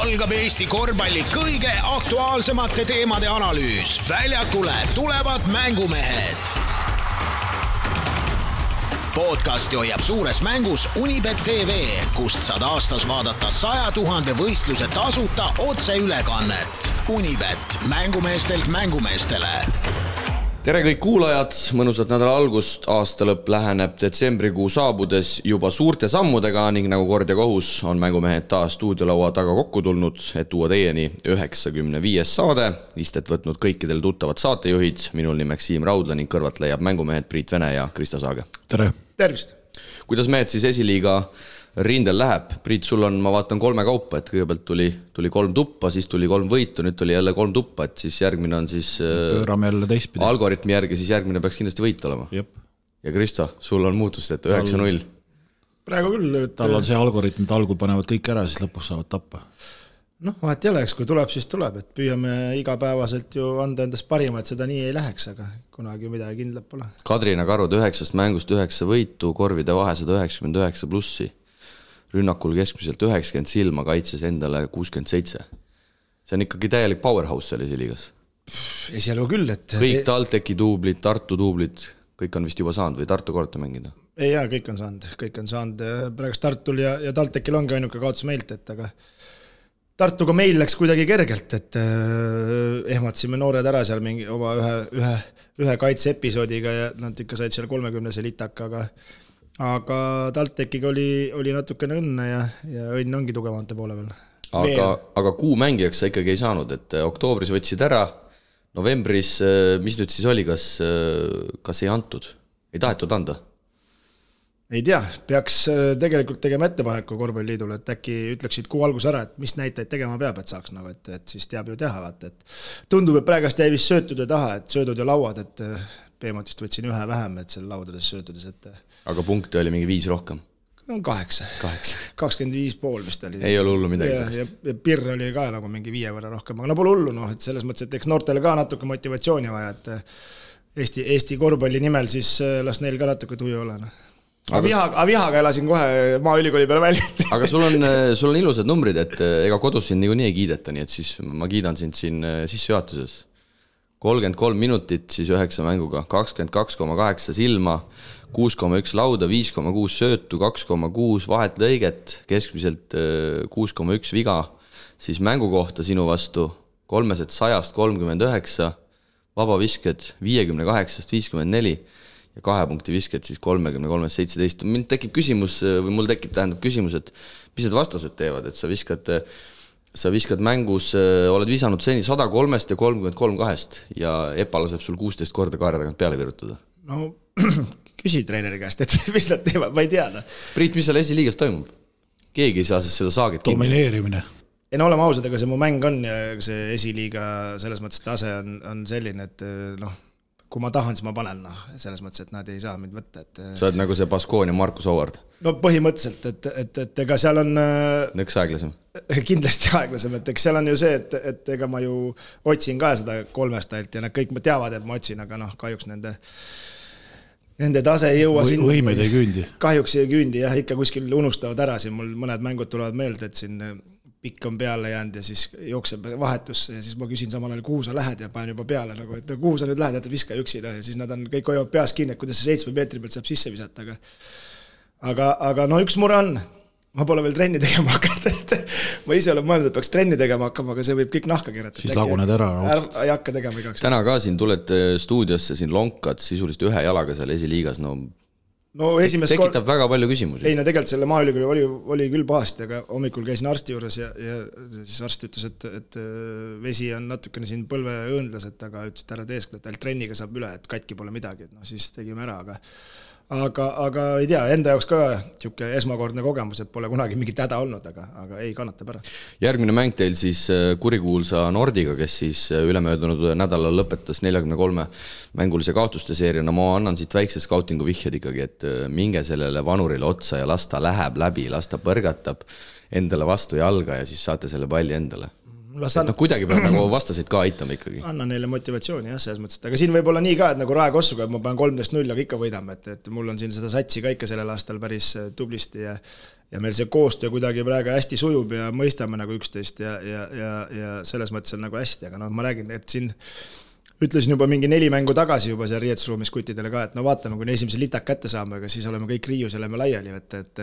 algab Eesti korvpalli kõige aktuaalsemate teemade analüüs. Väljakule tulevad mängumehed. Podcasti hoiab suures mängus Unibet TV, kust saad aastas vaadata 100 000 võistluse tasuta otseülekannet. Unibet, mängumeestelt mängumeestele. Tere kõik kuulajad, mõnusat nädala algust, aastalõpp läheneb detsembrikuu saabudes juba suurte sammudega ning nagu kord ja kohus on mängumehed taas stuudiolaua taga kokku tulnud, et tuua teieni 95. saade. Istet võtnud kõikidel tuttavad saatejuhid, minul nimeks Siim Raudla ning kõrvalt leiab mängumehed Priit Vene ja Krista Saage. Tere! Tervist! Kuidas mehed siis esiliiga rindel läheb? Priit, sul on, ma vaatan 3 kaupa, et kõigepealt tuli 3 tuppa, siis tuli 3 võitu, nüüd tuli jälle 3 tuppa, et siis järgmine on siis pöörame jälle teistpidi. Algoritmi järgi, siis järgmine peaks kindlasti võit olema. Jep. Ja Krista, sul on muutust, et 9-0. Praegu küll. Tal on see algoritm, et algul panevad kõik ära, siis lõpus saavad tappa. Noh, vahet ei oleks, kui tuleb, siis tuleb, et püüame igapäevaselt ju anda endast parima, et seda nii ei läheks, aga kunagi midagi kindlat pole. Kadrina Karud 9 mängust 9 võitu, korvide vahe 199 plussi. Rünnakul keskmiselt 90 silma, kaitses endale 67. See on ikkagi täielik powerhouse seal esiliigas. Esialgu küll, et... Kõik TalTechi duublid, Tartu duublid, kõik on vist juba saanud või Tartu korrata mängida? Ei, jaa, kõik on saanud. Praegu Tartul ja TalTechil ongi ainuke kaotus meilt, et aga Tartuga meil läks kuidagi kergelt, et ehmatsime noored ära seal mingi oma ühe kaitse-episoodiga ja nad ikka said seal 30 litaka, aga TalTechiga oli natukene õnne ja õnn ongi tugevamate poole veel. Aga kuu mängijaks sa ikkagi ei saanud, et oktoobris võtsid ära, novembris, mis nüüd siis oli, kas ei antud? Ei tahetud anda? Ei tea, peaks tegelikult tegema ettepaneku korvpalliliidule, et äkki ütleksid kuu algus ära, et mis näitajaid tegema peab, et saaks nagu, et siis teab ju teha, et tundub, et praegast jäi vist söötude taha, et söödud ja lauad, et Peemotist võtsin ühe vähem, et selle laudades söötudes, et... Aga punkte oli mingi 5 rohkem? 8. 25,5 vist oli. Ei ole hullu midagi. Ja pirr oli ka nagu mingi 5 võrra rohkem, aga no pole hullu, et selles mõttes, et eks noortele ka natuke motivatsiooni vaja, et Eesti korvpalli nimel siis las neil ka natuke tuju ole. Aga vihaga elasin kohe Maaülikooli peale välja. Aga sul on ilusad numbrid, et ega kodus sind nii ei kiideta, nii et siis ma kiidan sind siin sissejuhatuses. 33 minutit, siis 9 mänguga, 22,8 silma, 6,1 lauda, 5,6 söötu, 2,6 vahet lõiget, keskmiselt 6,1 viga, siis mängu kohta sinu vastu 300-st 39, vabavisked 58-st 54 ja 2 punkti visked siis 33-st 17. Mind tekib küsimus, või mul tekib küsimus, et mis need vastased teevad, et sa viskad mängus, oled visanud seni 103 ja 33 2 ja Epa laseb sul 16 korda kaare tagant peale virutada. No, küsi treeneri käest, et mis nad teevad, ma ei tea. Priit, mis seal esiliigas toimub? Keegi ei saa seda Saagit kinni. Domineerimine. Ei no oleme ausad, aga see mu mäng on ja see esiliiga selles mõttes tase on selline, et kui ma tahan, siis ma panen, selles mõttes, et nad ei saa mind võtta. Sa oled nagu see Baskoon ja Markus Howard? No põhimõtteliselt, et ega seal on... Nõks aeglasem? Kindlasti aeglasem, et eks seal on ju see, et ega ma ju otsin ka seda 3 stailt ja nad kõik teavad, et ma otsin, aga kahjuks nende tase ei jõua siin... Võimed ei küündi. Kahjuks ei küündi, jah, ikka kuskil unustavad ära, siin mul mõned mängud tulevad meelde, et siin... pikk on peale jäänud ja siis jookseb vahetusse ja siis ma küsin samal ajal, kuhu sa lähed ja panen juba peale, nagu, et kuhu sa nüüd lähed, et viska üksi ja siis nad on kõik hoiavad peas kinni, et kuidas see 7 meetri pealt saab sisse visata, aga no üks mure on, ma pole veel trenni tegema hakata, et ma ise olen mõelnud, et peaks trenni tegema hakkama, aga see võib kõik nahka keerata. Siis laguned ära. Ei hakka tegema igaks. Täna ka siin tuled stuudiosse, siin lonkad sisuliselt ühe jalaga seal esiliigas, tekitab väga palju küsimusi. Ei, tegelikult selle Maaülikooli oli küll pahasti, aga hommikul käisin arsti juures ja siis arst ütles, et vesi on natukene siin põlve õõndlas, aga ütles, et ära teeskle, et trenniga saab üle, et katki pole midagi, et siis tegime ära, aga ei tea, enda jaoks ka tšuke esmakordne kogemus, et pole kunagi mingit häda olnud, aga ei kannatab ära. Järgmine mäng teil siis kurikuulsa Nordiga, kes siis ülemöödunud nädalal lõpetas 43 mängulise kaotuste seeriana. Ma annan siit väikse scoutingu vihjed ikkagi, et minge sellele vanurile otsa ja las ta läheb läbi, las ta põrgatab endale vastu jalga ja siis saate selle palli endale. Kuidagi peab nagu vastasid ka aitama ikkagi. Anna neile motivatsiooni, jah, selles mõttes. Aga siin võib olla nii ka, et nagu Rae Kossuga, et ma panen 13-0, aga ikka võidame, et mul on siin seda satsi ka ikka sellel aastal päris tublisti ja ja meil see koostöö kuidagi praegu hästi sujub ja mõistame nagu üksteist ja selles mõttes on nagu hästi, aga ma räägin, et siin ütlesin juba mingi 4 mängu tagasi juba seal riietusruumis kuttidele ka, et vaatame, kui esimese litak kätte saame, aga siis oleme kõik riius ja lähme laiali, et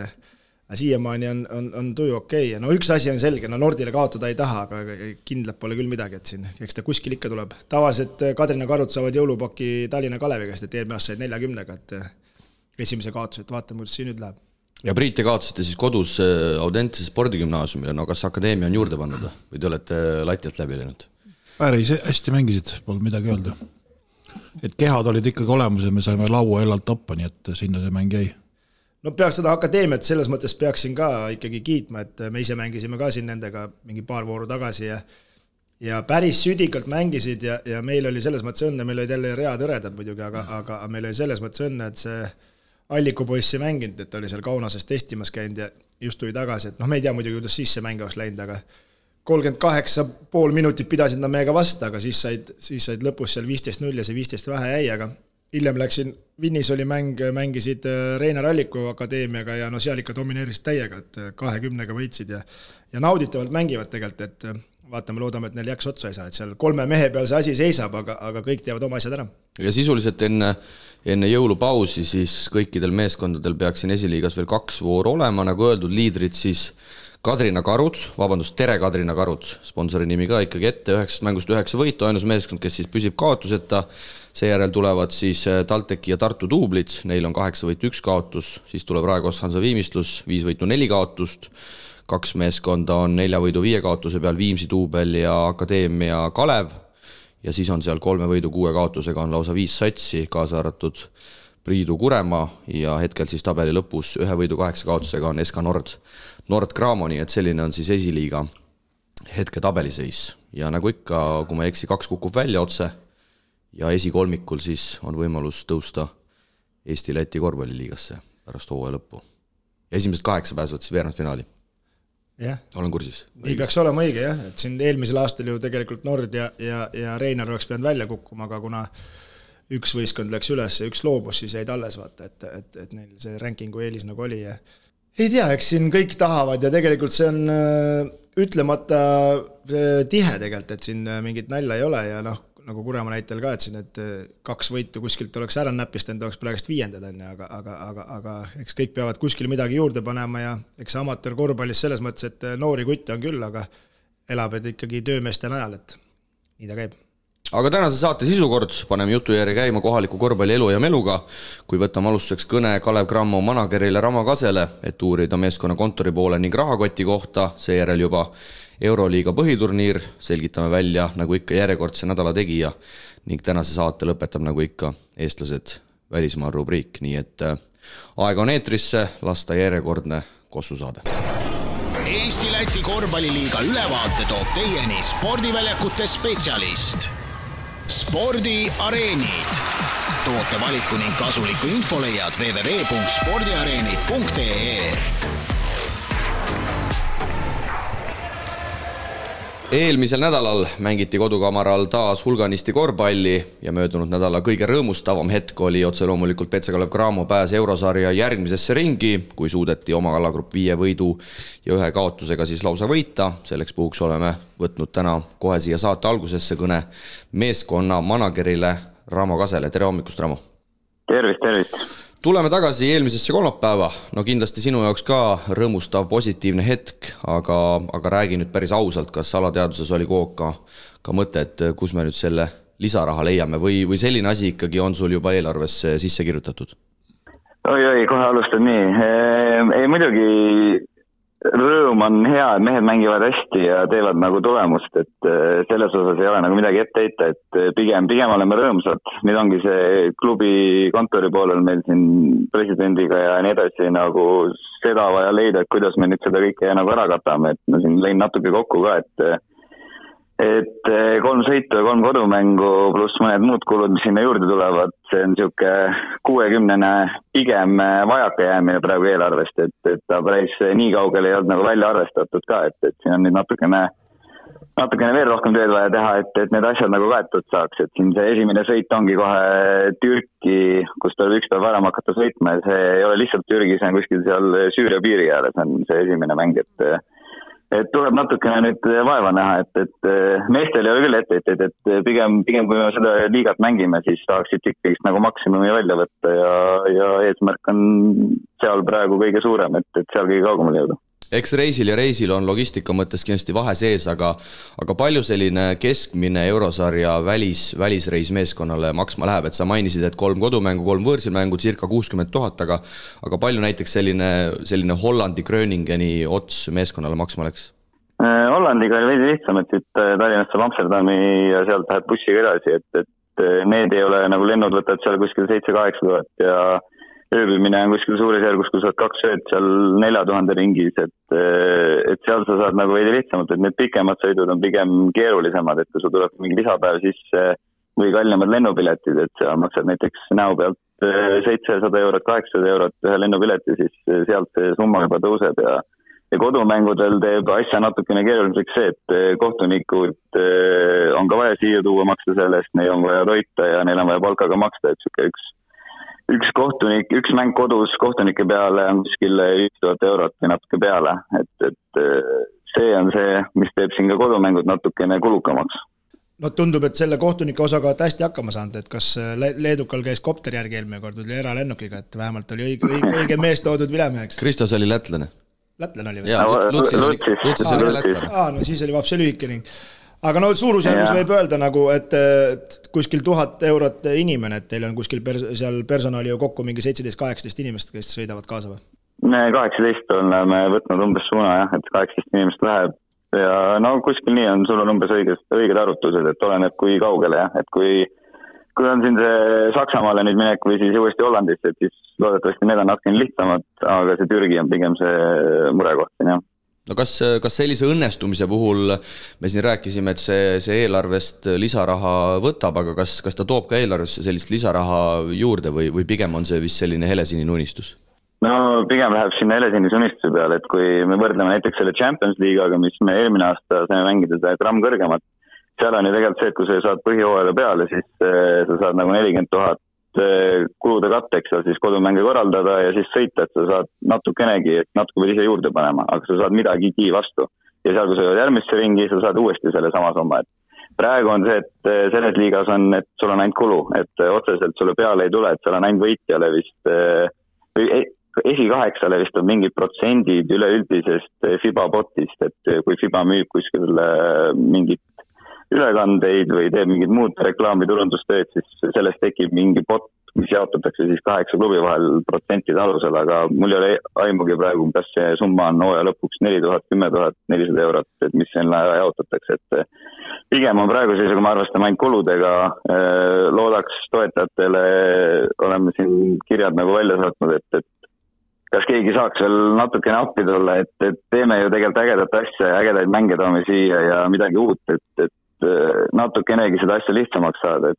siiamaani on tuju okei. No üks asi on selge, Nordile kaotada ei taha, aga kindlalt pole küll midagi, et siin, eks ta kuskil ikka tuleb. Tavaliselt Kadrina Karud saavad jõulupaki Tallinna Kaleviga, et eelmine aasta said 40-ga, et esimese kaotuse, et vaatame, kuidas siin nüüd läheb. Ja Priit, te kaotasite siis kodus Audentse spordigümnaasiumile, no kas akadeemia on juurde pannud või te olete latialt läbi läinud? Päris hästi mängisid, pole midagi öelda. Et kehad olid ikkagi olemas ja me saime laua elalt tappa, nii et sinna see mäng jäi. No peaks seda akadeemiat selles mõttes peaksin ka ikkagi kiitma, et me ise mängisime ka siin nendega mingi paar vooru tagasi ja päris südikalt mängisid ja meil oli selles mõttes õnne, meil olid jälle read õredad muidugi, aga meil oli selles mõttes õnne, et see Alliku poiss ei mänginud, et oli seal Kaunases testimas käinud ja just tuli tagasi, et me ei tea muidugi, kuidas siis see mäng oleks läinud, aga 38,5 minutit pidasid nad meiega vasta, aga siis said lõpus seal 15-0 ja see 15 vähe jäi, aga hiljem läksin, Vinnis oli mängisid Reinar Alliku akadeemiaga ja seal ikka domineerisid täiega, et 20-ga võitsid ja nauditavalt mängivad tegelikult, et vaatame, loodame, et neil jääks otsa ei saa, et seal 3 mehe peal see asi seisab, aga kõik teevad oma asjad ära. Ja sisuliselt enne jõulupausi siis kõikidel meeskondadel peaks siin esiliigas veel 2 vooru olema, nagu öeldud, liidrid siis Kadrina Karud, Tere Kadrina Karud, sponsori nimi ka ikkagi ette, 9 mängust 9 võitu, ainus meeskond, kes siis püsib kaotuseta, seejärel tulevad siis Talteki ja Tartu duublid, neil on 8 võitu 1 kaotus, siis tuleb Raekos Hansa Viimistlus, 5 võitu 4 kaotust, 2 meeskonda on 4 võidu 5 kaotuse peal, Viimsi duubel ja Akadeemia Kalev, ja siis on seal 3 võidu 6 kaotusega on lausa 5 satsi, kaasa arvatud Priidu Kurema ja hetkel siis tabeli lõpus 1 võidu 8 kaotusega on SK Nord Graamoni, et selline on siis esiliiga hetke tabeliseis. Ja nagu ikka, kui ma eksi, 2 kukub välja otse ja esikolmikul siis on võimalus tõusta Eesti-Läti korvpalliliigasse pärast hooaja lõppu. Ja esimesed 8 pääsevad siis veerandfinaali. jah. Olen kursis. Nii peaks olema õige, jah, et siin eelmisel aastal ju tegelikult Nord ja Reinar oleks pidanud välja kukkuma, aga kuna üks võistkond läks üles ja üks loobus, siis jäid alles vaata, et neil see rankingu eelis nagu oli ja ei tea, eks siin kõik tahavad ja tegelikult see on ütlemata tihe tegelikult, et siin mingit nalja ei ole ja nagu Kurema näitel ka, et siin et 2 võitu kuskilt oleks ära näpist, enda oleks praegust 5. aga eks kõik peavad kuskil midagi juurde panema ja eks amatöör korvpallis selles mõttes, et noori kutte on küll, aga elab ikkagi töömeeste najal, et nii ta käib. Aga tänase saate sisukord paneme jutu järgi käima kohaliku korvpalli elu ja meluga, kui võtame alustuseks kõne Kalev Cramo managerile Ramo Kasele, et uurida meeskonna kontori poole ning rahakoti kohta, seejärel juba Euroliiga põhiturniir, selgitame välja nagu ikka järjekordse nädala tegija ning tänase saate lõpetab nagu ikka eestlased välismaa rubriik, nii et aega on eetrisse, lasta järjekordne kossusaade. Eesti-Läti korvpalliliiga ülevaate toob teieni spordiväljakute spetsialist. Spordiareenid. Toote valiku ning kasuliku info leiad www.spordiareenid.ee. Eelmisel nädalal mängiti kodukamaral taas hulganisti korvpalli ja möödunud nädala kõige rõõmustavam hetk oli otse loomulikult Petse Kalev Cramo pääs eurosarja järgmisesse ringi, kui suudeti oma alagrupp 5 võidu ja 1 kaotusega siis lausa võita. Selleks puhuks oleme võtnud täna kohe siia saate algusesse kõne meeskonna managerile Ramo Kasele. Tere hommikust, Ramo! Tervist! Tuleme tagasi eelmisesse kolmapäeva. No kindlasti sinu jaoks ka rõõmustav positiivne hetk, aga räägi nüüd päris ausalt, kas alateaduses oli ka mõte, et kus me nüüd selle lisaraha leiame või selline asi ikkagi on sul juba eelarvesse sisse kirjutatud? Oi, kohe alustan nii. Ei muidugi rõõm on hea, et mehed mängivad hästi ja teevad nagu tulemust, et selles osas ei ole nagu midagi ette heita, et pigem oleme rõõmsad. Nüüd ongi see klubi kontori poolel meil siin presidendiga ja nii edasi nagu seda vaja leida, et kuidas me nüüd seda kõike nagu ära katame, et ma siin lõin natuke kokku ka, et 3 sõitu ja 3 kodumängu pluss mõned muud kulud, mis sinna juurde tulevad, see on siuke 60 pigem vajaka jäämine praegu eelarvest, et ta päris nii kaugel ei olnud nagu välja arvestatud ka, et siin on nüüd natukene natukene veel rohkem tööd vaja teha, et need asjad nagu kaetud saaks, et siin see esimene sõit ongi kohe Türki, kus tuleb üks päev varem hakata sõitma ja see ei ole lihtsalt Türgi, see on kuskil seal Süüria piiri ääres, on see esimene mäng, et tuleb natukene nüüd vaeva näha, et meestel ei ole küll etteid, et pigem kui me seda liigat mängime, siis tahaksid ikkagi nagu maksimumi välja võtta ja eesmärk on seal praegu kõige suurem, et seal kõige kaugemale jõuda. Eks reisil on logistika mõttes kindlasti vahe sees, aga palju selline keskmine eurosarja välisreis meeskonnale maksma läheb, et sa mainisid, et 3 kodumängu, 3 võõrsilmängu, circa 60 000, aga palju näiteks selline Hollandi Gröningeni ots meeskonnale maksma läks? Hollandiga oli veidi lihtsam, et siit Tallinnast saab Amsterdami ja sealt läheb bussiga edasi, et need ei ole nagu lennud võtad seal kuskil 7-8 000 ja ööbimine on kuskil suurisjärgus, kui saad 2 ööd seal 4000 ringis, et seal sa saad nagu veidi lihtsamalt, et need pikemad sõidud on pigem keerulisemad, et kui sul tuleb mingi lisapäev sisse või kallimad lennupiletid, et sa maksad näiteks näo pealt 700 €, 800 € ühe lennupileti, siis sealt see summa juba tõuseb ja kodumängudel teeb asja natukene keeruliseks see, et kohtunikud on ka vaja siia tuua maksta sellest, neil on vaja toita ja neil on vaja palkaga maksta, et üks kohtunik, üks mäng kodus kohtunike peale on kuskil 5000 € või natuke peale, et see on see, mis teeb siin ka kodumängud natukene kulukamaks. No tundub, et selle kohtunike osaga olete hästi hakkama saanud, et kas Leedukal käis kopter järgi eelmine kord või eralennukiga, et vähemalt oli õige mees toodud vilemeheks. Kristos oli lätlane. Lätlane oli või? Jaa, Lutsis oli lätlane. No siis oli vapse lühike ning. Aga no suurusjärgus võib öelda nagu, et kuskil 1000 € inimene, et teil on kuskil seal personali ju kokku mingi 17-18 inimest, kes sõidavad kaasa või? 18 oleme võtnud umbes suuna, jah, et 18 inimest läheb ja no kuskil nii on, sul on umbes õiged arvutused, et oleneb kui kaugele, jah, et kui on siin see Saksamaale nüüd minek või siis uuesti Hollandisse, et siis loodetavasti need on natukene lihtsamad, aga see Türgi on pigem see murekoht, jah. No kas sellise õnnestumise puhul me siin rääkisime, et see eelarvest lisaraha võtab, aga kas ta toob ka eelarvesse sellist lisaraha juurde või pigem on see vist selline helesinine unistus? No pigem läheb sinna helesinise unistuse peale, et kui me võrdleme näiteks selle Champions League'ga, mis me eelmine aasta saime mängida seda gramm kõrgemat, seal on ju tegelikult see, et kui sa saad põhihooajaga peale, siis sa saad nagu 40 000 kulude katteks seal siis kodumänge korraldada ja siis sõita, et sa saad natukenegi, et natuke pead ise juurde panema, aga sa saad midagigi vastu. Ja seal, kui sa jõud järgmisse ringi, sa saad uuesti selle sama somma, et praegu on see, et selles liigas on, et sul on ainult kulu, et otseselt sulle peale ei tule, et seal on ainult võitjale vist, esikaheksale vist on mingid protsendid üleüldisest FIBA botist, et kui FIBA müüb kuskil mingit ülekandeid või teeb mingid muud reklaamiturundustööd, siis sellest tekib mingi bot, mis jaotatakse siis 8 klubi vahel protsentide alusel, aga mul ei ole aimugi praegu, kas see summa on hooaja lõpuks 4000, 10 400 €, et mis siin jaotatakse, et pigem on praegu siis, kui me arvestame ainult kuludega, loodaks toetajatele, oleme siin kirjad nagu välja saatnud, et kas keegi saaks veel natukene appi tulla, et teeme ju tegelikult ägedat asja ja ägedaid mänge toome siia ja midagi uut, et natukenegi seda asja lihtsamaks saada,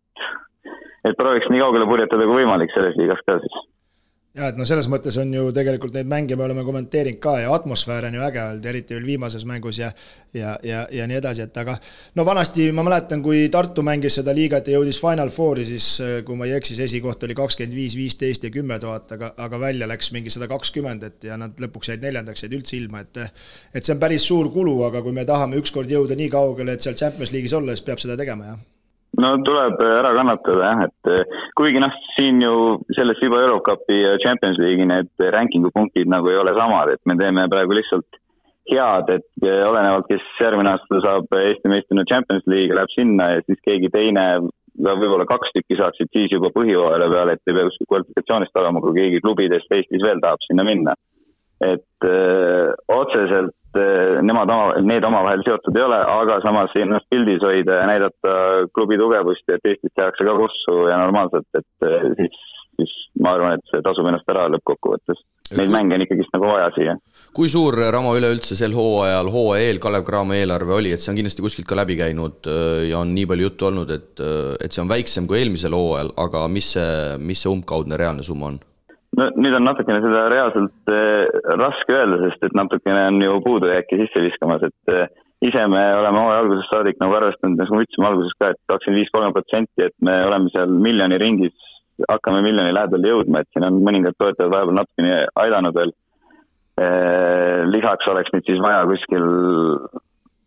et prooviks nii kaugele purjetada kui võimalik selles liigas ka siis. Ja, et no selles mõttes on ju tegelikult neid mänge me oleme kommenteerinud ka ja atmosfäär on ju äge olnud, eriti veel viimases mängus ja nii edasi, et aga no vanasti ma mäletan, kui Tartu mängis seda liigat ja jõudis Final Fouri, siis kui ma ei eksis, esikoht oli 25, 15 ja 10 000, aga välja läks mingi 120, et ja nad lõpuks jäid 4. jäid üldse ilma, et see on päris suur kulu, aga kui me tahame ükskord jõuda nii kaugele, et seal Champions League'is olla, siis peab seda tegema, jah. No tuleb ära kannatada, jah, et kuigi siin ju selles FIBA Eurocupi ja Champions League'i need rankingu punktid nagu ei ole samad, et me teeme praegu lihtsalt head, et olenevalt, kes järgmine aasta saab Eesti meistrina Champions League, läheb sinna ja siis keegi teine, võib-olla 2 tükki saaksid siis juba põhihooajale peale, et ei pea kuskil kvalifikatsioonist olema, kui keegi klubidest Eestis veel tahab sinna minna. Et otseselt need omavahel seotud ei ole, aga samas ennast pildis hoida ja näidata klubi tugevust ja et Eestis tehakse ka kossu ja normaalselt, et siis ma arvan, et see tasub ennast ära lõppkokkuvõttes. Neid mänge on ikkagi nagu vaja siia. Kui suur Ramo üleüldse sel hooajal, hooaja eel Kalev Cramo eelarve oli, et see on kindlasti kuskilt ka läbi käinud ja on nii palju juttu olnud, et see on väiksem kui eelmisel hooajal, aga mis see umbkaudne reaalne summa on? No nüüd on natukene seda reaalselt raske öelda, sest et natukene on ju puudujääki sisse viskamas, et ise me oleme hooaja algusest saadik nagu arvestanud, nagu ütlesime alguses ka, et 25-30%, et me oleme seal miljoni ringis, hakkame miljoni lähedal jõudma, et siin on mõningad toetajad vahepeal natukene aidanud veel. Lisaks oleks nüüd siis vaja kuskil,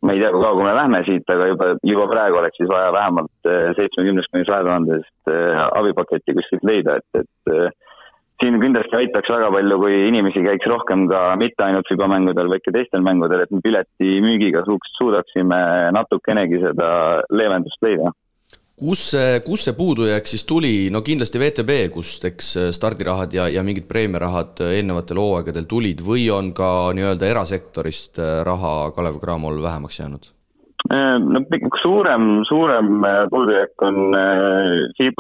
ma ei tea, kui kaua me lähme siit, aga juba praegu oleks siis vaja vähemalt 70-100 abipaketti kuskilt leida, et siin kindlasti aitaks väga palju, kui inimesi käiks rohkem ka mitte ainult FIBA-mängudel, vaid ka teistel mängudel, et me pileti müügiga suudaksime natukenegi seda leevendust leida. Kus see puudujääk siis tuli? No kindlasti VTB, kust eks stardirahad ja mingid preemiarahad eelnevatel hooaegadel tulid või on ka nii-öelda erasektorist raha Kalev Cramol vähemaks jäänud? No, suurem puudujääk on see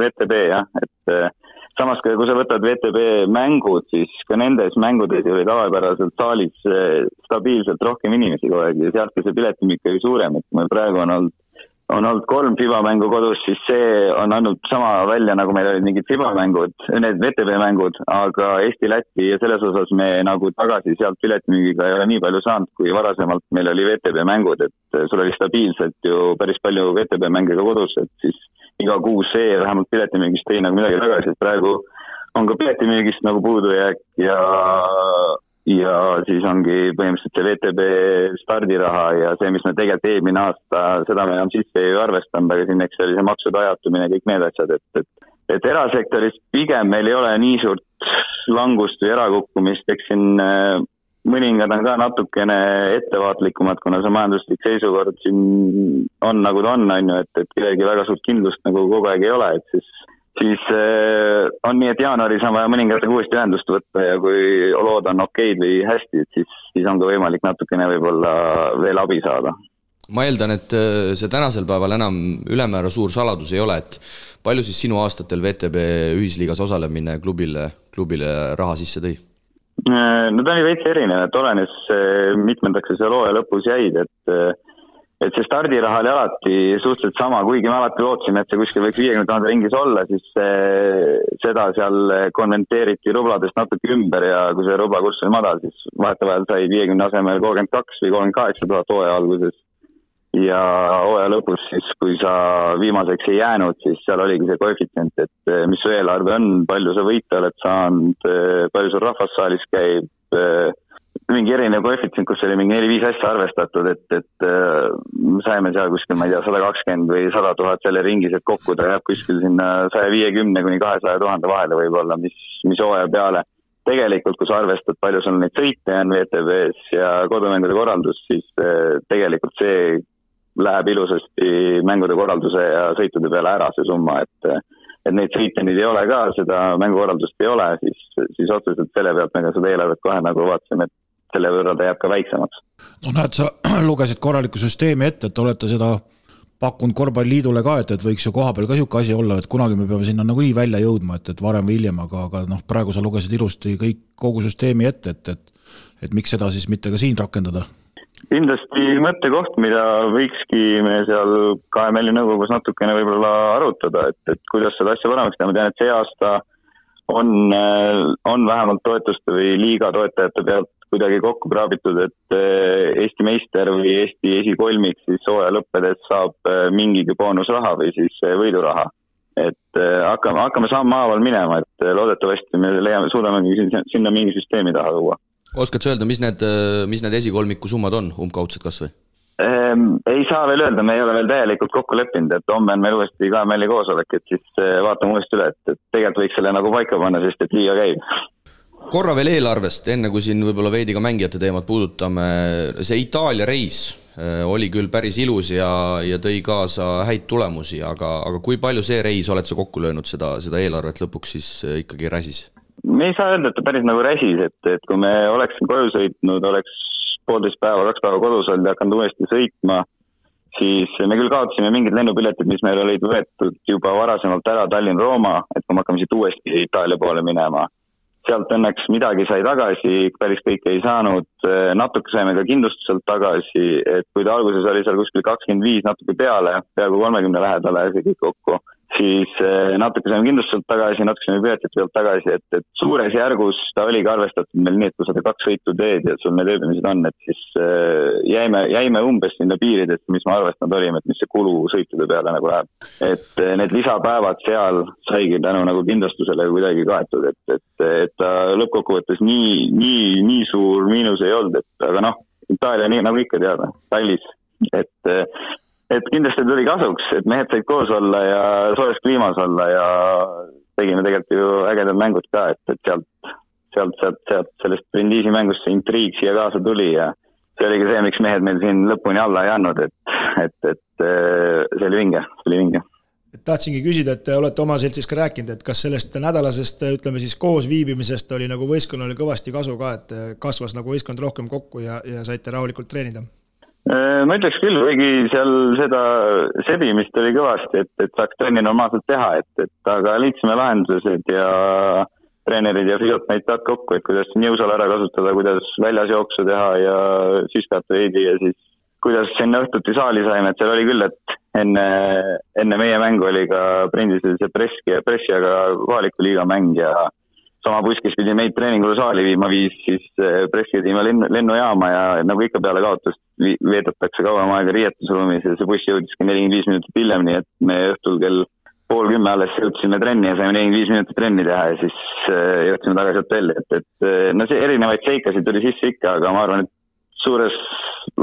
VTB, jah, et samas, kui sa võtad VTB mängud, siis ka nendes mängudes oli tavapäraselt saalis stabiilselt rohkem inimesi kogu aeg ja sealt ka see piletimik oli suurem, et meil praegu on olnud 3 FIBA-mängu kodus, siis see on andnud sama välja, nagu meil olid mingid FIBA-mängud, need VTB-mängud, aga Eesti-Läti ja selles osas me nagu tagasi sealt piletimüügiga ei ole nii palju saanud, kui varasemalt meil oli VTB-mängud, et sul oli stabiilselt ju päris palju VTB-mängiga kodus, et siis iga kuus see vähemalt piletimüügist tõi nagu midagi tagasi, et praegu on ka piletimüügist nagu puudujääk ja siis ongi põhimõtteliselt see VTB stardiraha ja see, mis me tegelikult eelmine aasta, seda me enam sisse ei arvestanud, aga siin eks oli see maksude ajatumine ja kõik need asjad, et erasektoris pigem meil ei ole nii suurt langust või erakukkumist, eks siin mõningad on ka natukene ettevaatlikumad, kuna see majanduslik seisukord siin on nagu ta on ju, et kellegi väga suurt kindlust nagu kogu aeg ei ole, et siis on nii, et jaanuaris on vaja mõningatega uuesti ühendust võtta ja kui lood on okeid või hästi, siis on ka võimalik natukene võib-olla veel abi saada. Ma eeldan, et see tänasel päeval enam ülemäära suur saladus ei ole, et palju siis sinu aastatel VTB ühisliigas osalemine klubile raha sisse tõi? No ta oli veits erinev, et olenes mitmendaks seal hooaja lõpus jäid, et see stardiraha oli alati suhteliselt sama, kuigi me alati lootsime, et see kuskil võiks 50 000 ringis olla, siis seda seal konventeeriti rubladest natuke ümber ja kui see rublakurss oli madal, siis vahetevahel sai 50 asemel 32 või 38 000 hooaja alguses. Ja hooaja lõpus siis, kui sa viimaseks ei jäänud, siis seal oligi see koefitsient, et mis su eelarve on, palju sa võita oled saanud, palju sul rahvassaalis käib, mingi erinev koefitsient, kus oli mingi 4-5 asja arvestatud, et saime seal kuskil, ma ei tea, 120 või 100 000 selle ringis, et kokku ta jääb kuskil sinna 150 kuni 200 000 vahele võib-olla, mis hooaja peale. Tegelikult, kui sa arvestad, palju sul neid sõite on VTB-s ja kodumängude korraldus, siis tegelikult see läheb ilusasti mängude korralduse ja sõitude peale ära see summa, et neid sõite nüüd ei ole ka, seda mängukorraldust ei ole, siis otseselt selle pealt me ka seda eelarvet kohe nagu vaatasime, et selle võrra ta jääb ka väiksemaks. No näed, sa lugesid korraliku süsteemi ette, et olete seda pakkunud korvpalliliidule ka, et võiks ju koha peal ka siuke asi olla, et kunagi me peame sinna nagu nii välja jõudma, et varem või hiljem, aga praegu sa lugesid ilusti kogu süsteemi ette, et miks seda siis mitte ka siin rakendada? Kindlasti mõttekoht, mida võikski me seal KML-i nõukogus natukene võib-olla arutada, et kuidas seda asja paremaks teha. Ma tean, et see aasta on vähemalt toetuste või liiga toetajate pealt kuidagi kokku kraabitud, et Eesti meister või Eesti esikolmik siis hooaja lõppedes saab mingigi boonusraha või siis võiduraha. Et hakkame sammhaaval minema, et loodetavasti me suudame sinna mingi süsteemi taha tuua. Oskad sa öelda, mis need esikolmiku summad on, umbkaudselt kas või? Ei saa veel öelda, me ei ole veel täielikult kokku leppinud, et homme on meil uuesti KML-i koosolek, et siis vaatame uuesti üle, et tegelikult võiks selle nagu paika panna, sest et liiga käib. Korra veel eelarvest, enne kui siin võib-olla veidi ka mängijate teemat puudutame, see Itaalia reis oli küll päris ilus ja tõi kaasa häid tulemusi, aga kui palju see reis oled sa kokku löönud seda eelarvet lõpuks siis ikkagi räsis? Me ei saa öelda, et ta päris nagu räsis, et kui me oleksin koju sõitnud, oleks 1,5 päeva, 2 päeva kodus olnud ja hakanud uuesti sõitma, siis me küll kaotasime mingid lennupiletid, mis meil olid võetud juba varasemalt ära Tallinn-Rooma, et kui me hakkame siit uuesti Itaalia poole minema. Sealt õnneks midagi sai tagasi, päris kõike ei saanud, natuke saime ka kindlustuselt tagasi, et kui ta alguses oli seal kuskil 25 natuke peale, peaaegu 30 lähedale ja see kõik kokku, siis natuke saime kindlustuselt tagasi, natuke saime piletit pealt tagasi, et suures järgus ta oligi arvestatud meil nii, et kui sa 2 sõitu teed ja sul need ööbimised on, et siis jäime umbes sinna piiridest, mis ma arvestanud olime, et mis see kulu sõitude peale nagu läheb. Et need lisapäevad seal saigi tänu nagu kindlustusele kuidagi kaetud, et ta lõppkokkuvõttes nii suur miinus ei olnud, aga Itaalia nii nagu ikka teada, tallis, et kindlasti tuli kasuks, et mehed said koos olla ja soojas kliimas olla ja tegime tegelikult ju ägedad mängud ka, et sealt sellest Brindisi mängust see intriig siia kaasa tuli ja see oli ka see, miks mehed meil siin lõpuni alla ei andnud, et see oli vinge. Tahtsingi küsida, et te olete oma seltsis ka rääkinud, et kas sellest nädalasest, ütleme siis koos viibimisest oli nagu võistkonnale kõvasti kasu ka, et kasvas nagu võistkond rohkem kokku ja saite rahulikult treenida? Ma ütleks küll, kuigi seal seda sebimist oli kõvasti, et saaks trenni normaalselt teha, et aga liitsime lahendused ja treenerid ja füsiot näid taad kokku, et kuidas jõusal ära kasutada, kuidas väljas jooksu teha ja süskat veidi ja siis kuidas sinna õhtuti saali saime, et seal oli küll, et enne meie mängu oli ka Prindisel see pressi, aga kohaliku liiga mäng ja sama buskis pidi meid treeningule saali viima siis pressi viima lennujaama ja nagu ikka peale kaotust veedetakse kauem aega riietusruumis ja see buss jõudiski 45 minutit hiljem, nii et me õhtul kell 9:30 alles jõudsime trenni ja saime 45 minutit trenni teha ja siis jõudsime tagasi hotelli, et see erinevaid seikasid tuli sisse ikka, aga ma arvan, et suures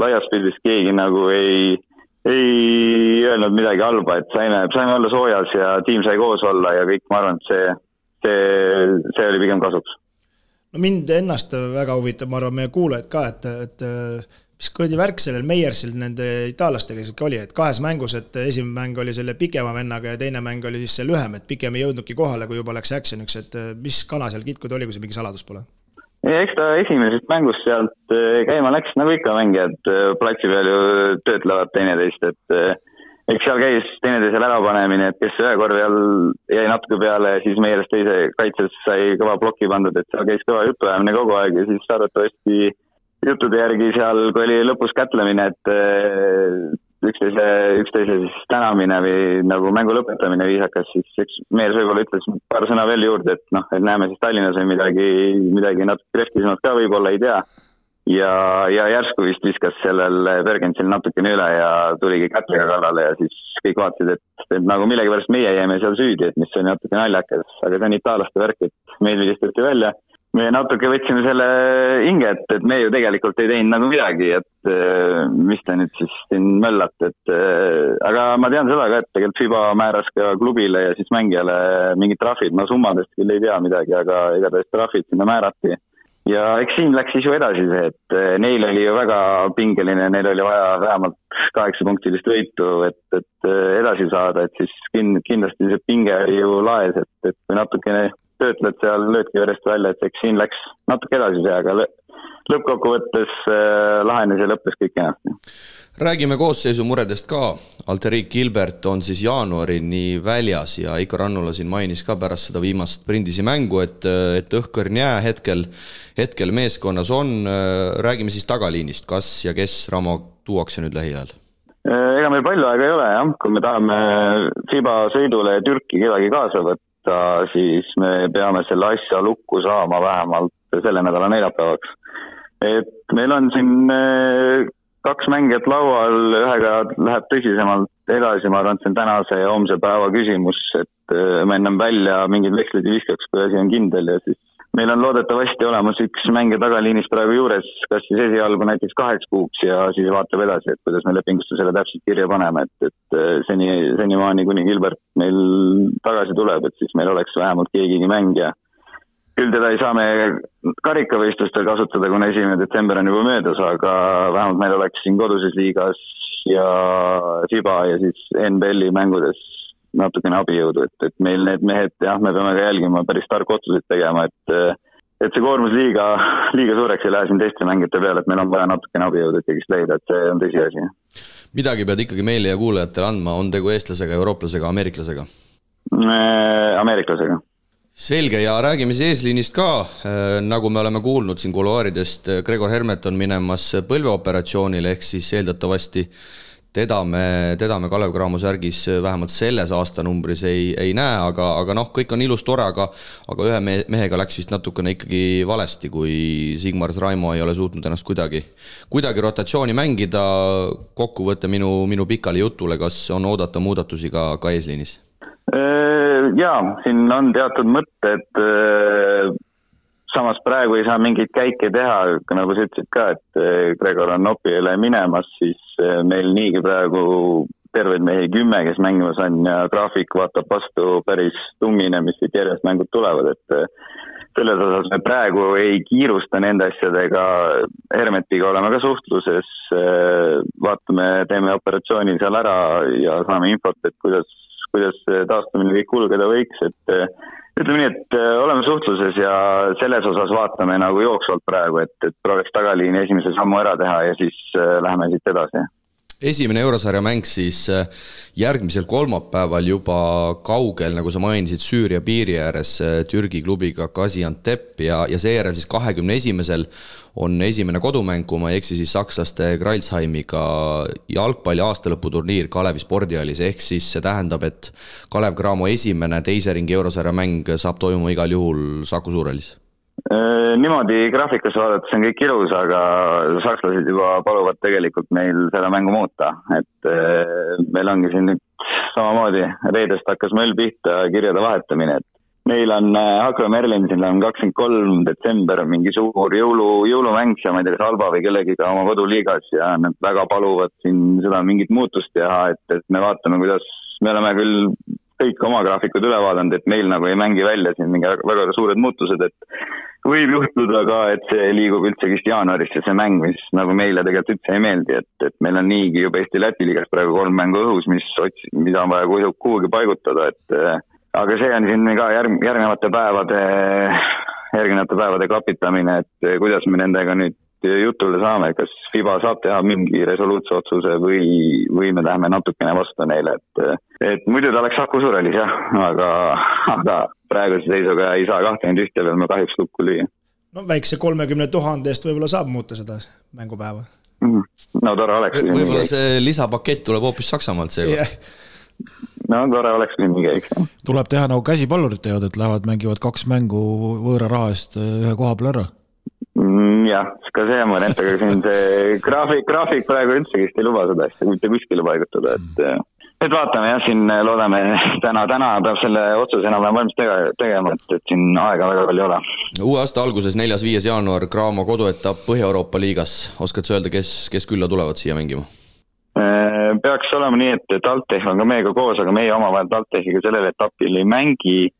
laias pildis keegi nagu ei öelnud midagi halba, et saime olla soojas ja tiim sai koos olla ja kõik, ma arvan, et see oli pigem kasuks. No mind ennast väga huvitab, ma arvan, meie kuulajad ka, et mis kuradi värk sellel Meiersil nende itaallastega oli, et 2 mängus, et esimene mäng oli selle pikema vennaga ja teine mäng oli siis see lühem, et pikem ei jõudnudki kohale, kui juba läks actioniks, et mis kana seal kitkud oli, kui see mingi saladus pole? Eks ta esimesest mängust sealt käima läks, nagu ikka mängijad platsi peal ju töötlevad teineteist, et eks seal käis teineteisel ärapanemine, et kes ühe korvi all jäi natuke peale ja siis Meierist teise kaitses sai kõva ploki pandud, et seal käis kõva jutuajamine kogu aeg ja siis arvatavasti juttude järgi seal, kui oli lõpus kätlemine, et üksteise siis tänamine või nagu mängu lõpetamine viisakas, siis Meier võib-olla ütles paar sõna veel juurde, et näeme siis Tallinnas või midagi natuke kreftisemalt ka võib-olla, ei tea. Ja järsku vist viskas sellel Bergensil natukene üle ja tuligi kätlega kallale ja siis kõik vaatasid, et nagu millegipärast meie jäime seal süüdi, et mis oli natuke naljakas, aga see on itaalaste värk, et meil vilistati välja. Me natuke võtsime selle hinge, et me ju tegelikult ei teinud nagu midagi, et mis ta nüüd siis siin möllat, aga ma tean seda ka, et tegelikult FIBA määras ka klubile ja siis mängijale mingid trahvid, ma summadest küll ei tea midagi, aga igatahes trahvid sinna määrati. Ja eks siin läks siis ju edasi see, et neil oli ju väga pingeline, neil oli vaja vähemalt 8-punktilist võitu, et edasi saada, et siis kindlasti see pinge oli ju laes, et kui natukene töötled seal löödki järjest välja, et eks siin läks natuke edasi see, aga lõppkokkuvõttes lahenes ja lõppes kõik enasti. Räägime koosseisu muredest ka. Alterik Gilbert on siis jaanuarini väljas ja Iko Rannula siin mainis ka pärast seda viimast Prindisi mängu, et õhkõrn jää hetkel meeskonnas on. Räägime siis tagaliinist, kas ja kes Ramo tuuakse nüüd lähiajal? Ega meil palju aega ei ole, jah. Kui me tahame FIBA sõidule Türki kedagi kaasa võtta, siis me peame selle asja lukku saama vähemalt selle nädala neljapäevaks. Et meil on siin 2 mängijat laual, ühega läheb tõsisemalt edasi, ma arvan, et see on tänase ja homse päeva küsimus, et me ennem välja mingid vekslid ei viskaks, kui asi on kindel ja siis meil on loodetavasti olemas üks mängija tagaliinis praegu juures, kas siis esialgu näiteks 8 kuuks ja siis vaatab edasi, et kuidas me lepingusse selle täpselt kirja paneme, et senimaani kuni Gilbert meil tagasi tuleb, et siis meil oleks vähemalt keegigi mängija. Küll teda ei saa me karikavõistlustel kasutada, kuna 1. detsember on juba möödas, aga vähemalt meil oleks siin koduses liigas ja FIBA ja siis NBL-i mängudes natukene abijõudu, et meil need mehed, jah, me peame ka jälgima päris tarku otsuseid tegema, et see koormus liiga suureks ei lähe siin teiste mängijate peale, et meil on vaja natukene abijõudu ikkagi leida, et see on tõsiasi. Midagi pead ikkagi meile ja kuulajatele andma, on tegu eestlasega, eurooplasega, ameeriklasega? Ameeriklasega. Selge, ja räägime siis eesliinist ka, nagu me oleme kuulnud siin kuluaaridest, Gregor Hermet on minemas põlveoperatsioonile, ehk siis eeldatavasti teda me Kalev Cramo särgis vähemalt selles aastanumbris ei näe, aga noh, kõik on ilus tore, aga ühe mehega läks vist natukene ikkagi valesti, kui Sigmar Raimo ei ole suutnud ennast kuidagi rotatsiooni mängida. Kokkuvõte minu pikale jutule, kas on oodata muudatusi ka eesliinis? Jaa, siin on teatud mõtted, samas praegu ei saa mingeid käike teha, nagu sa ütlesid ka, et Gregor on Opile minemas, siis meil niigi praegu terveid mehi 10, kes mängimas on ja graafik vaatab vastu päris tummine, mis siit järjest mängud tulevad, et selles osas me praegu ei kiirusta nende asjadega, Hermetiga oleme ka suhtluses, vaatame, teeme operatsiooni seal ära ja saame infot, et kuidas taastumine kõik kulgeda võiks, et ütleme nii, et oleme suhtluses ja selles osas vaatame nagu jooksvalt praegu, et prooviks tagaliini esimese sammu ära teha ja siis läheme siit edasi. Esimene eurosarja mäng siis järgmisel kolmapäeval juba kaugel, nagu sa mainisid, Süüria piiri ääres Türgi klubiga Gaziantep ja seejärel siis 21. on esimene kodumäng, kui ma ei eksi, siis sakslaste Kreilsheimiga jalgpalli aastalõputurniir Kalevi spordihallis, ehk siis see tähendab, et Kalev Cramo esimene teise ringi eurosarja mäng saab toimuma igal juhul Saku Suurhallis. Niimoodi graafikas vaadates on kõik ilus, aga sakslased juba paluvad tegelikult meil seda mängu muuta, et meil ongi siin nüüd samamoodi reedest hakkas möll pihta kirjade vahetamine, et meil on Hakro Merlinsil on 23. detsember mingi suur jõulumäng ja ma ei tea, kas Alba või kellegiga oma koduliigas ja nad väga paluvad siin seda mingit muutust teha, et me vaatame, kuidas me oleme küll kõik oma graafikud üle vaadanud, et meil nagu ei mängi välja siin mingi väga suured muutused, et võib juhtuda ka, et see liigub üldse vist jaanuarisse see mäng, mis nagu meile tegelikult üldse ei meeldi, et meil on niigi juba Eesti-Läti liigas praegu 3 mängu õhus, mida on vaja kuhugi paigutada, et aga see on siin ka järgnevate päevade klapitamine, et kuidas me nendega nüüd jutule saame, kas FIBA saab teha mingi resoluutse otsuse või me läheme natukene vastu neile, et muidu ta oleks Saku Suurhallis jah, aga praeguse seisuga ei saa 21 veel me kahjuks lukku lüüa. No väikse 30 000 eest võib-olla saab muuta seda mängupäeva. No tore oleks. Võib-olla see lisapakett tuleb hoopis Saksamaalt seega. No tore oleks mingi, eks. Tuleb teha nagu käsipallurid teevad, et lähevad mängivad 2 mängu võõra raha eest ühe koha peal ära. Jah, ka see on mõned, aga siin see graafik praegu üldse ei luba seda asja, mitte kuskile paigutada, et vaatame jah, siin loodame täna peab selle otsuse enam valmis tegema, et siin aega väga palju ei ole. Uue aasta alguses 4.5. jaanuar Cramo koduetapp Põhja-Euroopa liigas, oskad sa öelda, kes külla tulevad siia mängima? Peaks olema nii, et Altech on ka meiega koos, aga meie omavahel Altechiga sellel etapil ei mängi.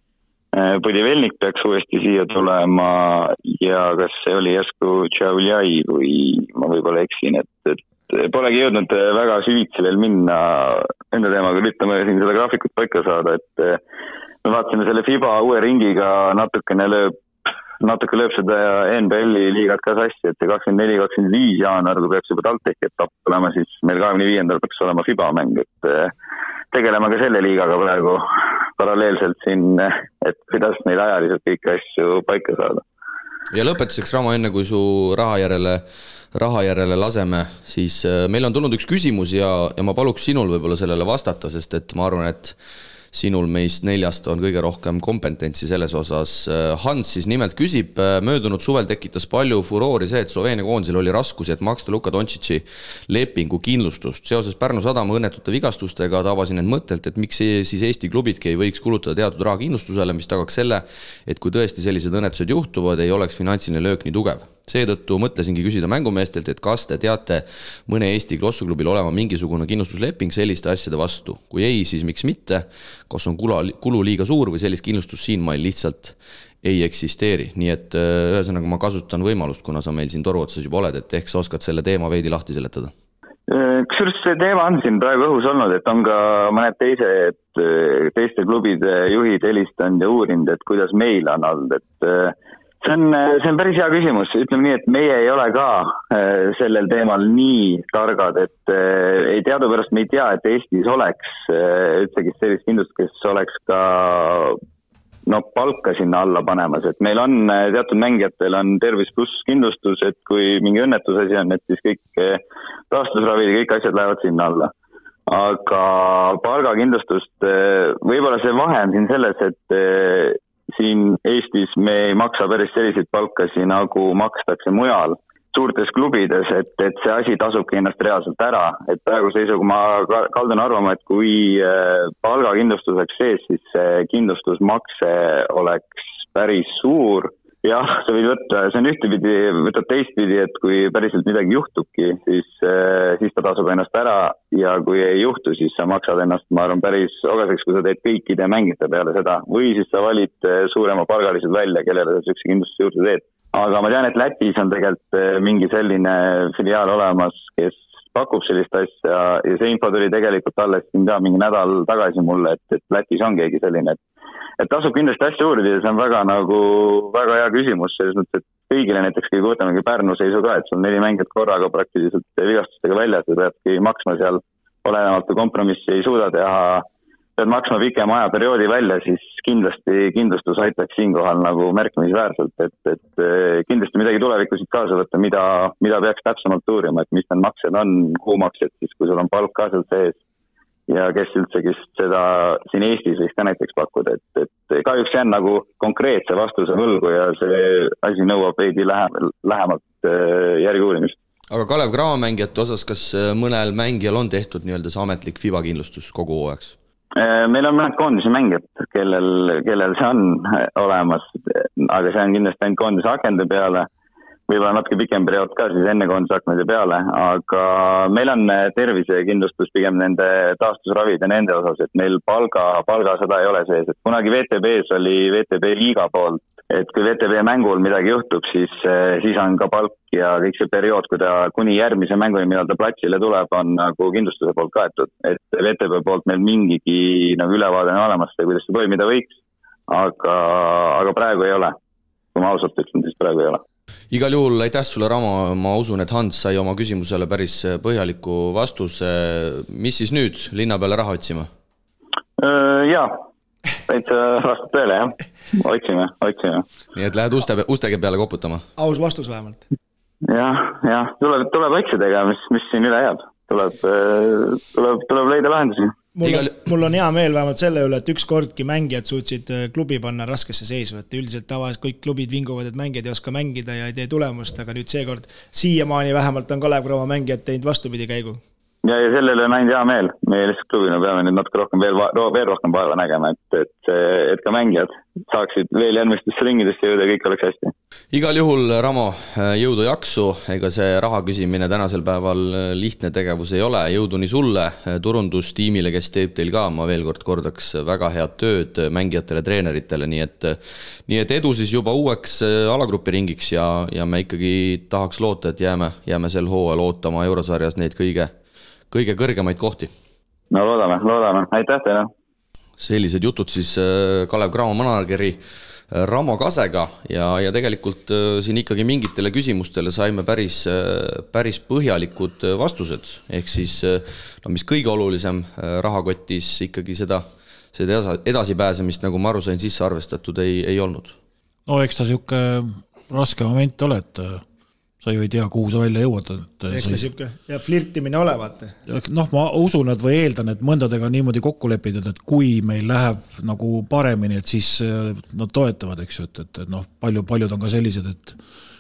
Põdivelnik peaks uuesti siia tulema ja kas see oli järsku Tšauljai või ma võib-olla eksin, et polegi jõudnud väga süvitsi veel minna enda teemaga, üritame siin seda graafikut paika saada, et me vaatasime selle FIBA uue ringiga natuke lööb seda NBL-i liigat ka sassi, et see 24-25 jaanuar, kui peaks juba Altech etapp olema, siis meil 25. peaks olema FIBA mäng, et tegeleme ka selle liigaga praegu paralleelselt siin, et kuidas neil ajaliselt kõiki asju paika saada. Ja lõpetuseks, Ramo, enne kui su raha järele laseme, siis meil on tulnud üks küsimus ja ma paluks sinul võib-olla sellele vastata, sest et ma arvan, et sinul meist 4 on kõige rohkem kompetentsi selles osas. Hans siis nimelt küsib, möödunud suvel tekitas palju furoori see, et Sloveenia koondisel oli raskusi, et maksta Luka Doncic'i lepingu kindlustust. Seoses Pärnu Sadama õnnetute vigastustega tabasin end mõttelt, et miks siis Eesti klubidki ei võiks kulutada teatud raha kindlustusele, mis tagaks selle, et kui tõesti sellised õnnetused juhtuvad, ei oleks finantsiline löök nii tugev. Seetõttu mõtlesingi küsida mängumeestelt, et kas te teate mõne Eesti klossuklubil olema mingisugune kindlustusleping selliste asjade vastu. Kui ei, siis miks mitte? Kas on kulu liiga suur või sellist kindlustust siin meil lihtsalt ei eksisteeri. Nii et ühesõnaga ma kasutan võimalust, kuna sa meil siin toru otsas juba oled, et ehk sa oskad selle teema veidi lahti seletada. Kusjuures see teema on siin praegu õhus olnud, et on ka mõned teiste klubide juhid helistanud ja uurinud, et kuidas meil on olnud, et see on päris hea küsimus, ütleme nii, et meie ei ole ka sellel teemal nii targad, et ei teadupärast me ei tea, et Eestis oleks ütlegi sellist kindlust, kes oleks ka palka sinna alla panemas, et meil on teatud mängijatel on tervis pluss kindlustus, et kui mingi õnnetusasi on, et siis kõik taastusravid ja kõik asjad lähevad sinna alla. aga palgakindlustust, võib-olla see vahe on siin selles, et siin Eestis me ei maksa päris selliseid palkasi, nagu makstakse mujal suurtes klubides, et see asi tasubki ennast reaalselt ära, et praegu seisuga ma kaldun arvama, et kui palgakindlustus oleks sees, siis see kindlustusmakse oleks päris suur. Jah, sa võid võtta, see on ühtepidi, võtad teistpidi, et kui päriselt midagi juhtubki, siis ta tasub ennast ära ja kui ei juhtu, siis sa maksad ennast, ma arvan, päris ogaseks, kui sa teed kõikide mängijate peale seda. Või siis sa valid suurema palgalised välja, kellele sa sükse kindlustuse juurde teed. Aga ma tean, et Lätis on tegelikult mingi selline filiaal olemas, kes pakub sellist asja ja see info tuli tegelikult alles siin ka mingi nädal tagasi mulle, et Lätis on keegi selline, et tasub kindlasti asja uurida ja see on väga hea küsimus, selles mõttes, et kõigile näiteks, kui võtamegi Pärnu seisu ka, et sul 4 mängijat korraga praktiliselt vigastustega väljas ja peadki maksma seal olenevalt kompromissi ei suuda teha, pead maksma pikema ajaperioodi välja, siis kindlasti kindlustus aitaks siinkohal nagu märkimisväärselt, et kindlasti midagi tulevikusid kaasa võtta, mida peaks täpsemalt uurima, et mis need maksed on, kuumaksed, siis kui sul on palk ka seal sees ja kes üldse seda siin Eestis võiks ka näiteks pakkuda, et kahjuks jään nagu konkreetse vastuse võlgu ja see asi nõuab veidi lähemalt järgi uurimist. Aga Kalev Cramo mängijate osas, kas mõnel mängijal on tehtud nii-öelda see ametlik FIBA kindlustus kogu hooajaks? Meil on mõned koondise mängijad, kellel see on olemas, aga see on kindlasti ainult koondise akende peale, võib-olla natuke pikem periood ka siis enne koondise akende peale, aga meil on tervisekindlustus pigem nende taastusravid ja nende osas, et meil palga seda ei ole sees, et kunagi VTB-s oli VTB liiga poolt, et kui VTB mängul midagi juhtub, siis on ka palk ja kõik see periood, kui ta kuni järgmise mänguni, millal ta platsile tuleb, on nagu kindlustuse poolt kaetud. Et VTB poolt meil mingigi nagu ülevaade on olemas, kuidas see toimida võiks, aga praegu ei ole. Kui ma ausalt ütlen, siis praegu ei ole. Igal juhul aitäh sulle, Ramo, ma usun, et Hans sai oma küsimusele päris põhjaliku vastuse. Mis siis nüüd linna peale raha otsima? Jaa. Täitsa vastab tõele, jah. Otsime. Nii et lähed ustega peale koputama? Aus vastus vähemalt. Jah. Tuleb otsidega, mis siin üle jääb. Tuleb leida lahendusi. Mul on hea meel vähemalt selle üle, et ükskordki mängijad suutsid klubi panna raskesse seisu, et üldiselt tavaliselt kõik klubid vinguvad, et mängijad ei oska mängida ja ei tee tulemust, aga nüüd seekord siiamaani vähemalt on Kalev Cramo mängijad teinud vastupidi käigu. Ja sellele on ainult hea meel. Meie lihtsalt klubina peame nüüd natuke rohkem veel rohkem vaeva nägema, et ka mängijad saaksid veel järgmistesse ringidesse jõuda ja kõik oleks hästi. Igal juhul, Ramo, jõudu jaksu, ega see raha küsimine tänasel päeval lihtne tegevus ei ole, jõudu nii sulle, turundustiimile, kes teeb teil ka, ma veel kord kordaks, väga head tööd mängijatele, treeneritele, nii et edu siis juba uueks alagrupi ringiks ja me ikkagi tahaks loota, et jääme sel hooajal ootama Eurosarjas neid kõige kõrgemaid kohti. No loodame. Aitäh teile. Sellised jutud siis Kalev Cramo manageri Ramo Kasega ja tegelikult siin ikkagi mingitele küsimustele saime päris põhjalikud vastused. Ehk siis, mis kõige olulisem rahakotis ikkagi seda edasipääsemist, nagu ma aru sain, sisse arvestatud ei olnud. No eks ta siuke raske moment ole, et sa ju ei tea, kuhu sa välja jõuad. Eks ta siuke ja flirtimine olevat. Ma usun, et või eeldan, et mõndadega niimoodi kokku lepida, et kui meil läheb nagu paremini, et siis nad toetavad, eks ju, et paljud on ka sellised,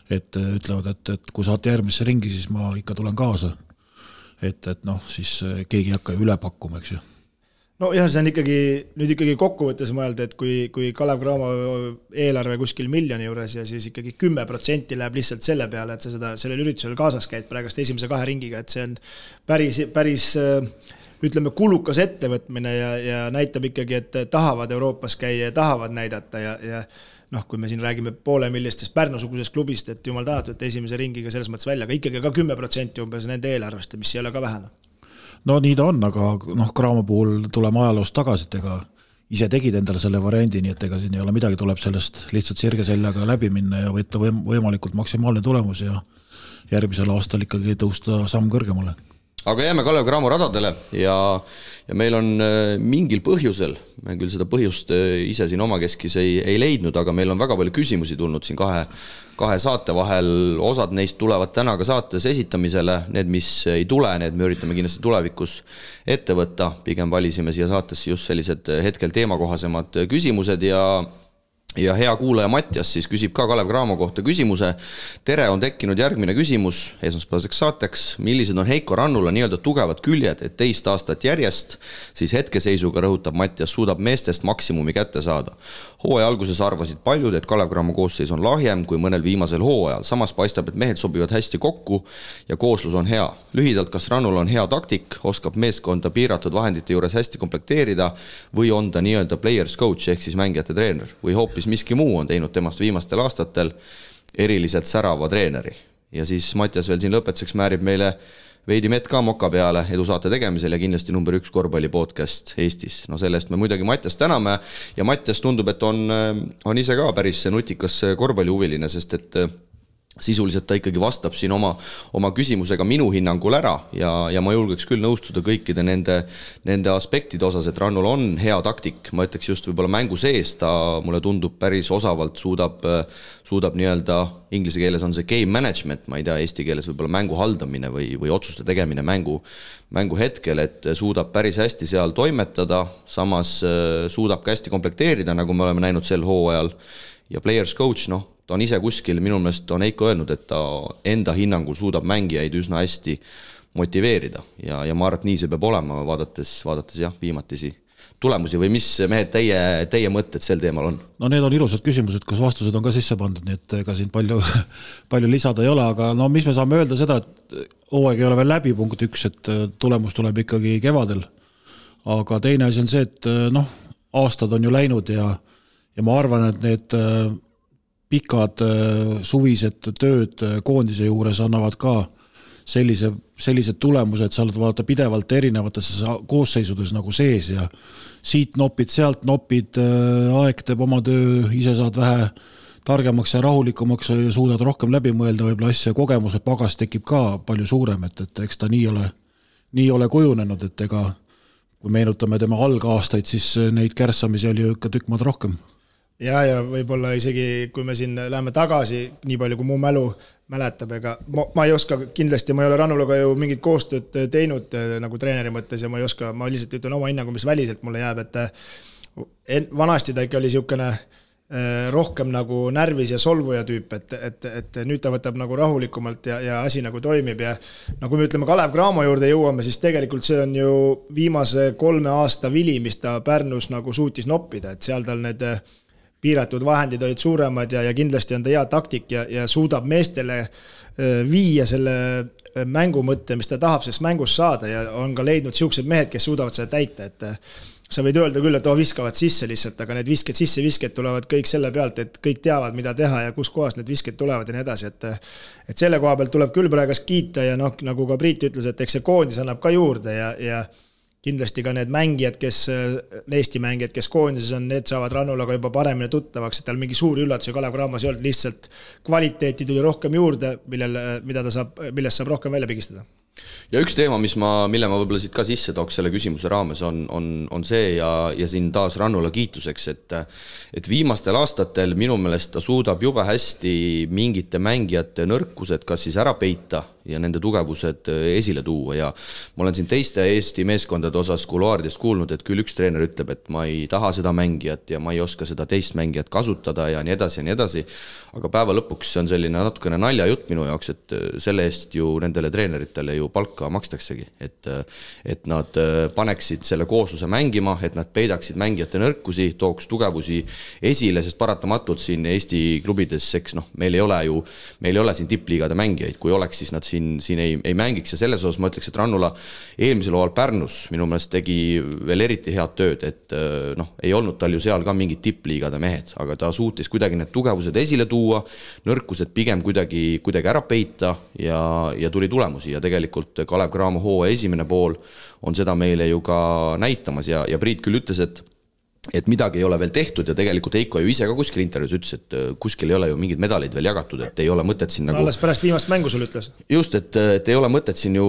et ütlevad, et kui saate järgmisse ringi, siis ma ikka tulen kaasa. Et siis keegi ei hakka üle pakkuma, eks ju. No jah, see on ikkagi kokkuvõttes mõelda, et kui Kalev Cramo eelarve kuskil miljoni juures ja siis ikkagi 10% läheb lihtsalt selle peale, et sa sellel üritusel kaasas käid praegust esimese 2 ringiga, et see on päris ütleme, kulukas ettevõtmine ja näitab ikkagi, et tahavad Euroopas käia ja tahavad näidata ja kui me siin räägime 500 000 Pärnu-sugusest klubist, et jumal tänatud, et esimese ringiga selles mõttes välja, aga ikkagi ka 10% umbes nende eelarvest, mis ei ole ka vähene. No nii ta on, aga Cramo puhul tuleme ajaloost tagasi, et ega ise tegid endale selle variandi, nii et ega siin ei ole midagi, tuleb sellest lihtsalt sirge sellega läbi minna ja võtta võimalikult maksimaalne tulemus ja järgmisel aastal ikkagi tõusta samm kõrgemale. aga jääme Kalev Cramo radadele ja meil on mingil põhjusel, me küll seda põhjust ise siin omakeskis ei leidnud, aga meil on väga palju küsimusi tulnud siin kahe saate vahel, osad neist tulevad täna ka saates esitamisele, need, mis ei tule, need me üritame kindlasti tulevikus ette võtta, pigem valisime siia saatesse just sellised hetkel teemakohasemad küsimused ja hea kuulaja Mattias siis küsib ka Kalev Cramo kohta küsimuse. Tere, on tekkinud järgmine küsimus esmaspäevaseks saateks. Millised on Heiko Rannula nii-öelda tugevad küljed, et teist aastat järjest, siis hetkeseisuga rõhutab Mattias, suudab meestest maksimumi kätte saada. Hooaja alguses arvasid paljud, et Kalev Cramo koosseis on lahjem kui mõnel viimasel hooajal. Samas paistab, et mehed sobivad hästi kokku ja kooslus on hea. Lühidalt, kas Rannula on hea taktik, oskab meeskonda piiratud vahendite juures hästi komplekteerida või on ta nii-öelda players coach ehk siis mängijate treener või hoopis miski muu on teinud temast viimastel aastatel eriliselt särava treeneri. Ja siis Mattias veel siin lõpetuseks määrib meile veidi mett ka moka peale edusaate tegemisel ja kindlasti number 1 korvpalli podcast Eestis. No sellest me muidugi Mattias täname ja Mattias tundub, et on ise ka päris nutikas korvpallihuviline, sest et sisuliselt ta ikkagi vastab siin oma küsimusega minu hinnangul ära ja ma julgeks küll nõustuda kõikide nende aspektide osas, et Rannul on hea taktik, ma ütleks just võib-olla mängu sees, ta mulle tundub päris osavalt suudab nii-öelda, inglise keeles on see game management, ma ei tea, eesti keeles võib-olla mängu haldamine või otsuste tegemine mängu hetkel, et suudab päris hästi seal toimetada, samas suudab ka hästi komplekteerida, nagu me oleme näinud sel hooajal ja players coach, ta on ise kuskil, minu meelest on Heiko öelnud, et ta enda hinnangul suudab mängijaid üsna hästi motiveerida ja ma arvan, et nii see peab olema, vaadates jah, viimatisi tulemusi või mis mehed teie mõtted sel teemal on? No need on ilusad küsimused, kus vastused on ka sisse pandud, nii et ega siin palju lisada ei ole, aga mis me saame öelda seda, et hooaeg ei ole veel läbi, punkt 1, et tulemus tuleb ikkagi kevadel, aga teine asi on see, et aastad on ju läinud ja ma arvan, et need pikad suvised tööd koondise juures annavad ka sellised tulemused, sa oled vaadata pidevalt erinevates koosseisudes nagu sees ja siit nopid, sealt nopid, aeg teeb oma töö, ise saad vähe targemaks ja rahulikumaks ja suudad rohkem läbi mõelda võib-olla asja, kogemuse pagas tekib ka palju suurem, et eks ta nii ole kujunenud, et ega kui meenutame tema algaastaid, siis neid kärssamisi oli ju ikka tükk maad rohkem. Ja võib-olla isegi, kui me siin läheme tagasi, nii palju kui mu mälu mäletab, ega ma ei oska, kindlasti ma ei ole Rannulaga ju mingit koostööd teinud nagu treeneri mõttes ja ma lihtsalt ütlen oma hinnangu, mis väliselt mulle jääb, et vanasti ta ikka oli siukene rohkem nagu närvis ja solvuja tüüp, et nüüd ta võtab nagu rahulikumalt ja asi nagu toimib ja kui me ütleme Kalev Cramo juurde jõuame, siis tegelikult see on ju viimase 3 aasta vili, mis ta Pärnus nagu suutis noppida, et seal tal need piiratud vahendid olid suuremad ja kindlasti on ta hea taktik ja suudab meestele viia selle mängu mõtte, mis ta tahab sellest mängust saada ja on ka leidnud siuksed mehed, kes suudavad seda täita, et sa võid öelda küll, et viskavad sisse lihtsalt, aga need visked tulevad kõik selle pealt, et kõik teavad, mida teha ja kus kohas need visked tulevad ja nii edasi, et selle koha pealt tuleb küll praegu kiita ja nagu ka Priit ütles, et eks see koondis annab ka juurde ja kindlasti ka need mängijad, Eesti mängijad, kes koondises on, need saavad Rannulaga juba paremini tuttavaks, et tal mingi suuri üllatusi Kalev Cramos ei olnud, lihtsalt kvaliteeti tuli rohkem juurde, millest saab rohkem välja pigistada. Ja üks teema, mille ma võib-olla siit ka sisse tooks selle küsimuse raames on see ja siin taas Rannula kiituseks, et viimastel aastatel minu meelest ta suudab jube hästi mingite mängijate nõrkused kas siis ära peita ja nende tugevused esile tuua ja ma olen siin teiste Eesti meeskondade osas kuluaaridest kuulnud, et küll üks treener ütleb, et ma ei taha seda mängijat ja ma ei oska seda teist mängijat kasutada ja nii edasi, aga päeva lõpuks see on selline natukene naljajutt minu jaoks, et selle eest ju nendele treeneritele ju palka makstaksegi, et nad paneksid selle koosluse mängima, et nad peidaksid mängijate nõrkusi, tooks tugevusi esile, sest paratamatult siin Eesti klubides, eks meil ei ole siin tippliigade mängijaid, kui oleks, siis nad siin ei mängiks ja selles osas ma ütleks, et Rannula eelmisel hooajal Pärnus minu meelest tegi veel eriti head tööd, et ei olnud tal ju seal ka mingid tippliigade mehed, aga ta suutis kuidagi need tugevused esile tuua, nõrkused pigem kuidagi ära peita ja tuli tulemusi ja tegelikult Kalev Cramo hooaja esimene pool on seda meile ju ka näitamas ja Priit küll ütles, et midagi ei ole veel tehtud ja tegelikult Heiko ju ise ka kuskil intervjuus ütles, et kuskil ei ole ju mingid medalid veel jagatud, et ei ole mõtet siin nagu... Alles pärast viimast mängu sul ütles. Just, et ei ole mõtet siin ju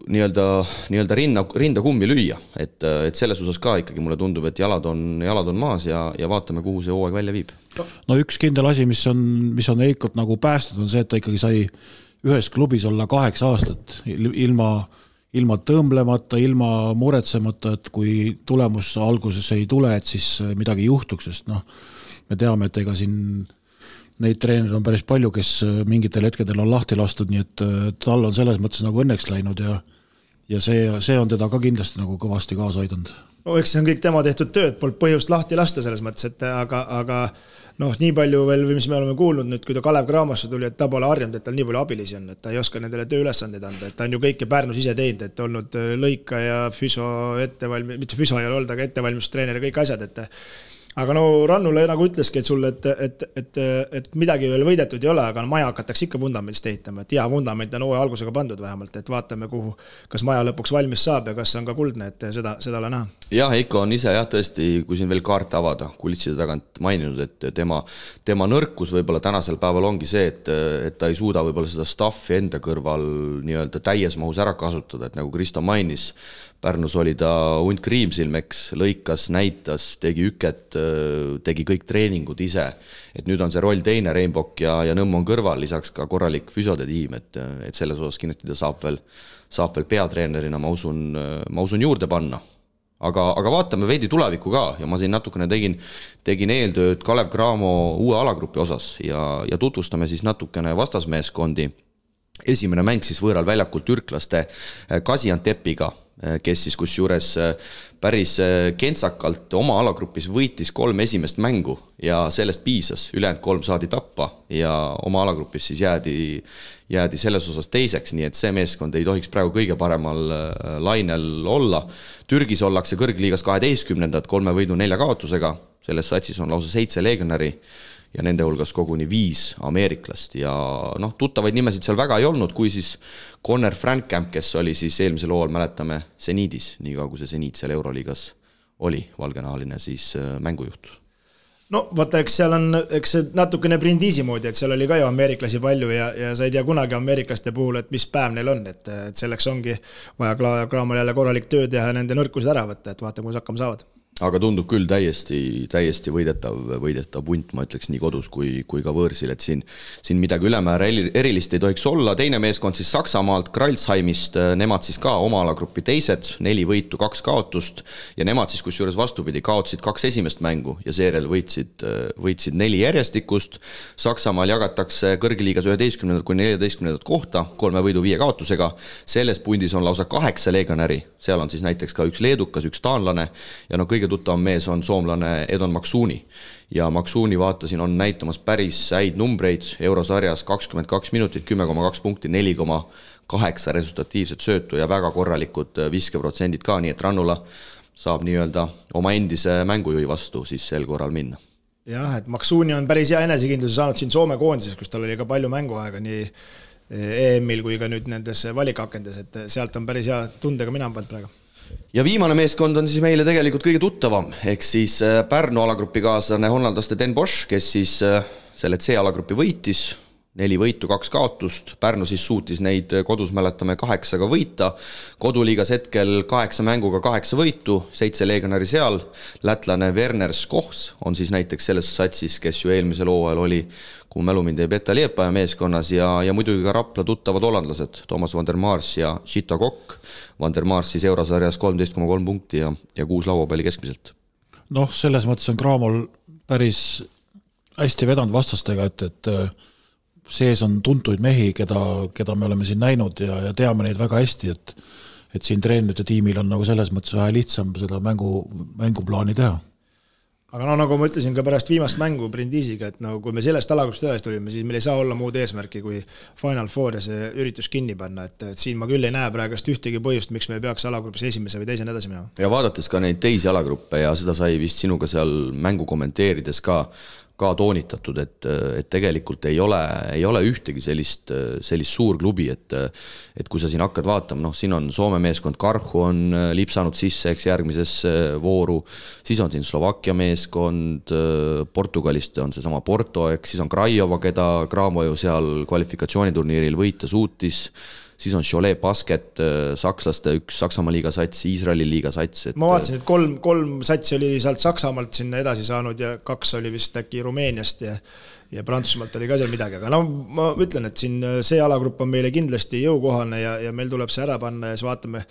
nii-öelda rinda kummi lüüa, et selles osas ka ikkagi mulle tundub, et jalad on maas ja vaatame, kuhu see hooaeg välja viib. No üks kindel asi, mis on Heikot nagu päästud, on see, et ta ikkagi sai ühes klubis olla 8 aastat ilma tõmblemata, ilma muretsemata, et kui tulemus alguses ei tule, et siis midagi juhtuks, sest me teame, et ega siin neid treenerid on päris palju, kes mingitel hetkedel on lahti lastud, nii et tal on selles mõttes nagu õnneks läinud ja see on teda ka kindlasti nagu kõvasti kaasa aidanud. No eks see on kõik tema tehtud tööd, polnud põhjust lahti lasta selles mõttes, et aga nii palju veel, mis me oleme kuulnud nüüd, kui ta Kalev Cramosse tuli, et ta pole harjunud, et tal nii palju abilisi on, et ta ei oska nendele tööülesandeid anda, et ta on ju kõike Pärnus ise teinud, et olnud lõika ja füso mitte füso ei ole olnud, aga ettevalmistustreener ja kõik asjad, et aga Rannule nagu ütleski, et sulle, et midagi veel võidetud ei ole, aga maja hakatakse ikka vundamendist ehitama, et hea vundament on hooaja algusega pandud vähemalt, et vaatame, kuhu, kas maja lõpuks valmis saab ja kas on ka kuldne, et seda ole näha. Ja Heiko on ise tõesti, kui siin veel kaarte avada, kulitside tagant maininud, et tema nõrkus võib-olla tänasel päeval ongi see, et ta ei suuda võib-olla seda staffi enda kõrval nii-öelda täies mahus ära kasutada, et nagu Kristo mainis, Pärnus oli ta hunt kriimsilmeks, lõikas, näitas, tegi üket, tegi kõik treeningud ise. Et nüüd on see roll teine, Reinbok ja Nõmm on kõrval, lisaks ka korralik füsode tiim, et selles osas kindlasti ta saab veel peatreenerina, ma usun juurde panna. Aga vaatame veidi tulevikku ka ja ma siin natukene tegin eeltööd Kalev Cramo uue alagrupi osas ja tutvustame siis natukene vastasmeeskondi. Esimene mäng siis võõral väljakult türklaste Gaziantepiga, kes siis kusjuures päris kentsakalt oma alagrupis võitis 3 esimest mängu ja sellest piisas, ülejäänud 3 saadi tappa ja oma alagrupis siis jäädi selles osas teiseks, nii et see meeskond ei tohiks praegu kõige paremal lainel olla. Türgis ollakse kõrgliigas 12. 3 võidu 4 kaotusega, selles satsis on lausa 7 legionäri ja nende hulgas koguni 5 ameeriklast ja tuttavaid nimesid seal väga ei olnud, kui siis Conor Frankamp, kes oli siis eelmisel hooajal, mäletame, Seniidis, nii kui see Seniid seal Euroliigas oli, valgenahaline siis mängujuht. No vaata, eks seal on see natukene Brindisi moodi, et seal oli ka ju ameeriklasi palju ja sa ei tea kunagi ameeriklaste puhul, et mis päev neil on, et selleks ongi vaja Craamal jälle korralik töö teha ja nende nõrkused ära võtta, et vaata, kus hakkama saavad. Aga tundub küll täiesti võidetav punt, ma ütleks nii kodus kui ka võõrsil, et siin midagi ülemäära erilist ei tohiks olla. Teine meeskond siis Saksamaalt, Kralsheimist, nemad siis ka oma alagrupi teised, 4 võitu, 2 kaotust ja nemad siis kusjuures vastupidi kaotsid 2 esimest mängu ja seejärel võitsid 4 järjestikust. Saksamaal jagatakse kõrgliigas 11. kuni 14. kohta, 3 võidu 5 kaotusega. Selles pundis on lausa 8 legionäri, seal on siis näiteks ka üks leedukas, üks taanlane ja kõige tuttavam mees on soomlane Edon Maksuuni ja Maksuuni vaatasin on näitamas päris häid numbreid eurosarjas 22 minutit, 10,2 punkti, 4,8 resultatiivset söötu ja väga korralikud viskeprotsendid ka, nii et Rannula saab nii-öelda oma endise mängujuhi vastu siis sel korral minna. Jah, et Maksuuni on päris hea enesekindluse saanud siin Soome koondises, kus tal oli ka palju mänguaega nii EM-il kui ka nüüd nendes valikakendes, et sealt on päris hea tundega mina pannud praegu. Ja viimane meeskond on siis meile tegelikult kõige tuttavam, ehk siis Pärnu alagrupi kaaslane hollandlaste Den Bosch, kes siis selle C-alagrupi võitis, 4 võitu, 2 kaotust, Pärnu siis suutis neid kodus mäletame 8 võita, koduliigas hetkel 8 mänguga 8 võitu, 7 legionäri seal, lätlane Werner Skohs on siis näiteks selles satsis, kes ju eelmisel hooajal oli, kui mälumind ei peta Liepaja meeskonnas ja muidugi ka Rapla tuttavad hollandlased, Thomas van der Mars ja Chita Kokk, van der Mars siis eurosarjas 13,3 punkti ja 6 lauapalli keskmiselt. Selles mõttes on Cramol päris hästi vedanud vastastega, et sees on tuntuid mehi, keda me oleme siin näinud ja teame neid väga hästi, et siin treenerite tiimil on nagu selles mõttes vähe lihtsam seda mänguplaani teha. Aga nagu ma ütlesin ka pärast viimast mängu Brindisiga, et kui me sellest alagrupist edasi tulime, siis meil ei saa olla muud eesmärki kui Final Four ja see üritus kinni panna, et siin ma küll ei näe praegust ühtegi põhjust, miks me peaks alagrupis esimese või teisena edasi minema. Ja vaadates ka neid teisi alagruppe ja seda sai vist sinuga seal mängu kommenteerides ka ka toonitatud, et tegelikult ei ole ühtegi sellist suur klubi, et kui sa siin hakkad vaatama, siin on Soome meeskond Karhu on lipsanud sisse, eks järgmisesse vooru, siis on siin Slovakkia meeskond, Portugalist on see sama Porto, eks siis on Craiova, keda Cramo ju seal kvalifikatsiooniturniiril võita suutis, siis on Cholet Basket, sakslaste üks Saksamaa liiga sats, Iisraeli liiga sats. Ma vaatasin, et kolm satsi oli sealt Saksamaalt sinna edasi saanud ja 2 oli vist äkki Rumeeniast ja Prantsusmaalt oli ka seal midagi, aga ma ütlen, et siin see alagrupp on meile kindlasti jõukohane ja meil tuleb see ära panna ja siis vaatame,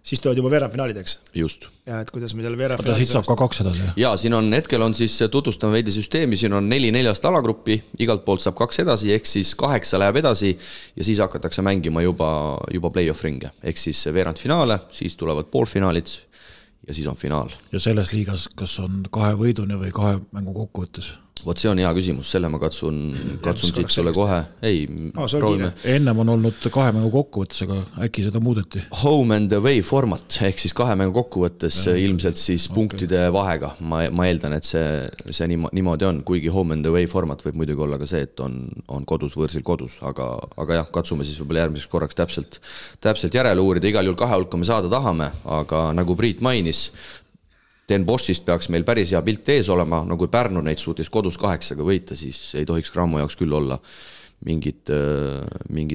siis tulevad juba veerandfinaalideks. Just. Ja et kuidas me selle veerandfinaalideks... Siit saab ka 2 edasi. Ja, siin on hetkel on siis, tutvustame veidi süsteemi, siin on 4 alagruppi, igalt poolt saab 2 edasi, ehk siis 8 läheb edasi ja siis hakatakse mängima juba play-off ringe, ehk siis veerandfinaale, siis tulevad poolfinaalid ja siis on finaal. Ja selles liigas, kas on 2 võiduni või 2 mängu kokkuvõttes? Vot see on hea küsimus, selle ma katsun siit sulle kohe. Ei, proovime. Ennem on olnud 2 mängu kokkuvõttes, aga äkki seda muudeti? Home and away format, ehk siis 2 mängu kokkuvõttes ilmselt siis punktide vahega. Ma eeldan, et see niimoodi on, kuigi home and away format võib muidugi olla ka see, et on kodus võõrsil kodus, aga jah, katsume siis võib-olla järgmiseks korraks täpselt järele uurida, igal juhul 2 hulka me saada tahame, aga nagu Priit mainis, Den Boschist peaks meil päris hea pilt ees olema, no kui Pärnu neid suutis kodus 8 võita, siis ei tohiks Cramo jaoks küll olla mingit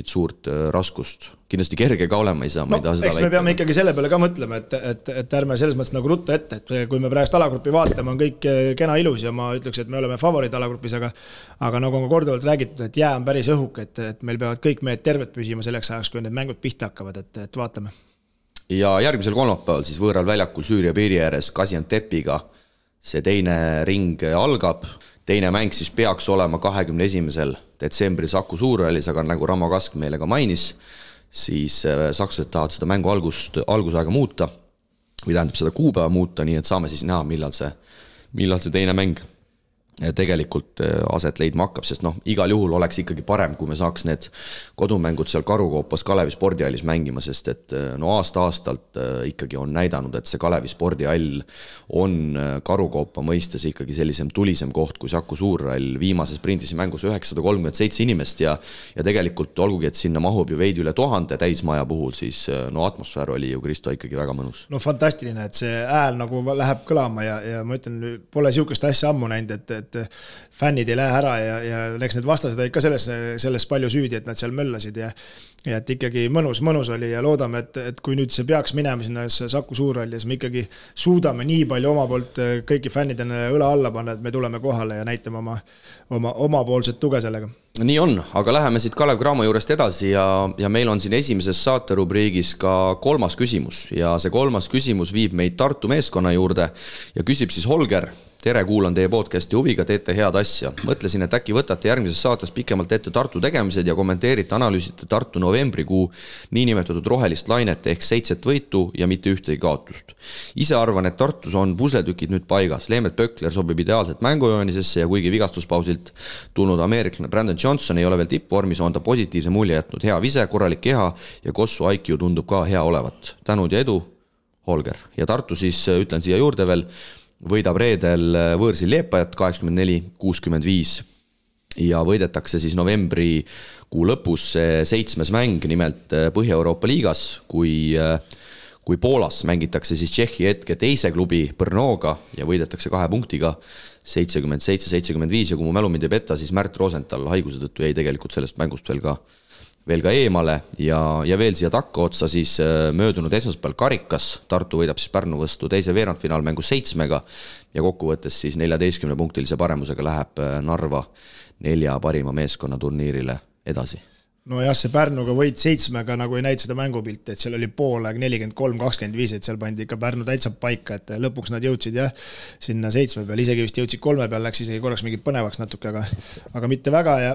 suurt raskust. Kindlasti kerge ka olema ei saa, ma ei taha seda väita. Me peame ikkagi selle peale ka mõtlema, et ärme selles mõttes nagu rutta ette, et kui me praegust alagruppi vaatame, on kõik kena ilus ja ma ütleks, et me oleme favoriid alagrupis, aga nagu on korduvalt räägitud, et jää on päris õhuk, et meil peavad kõik mehed terved püsima selleks ajaks, kui need mängud pihta hakkavad, et vaatame. Ja järgmisel kolmapäeval siis võõral väljakul Süüria piiri ääres Gaziantepiga see teine ring algab. Teine mäng siis peaks olema 21. detsembril Saku Suurhallis, aga nagu Ramo Kask meile ka mainis, siis sakslased tahavad seda mängu algusaega muuta või tähendab seda kuupäeva muuta, nii et saame siis näha, millal see teine mäng tegelikult aset leidma hakkab, sest igal juhul oleks ikkagi parem, kui me saaks need kodumängud seal Karukoopas Kalevi spordihallis mängima, sest et aasta-aastalt ikkagi on näidanud, et see Kalevi spordihall on Karukoopa mõistes ikkagi sellisem tulisem koht kui Saku Suurhall. Viimases sprindis mängus 937 inimest ja tegelikult olgugi, et sinna mahub ju veidi üle 1000 täismaja puhul, siis atmosfäär oli ju Kristo ikkagi väga mõnus. Fantastiline, et see ääl nagu läheb kõlama ja ma ütlen, pole siukest asja ammu näinud, et fännid ei lähe ära ja eks need vastased olid ka selles palju süüdi, et nad seal möllasid ja et ikkagi mõnus oli ja loodame, et kui nüüd see peaks minema sinna Saku Suurhalli ja siis me ikkagi suudame nii palju oma poolt kõiki fännidena õla alla panna, et me tuleme kohale ja näitame omapoolset tuge sellega. Nii on, aga läheme siit Kalev Cramo juurest edasi ja meil on siin esimeses saaterubriigis ka 3. küsimus ja see 3. küsimus viib meid Tartu meeskonna juurde ja küsib siis Holger. Tere, kuulan teie podcasti huviga, teete head asja. Mõtlesin, et äkki võtate järgmises saates pikemalt ette Tartu tegemised ja kommenteerite, analüüsite Tartu novembrikuu niinimetatud rohelist lainet ehk 7 võitu ja mitte ühtegi kaotust. Ise arvan, et Tartus on pusletükid nüüd paigas. Leemet Pökler sobib ideaalselt mängujoonisesse ja kuigi vigastuspausilt tulnud ameeriklane Brandon Johnson ei ole veel tippvormis, on ta positiivse mulje jätnud. Hea vise, korralik keha ja Kossu IQ tundub ka hea olevat. Tänud ja edu, Holger. Ja Tartu siis, ütlen siia juurde veel, võidab reedel võõrsil Leepajat 84-65 ja võidetakse siis novembri kuu lõpus 7. mäng, nimelt Põhja-Euroopa liigas, kui Poolas mängitakse siis Tšehhi hetke teise klubi Brnoga ja võidetakse 2 punktiga 77-75 ja kui mu mälu mind ei peta, siis Märt Rosenthal haiguse tõttu jäi tegelikult sellest mängust veel ka eemale ja veel siia takka otsa siis möödunud esmaspäeval Karikas. Tartu võidab siis Pärnu vastu teise veerandfinaalmängu 7 ja kokkuvõttes siis 14-punktilise paremusega läheb Narva 4 parima meeskonna turniirile edasi. No jah, see Pärnuga võit 7 nagu ei näid seda mängupilti, et seal oli poolaeg 43-25, et seal pandi ikka Pärnu täitsa paika, et lõpuks nad jõudsid sinna 7 peal, isegi vist jõudsid 3 peal, läks isegi korraks mingi põnevaks natuke, aga mitte väga ja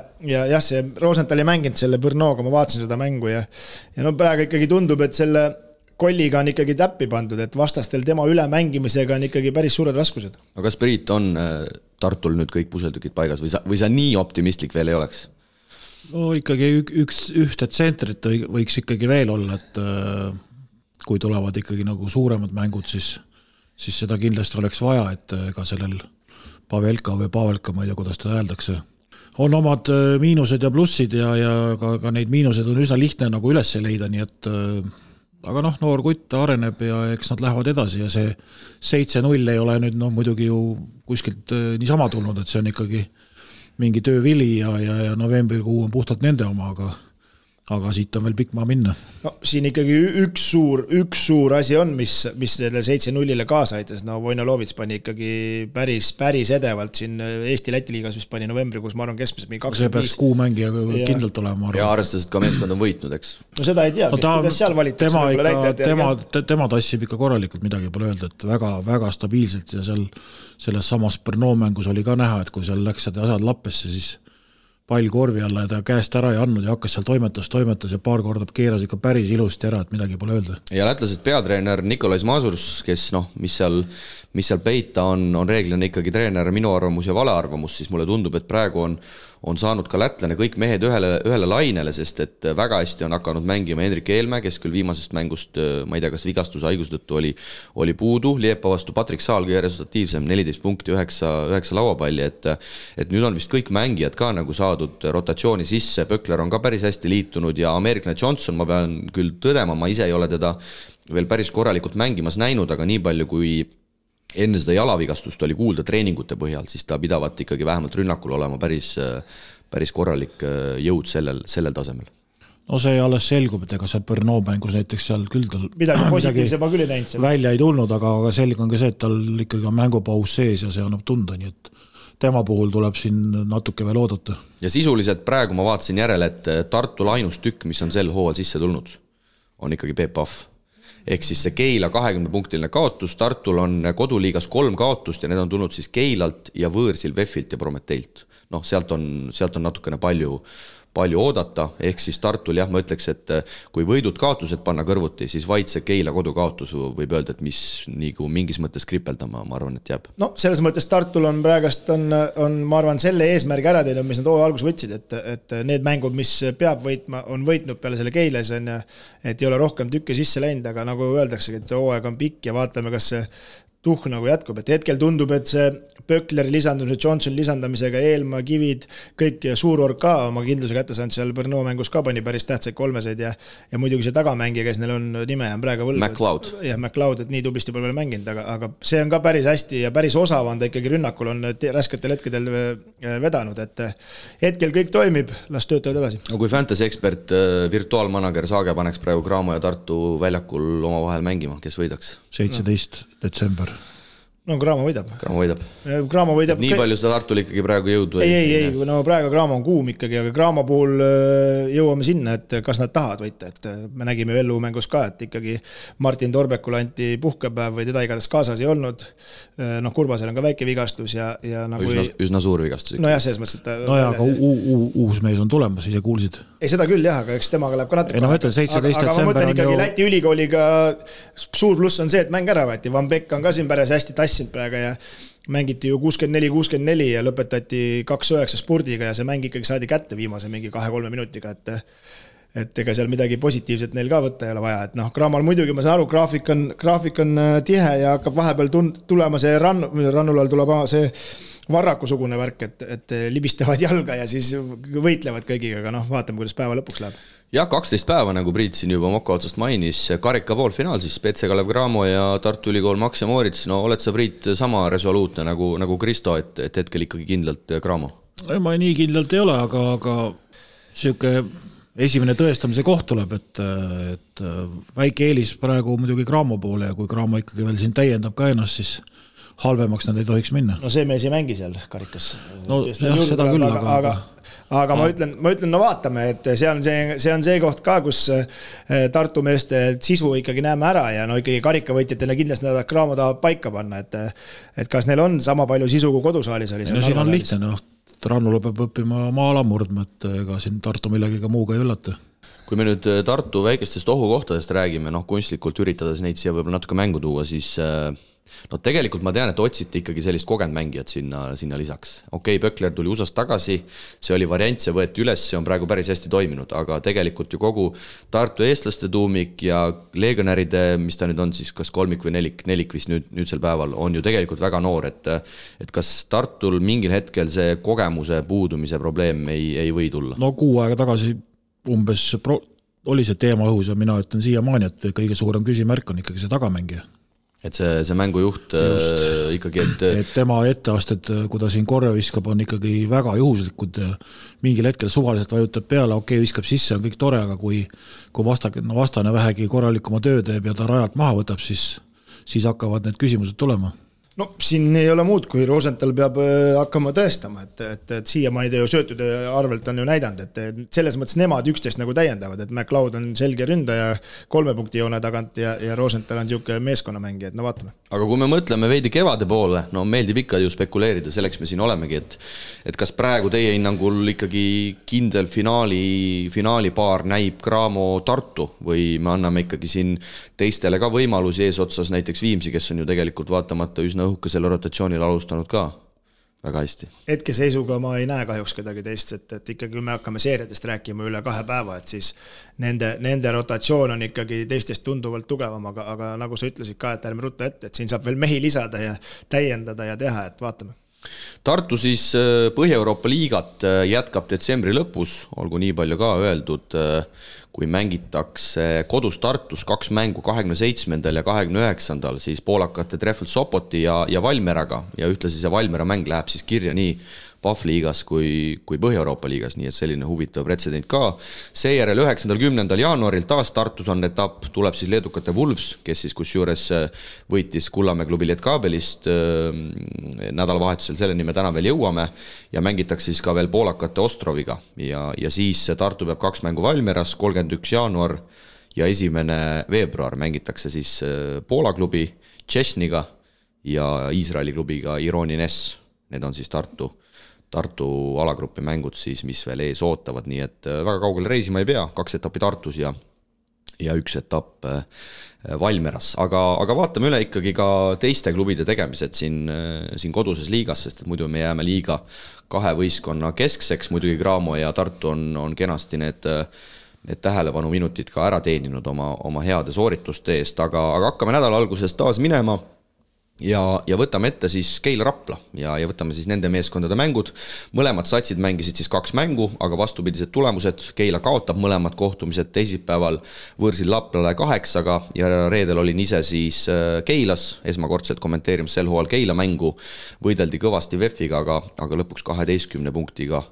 jah, see Rosenthal ei mänginud selle Brnoga, ma vaatasin seda mängu ja praegu ikkagi tundub, et selle Kolliga on ikkagi täppi pandud, et vastastel tema ülemängimisega on ikkagi päris suured raskused. Aga kas Priit on Tartul nüüd kõik puseltükid paigas või sa nii optimistlik veel ei oleks? No ikkagi ühte tsentrit võiks ikkagi veel olla, et kui tulevad ikkagi nagu suuremad mängud, siis seda kindlasti oleks vaja, et ka sellel Pavelka, ma ei tea, kuidas ta öeldakse. On omad miinused ja plussid ja ka neid miinused on üsna lihtne nagu üles leida, nii et aga noor kutt areneb ja eks nad lähevad edasi ja see 7-0 ei ole nüüd muidugi ju kuskilt niisama tulnud, et see on ikkagi mingi töövili ja novembrikuu on puhtalt nende oma, aga siit on veel pikk maa minna. No siin ikkagi üks suur asi on, mis selle 7-0-le kaasa aitas. No Vojnalovits pani ikkagi päris edevalt siin Eesti-Läti liigas, mis pani novembrikuus, ma arvan, keskmiselt mingi 25. See peaks kuumängija kindlalt olema. Ja arvestades, et ka meeskond on võitnud, eks? No seda ei tea, kuidas seal valitakse. Tema tassib ikka korralikult, midagi pole öelda, et väga stabiilselt ja selles samas Brno mängus oli ka näha, et kui seal läks asjad lappesse, siis pall korvi alla ja ta käest ära ei andnud ja hakkas seal toimetas ja paar korda keeras ikka päris ilusti ära, et midagi pole öelda. Ja lätlased peatreener Nikolais Mazurs, kes mis seal peita on reeglina ikkagi treener minu arvamus ja vale arvamus, siis mulle tundub, et praegu on saanud ka lätlane kõik mehed ühele lainele, sest et väga hästi on hakanud mängima Hendrik Eelmäe, kes küll viimasest mängust, ma ei tea, kas vigastuse haiguse tõttu oli puudu, Liepa vastu Patrik Saal kõige resultatiivsem, 14 punkti, 9 lauapalli, et nüüd on vist kõik mängijad ka nagu saadud rotatsiooni sisse, Pökler on ka päris hästi liitunud ja American Johnson, ma pean küll tõdema, ma ise ei ole teda veel päris korralikult mängimas näinud, aga nii palju kui enne seda jalavigastust oli kuulda treeningute põhjal, siis ta pidavat ikkagi vähemalt rünnakul olema päris korralik jõud sellel tasemel. No see alles selgub, et ega see Brno mängus näiteks seal küll tal midagi positiivse ma küll ei näinud. Välja ei tulnud, aga selge on ka see, et tal ikkagi on mängupaus sees ja see annab tunda, nii et tema puhul tuleb siin natuke veel oodata. Ja sisuliselt praegu ma vaatasin järele, et Tartul ainus tükk, mis on sel hooval sisse tulnud, on ikkagi Peep Pahv. Ehk siis see Keila 20-punktiline kaotus, Tartul on koduliigas 3 kaotust ja need on tulnud siis Keilalt ja Võõrsil, Veffilt ja Prometeilt. Sealt on natukene palju oodata, ehk siis Tartul ma ütleks, et kui võidud kaotused panna kõrvuti, siis vaid see Keila kodukaotus võib öelda, et mis nagu mingis mõttes kripeldama, ma arvan, et jääb. No selles mõttes Tartul on praegast ma arvan, selle eesmärgi ära teinud, mis nad algus võtsid, et need mängud, mis peab võitma, on võitnud peale selle Keiles, et ei ole rohkem tükke sisse läinud, aga nagu öeldaksegi, et hooaeg on pikk ja vaatame, kas see tuhk nagu jätkub, et hetkel tundub, et see Pökleri lisandumise, Johnson lisandamisega, Eelmaa, Kivid, kõik Suurorg ka oma kindluse kätte saanud, seal Brno mängus ka pani päris tähtsaid kolmeseid ja muidugi see tagamängija, kes neil on nime on praegu võlgu. McLeod. Ja McLeod, et nii tublisti pole veel mänginud, aga see on ka päris hästi ja päris osav on ta ikkagi rünnakul on rasketel hetkedel vedanud, et hetkel kõik toimib, las töötavad edasi. No kui fantasy ekspert, virtuaalmanager Saage paneks praegu Graamo ja Tartu väljakul oma vahel mängima, kes võidaks? 17. detsember. No Graamo võidab. Graamo võidab. Nii palju seda Tartul ikkagi praegu jõudu? Ei, no praegu Graamo on kuum ikkagi, aga Graamo puhul jõuame sinna, et kas nad tahavad võita, et me nägime Vellu mängus ka, et ikkagi Martin Torbekul anti puhkepäev või teda igatahes kaasas ei olnud. Kurbasel on ka väike vigastus ja nagu üsna suur vigastus. No jah, selles mõttes, et no ja, aga uus mees on tulemas, ise kuulsid. Ei, seda küll jah, aga eks temaga läheb ka natuke. No ütlen, 17. aga ma mõtlen ikkagi Läti ülikooliga suur pluss on see, et mäng ära võeti. Van Beck on ka siin päris hästi tassinud praegu ja mängiti ju 64-64 ja lõpetati 2-9 spurdiga ja see mäng ikkagi saadi kätte viimase mingi 2-3 minutiga, et ega seal midagi positiivset neil ka võtta ei ole vaja, et Graamal muidugi, ma saan aru, graafik on tihe ja hakkab vahepeal tulema see rannul all tuleb see varrakusugune värk, et libistavad jalga ja siis võitlevad kõigiga, aga vaatame, kuidas päeva lõpuks läheb. Ja 12 päeva, nagu Priit siin juba Moka otsast mainis, karika poolfinaal siis Petse Kalev Cramo ja Tartu Ülikool Max ja Moritz. No oled sa, Priit, sama resoluutne nagu Kristo, et hetkel ikkagi kindlalt Cramo? Ma nii kindlalt ei ole, aga siuke esimene tõestamise koht tuleb, et väike eelis praegu muidugi Cramo poole ja kui Cramo ikkagi veel siin täiendab ka ennast, siis halvemaks nad ei tohiks minna. No see mees ei mängi seal karikas. No jah, seda küll, aga ma ütlen, no vaatame, et see on see koht ka, kus Tartu meeste sisu ikkagi näeme ära ja no ikkagi karikavõitjatele kindlasti nad Cramo tahavad paika panna, et kas neil on sama palju sisu kui kodusaalis oli. No siin on lihtne, Rannula peab õppima maala murdma, et ega siin Tartu millegiga muuga ei üllata. Kui me nüüd Tartu väikestest ohukohtadest räägime, kunstlikult üritades neid siia võib-olla natuke mängu tuua, siis No tegelikult ma tean, et otsiti ikkagi sellist kogenud mängijat sinna lisaks. Okei, Pökler tuli USA-st tagasi, see oli variant, see võeti üles, see on praegu päris hästi toiminud, aga tegelikult ju kogu Tartu eestlaste tuumik ja legionäride, mis ta nüüd on siis, kas kolmik või nelik vist nüüdsel päeval, on ju tegelikult väga noor, et kas Tartul mingil hetkel see kogemuse puudumise probleem ei või tulla? No 6 aega tagasi umbes oli see teema õhus ja mina ütlen siiamaani, et kõige suurem küsimärk on ikkagi see tagamängija. Et see mängujuht ikkagi, et tema etteasted, kui ta siin korja viskab, on ikkagi väga juhuslikud. Mingil hetkel suvaliselt vajutab peale, okei, viskab sisse, on kõik tore, aga kui vastane vähegi korralikuma töö teeb ja ta rajalt maha võtab, siis hakkavad need küsimused tulema. No siin ei ole muud, kui Rosenthal peab hakkama tõestama, et siiamaani ta ju söötude arvelt on ju näidanud, et selles mõttes nemad üksteist nagu täiendavad, et McLeod on selge ründaja 3 punkti joone tagant ja Rosenthal on niisugune meeskonnamängija, et no vaatame. Aga kui me mõtleme veidi kevade poole, no meeldib ikka ju spekuleerida, selleks me siin olemegi, et kas praegu teie hinnangul ikkagi kindel finaalipaar näib Cramo Tartu või me anname ikkagi siin teistele ka võimalusi eesotsas, näiteks Viimsi, kes on ju tegelikult vaatamata üsna õhuke selle rotatsioonil alustanud ka väga hästi. Hetkeseisuga ma ei näe kahjuks kedagi teist, et ikkagi kui me hakkame seeriadest rääkima üle 2 päeva, et siis nende rotatsioon on ikkagi teistest tunduvalt tugevam, aga nagu sa ütlesid ka, et ärme rutta ette, et siin saab veel mehi lisada ja täiendada ja teha, et vaatame. Tartu siis Põhja-Euroopa liigat jätkab detsembri lõpus, olgu nii palju ka öeldud, kui mängitakse kodus Tartus 2 mängu 27. ja 29. siis poolakate Treffel Sopoti ja Valmeraga ja ühtlasi see Valmera mäng läheb siis kirja nii PAF liigas kui Põhja-Euroopa liigas, nii et selline huvitav pretsedent ka. Seejärel 9.10. jaanuaril taas Tartus on etapp, tuleb siis leedukate Wolves, kes siis kusjuures võitis Kullamäe klubi Lietkabelist nädalavahetusel, selleni me täna veel jõuame ja mängitakse siis ka veel poolakate Ostroviga ja siis Tartu peab 2 mängu Valmeras, 31. jaanuar ja 1. veebruar mängitakse siis Poola klubi Tšesniga ja Iisraeli klubiga Ironi Ness, need on siis Tartu alagrupi mängud siis, mis veel ees ootavad, nii et väga kaugele reisima ei pea, 2 etappi Tartus ja 1 etapp Valmeras, aga vaatame üle ikkagi ka teiste klubide tegemised siin koduses liigas, sest et muidu me jääme liiga 2 võistkonna keskseks, muidugi Cramo ja Tartu on kenasti need tähelepanu minutid ka ära teeninud oma heade soorituste eest, aga hakkame nädala alguses taas minema ja võtame ette siis Keila Rapla ja võtame siis nende meeskondade mängud. Mõlemad satsid mängisid siis 2 mängu, aga vastupidised tulemused. Keila kaotab mõlemad kohtumised teisipäeval võõrsil Laplale 8-ga ja reedel olin ise siis Keilas, esmakordselt kommenteerimas sel hooajal Keila mängu. Võideldi kõvasti VEF-iga, aga lõpuks 12 punktiga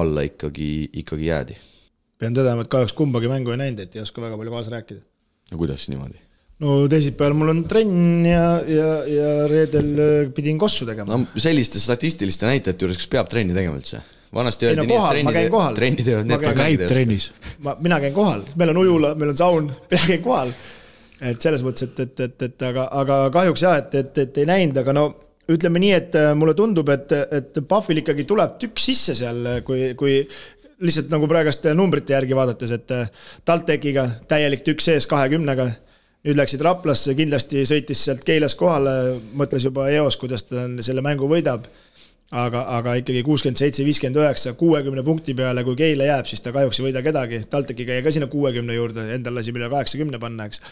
alla ikkagi jäädi. Pean tõdema, et kahjuks kumbagi mängu ei näinud, et ei oska väga palju kaasa rääkida. Ja kuidas niimoodi? No teisipäeval mul on trenn ja reedel pidin kossu tegema. No selliste statistiliste näitajate juures, kas peab trenni tegema üldse? Vanasti öeldi nii, et trenni teevad need, kes käib trennis. Mina käin kohal, meil on ujula, meil on saun, mina käin kohal. Et selles mõttes, et aga kahjuks jah, et ei näinud, aga no ütleme nii, et mulle tundub, et Pahvil ikkagi tuleb tükk sisse seal, kui lihtsalt nagu praegast numbrite järgi vaadates, et Taltekiga täielik tükk sees 20-ga. Nüüd läksid Raplasse, kindlasti sõitis sealt Keilas kohale, mõtles juba EOS, kuidas ta selle mängu võidab, aga ikkagi 67-59, 60 punkti peale, kui Keila jääb, siis ta kahjuks ei võida kedagi. Taltekiga jäi ka sinna 60 juurde, endal lasi üle 80 panna, eks.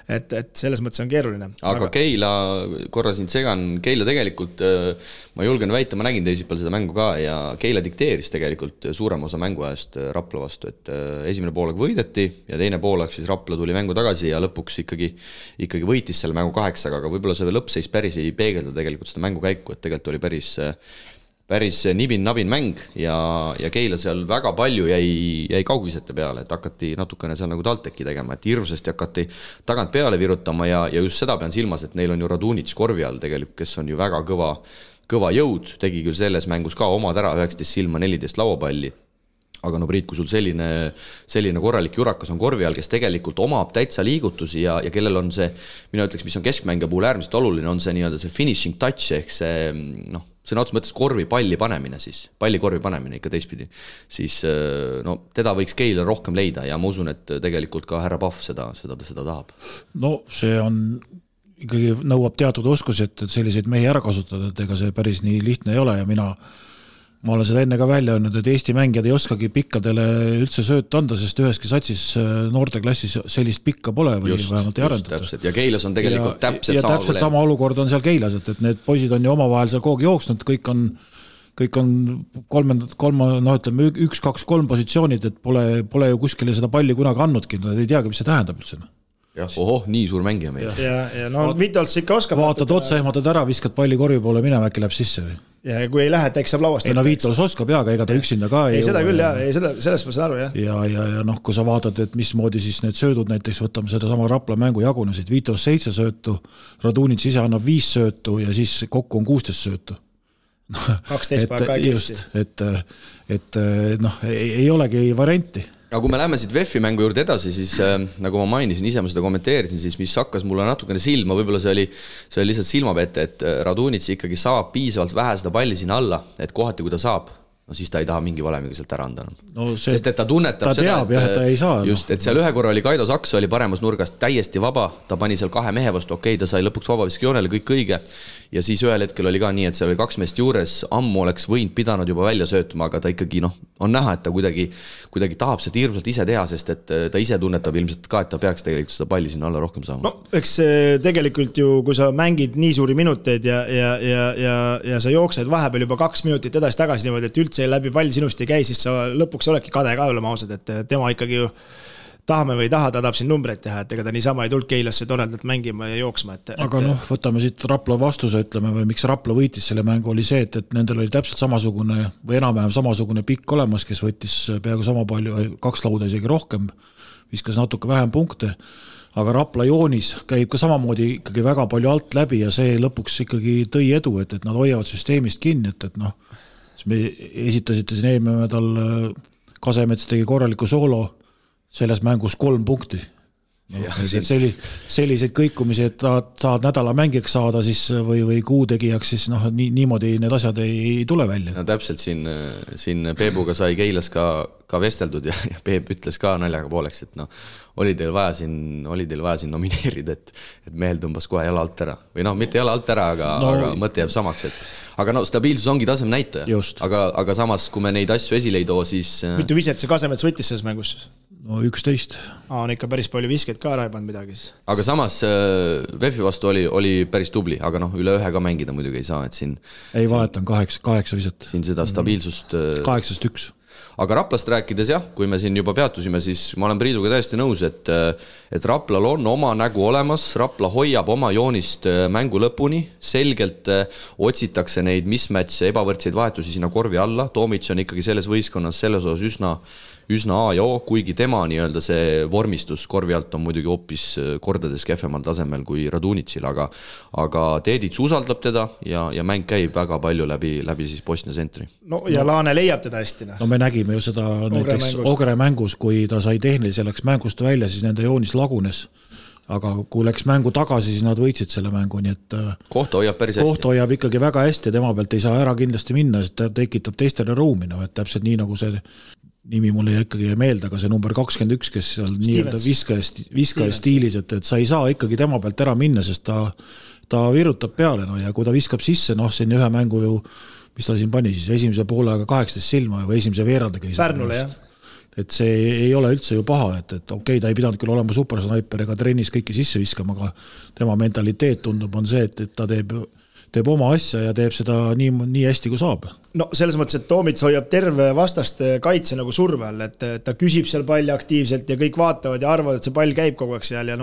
Et selles mõttes on keeruline. Aga Keila, korra siin segan, Keila tegelikult, ma julgen väita, ma nägin teisipäeval seda mängu ka ja Keila dikteeris tegelikult suurem osa mänguajast Rapla vastu, et esimene poolaeg võideti ja teine poolaeg siis Rapla tuli mängu tagasi ja lõpuks ikkagi võitis selle mängu 8, aga võib-olla see lõppseis päris ei peegelda tegelikult seda mängu käiku, et tegelikult oli päris nibin-nabin mäng ja Keila seal väga palju jäi kaugvisete peale, et hakati natukene seal nagu Talteki tegema, et hirmsasti hakati tagant peale virutama ja just seda pean silmas, et neil on ju Radunic korvi all tegelikult, kes on ju väga kõva jõud, tegi küll selles mängus ka omad ära 19 silma 14 lauapalli. Aga no Priit, kui sul selline korralik jurakas on korvi all, kes tegelikult omab täitsa liigutusi ja kellel on see, mina ütleks, mis on keskmängija puhul äärmiselt oluline, on see nii-öelda see finishing touch ehk see sõna otseses mõttes palli korvi panemine ikka teistpidi, siis teda võiks Keila rohkem leida ja ma usun, et tegelikult ka härra Pahv seda tahab. No see on ikkagi nõuab teatud oskusi, et selliseid mehi ära kasutada, et ega see päris nii lihtne ei ole ja ma olen seda enne ka välja öelnud, et Eesti mängijad ei oskagi pikkadele üldse sööta anda, sest üheski satsis noorteklassis sellist pikka pole või vähemalt ei arendata. Ja Keilas on tegelikult täpselt sama olukord on seal Keilas, et need poisid on ju omavahel seal kogu jooksnud, kõik on 1-2-3 positsioonid, et pole ju kuskile seda palli kunagi andnudki, nad ei teagi, mis see tähendab üldse. Nii suur mängija meil. Ja no Vitols ikka oskab. Vaatad otsa, ehmatad ära, viskad palli korvi poole minema, äkki läheb sisse. Ja kui ei lähe, eks saab lauast. Ei no Vitols oskab ega ta üksinda ka ei seda küll jah, sellest ma saan aru jah. Ja noh, kui sa vaatad, et mismoodi siis need söödud näiteks võtame seda sama Rapla mängu jagunesid, Vitols 7 söötu, Radunits ise annab 5 söötu ja siis kokku on 16 söötu. 12 päeva kiiresti. Et noh, ei olegi varianti. Aga kui me läheme siit VEF-i mängu juurde edasi, siis nagu ma mainisin, ise ma seda kommenteerisin, siis mis hakkas mulle natukene silma, võib-olla see oli lihtsalt silmapette, et Radunits ikkagi saab piisavalt vähe seda palli sinna alla, et kohati kui ta saab, no siis ta ei taha mingi valemiga sealt ära anda. Sest et ta tunnetab seda, ta ei saa, just, et seal ühe korra oli Kaido Saks oli paremas nurgast täiesti vaba, ta pani seal 2 mehe vastu, ta sai lõpuks vabaviskijoonele, kõik õige. Ja siis ühel hetkel oli ka nii, et seal oli 2 meest juures, ammu oleks võinud pidanud juba välja söötuma, aga ta ikkagi on näha, et ta kuidagi tahab seda hirmsalt ise teha, sest et ta ise tunnetab ilmselt ka, et ta peaks tegelikult seda palli sinna alla rohkem saama. No, eks tegelikult ju, kui sa mängid nii suuri minuteid ja sa jooksed vahepeal juba 2 minutit edasi-tagasi niimoodi, et üldse läbi pall sinust ei käi, siis sa lõpuks oledki kade ka olema ausad, et tema ikkagi ju tahame või ei taha, ta tahab siin numbreid teha, et ega ta niisama ei tulnud Keilasse toredalt mängima ja jooksma. Aga noh, võtame siit Rapla vastuse, ütleme, või miks Rapla võitis selle mängu oli see, et nendel oli täpselt samasugune või enam-vähem samasugune pikk olemas, kes võttis peaaegu sama palju, 2 lauda isegi rohkem, viskas natuke vähem punkte, aga Rapla joonis käib ka samamoodi ikkagi väga palju alt läbi ja see lõpuks ikkagi tõi edu, et nad hoiavad süsteemist kinni, et noh, me esitasite siin eelmine nädal Kasemets tegi korraliku soolo, selles mängus 3 punkti. Selliseid kõikumisi, et saad nädala mängijaks saada siis või kuutegijaks, siis niimoodi need asjad ei tule välja. No täpselt siin Peebuga sai Keilas ka vesteldud ja Peep ütles ka naljaga pooleks, et oli teil vaja siin nomineerida, et mehel tõmbas kohe jala alt ära. Või mitte jala alt ära, aga mõte jääb samaks, aga stabiilsus ongi tasem näitaja. Aga samas, kui me neid asju esile ei too, siis... Mitu viset see Kasemets võttis selles mängus? No 11. On ikka päris palju viskeid ka ära ei pannud midagi. Aga samas VEF-i vastu oli päris tubli, aga üle 1 ka mängida muidugi ei saa, et siin... Ei valetan, 8 viset. Siin seda stabiilsust... 8-1. Aga Raplast rääkides jah, kui me siin juba peatusime, siis ma olen Priiduga täiesti nõus, et Raplal on oma nägu olemas, Rapla hoiab oma joonist mängu lõpuni, selgelt otsitakse neid mismatche, ebavõrdseid vahetusi sinna korvi alla, Toomits on ikkagi selles võistkonnas selles osas üsna A ja O, kuigi tema nii-öelda see vormistus korvi alt on muidugi hoopis kordades kehvemal tasemel kui Radunitsil, aga Teedits usaldab teda ja mäng käib väga palju läbi siis Bosnia sentri. No ja Laane leiab teda hästi. No me nägime ju seda näiteks Ogre mängus, kui ta sai tehnilise, läks mängust välja, siis nende joonis lagunes. Aga kui läks mängu tagasi, siis nad võitsid selle mängu, nii et kohta hoiab päris hästi. Kohta hoiab ikkagi väga hästi, tema pealt ei saa ära kindlasti minna, sest ta tekitab teistele ruumi, et täpselt nii nagu see nimi mulle ikkagi meelde, aga see number 21, kes seal nii-öelda viskaja stiilis, et sa ei saa ikkagi tema pealt ära minna, sest ta virutab peale ja kui ta viskab sisse, siin ühe mängu ju, mis ta siin pani siis, esimese poolega 18 silma või esimese veerandega. Pärnule, jah. Et see ei ole üldse ju paha, et okei, ta ei pidanud küll olema supersnaiper ega trennis kõiki sisse viskama, aga tema mentaliteet tundub on see, et ta teeb oma asja ja teeb seda nii hästi kui saab. No selles mõttes, et Toomits hoiab terve vastaste kaitse nagu surve all, et ta küsib seal palli aktiivselt ja kõik vaatavad ja arvavad, et see pall käib kogu aeg seal ja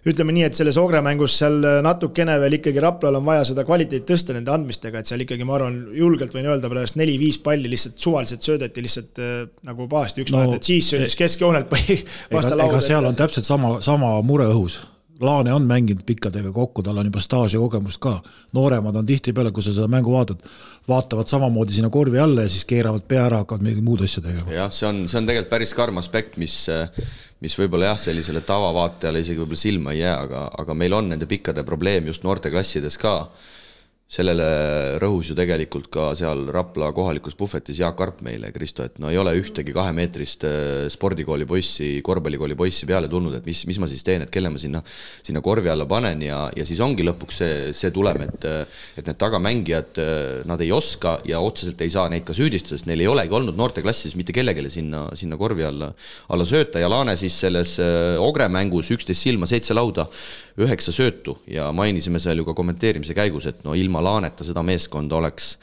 ütleme nii, et selles Ogre mängus seal natukene veel ikkagi Raplal on vaja seda kvaliteet tõsta nende andmistega, et seal ikkagi ma arvan julgelt võin öelda pärast 4-5 palli lihtsalt suvaliselt söödeti lihtsalt nagu pahasti üks vahet, et siis söödis keskjoonelt vasta lauda. Ega seal on täpselt sama mure õhus. Laane on mänginud pikkadega kokku, tal on juba staaž ja kogemust ka. Nooremad on tihti peale, kui sa seda mängu vaatavad samamoodi sinna korvi alla ja siis keeravad pea ära, hakkavad midagi muud asja tegema. Jah, see on tegelikult päris karm aspekt, mis võib-olla jah, sellisele tavavaatajale isegi võib-olla silma ei jää, aga meil on nende pikkade probleem just noorte klassides ka. sellele rõhus ju tegelikult ka seal Rapla kohalikus puhvetis Jaak Arp meile, Kristo, et no ei ole ühtegi 2-meetrist spordikooli poissi, korvpallikooli poissi peale tulnud, et mis ma siis teen, et kelle ma sinna korvi alla panen ja siis ongi lõpuks see tulem, et need tagamängijad, nad ei oska ja otseselt ei saa neid ka süüdistada, sest neil ei olegi olnud noorteklassis mitte kellegile sinna korvi alla sööta ja Laane siis selles Ogre mängus 11 silma, 7 lauda, 9 söötu ja mainisime seal ju ka kommenteerimise käigus, et no ilma Laaneta seda meeskonda oleks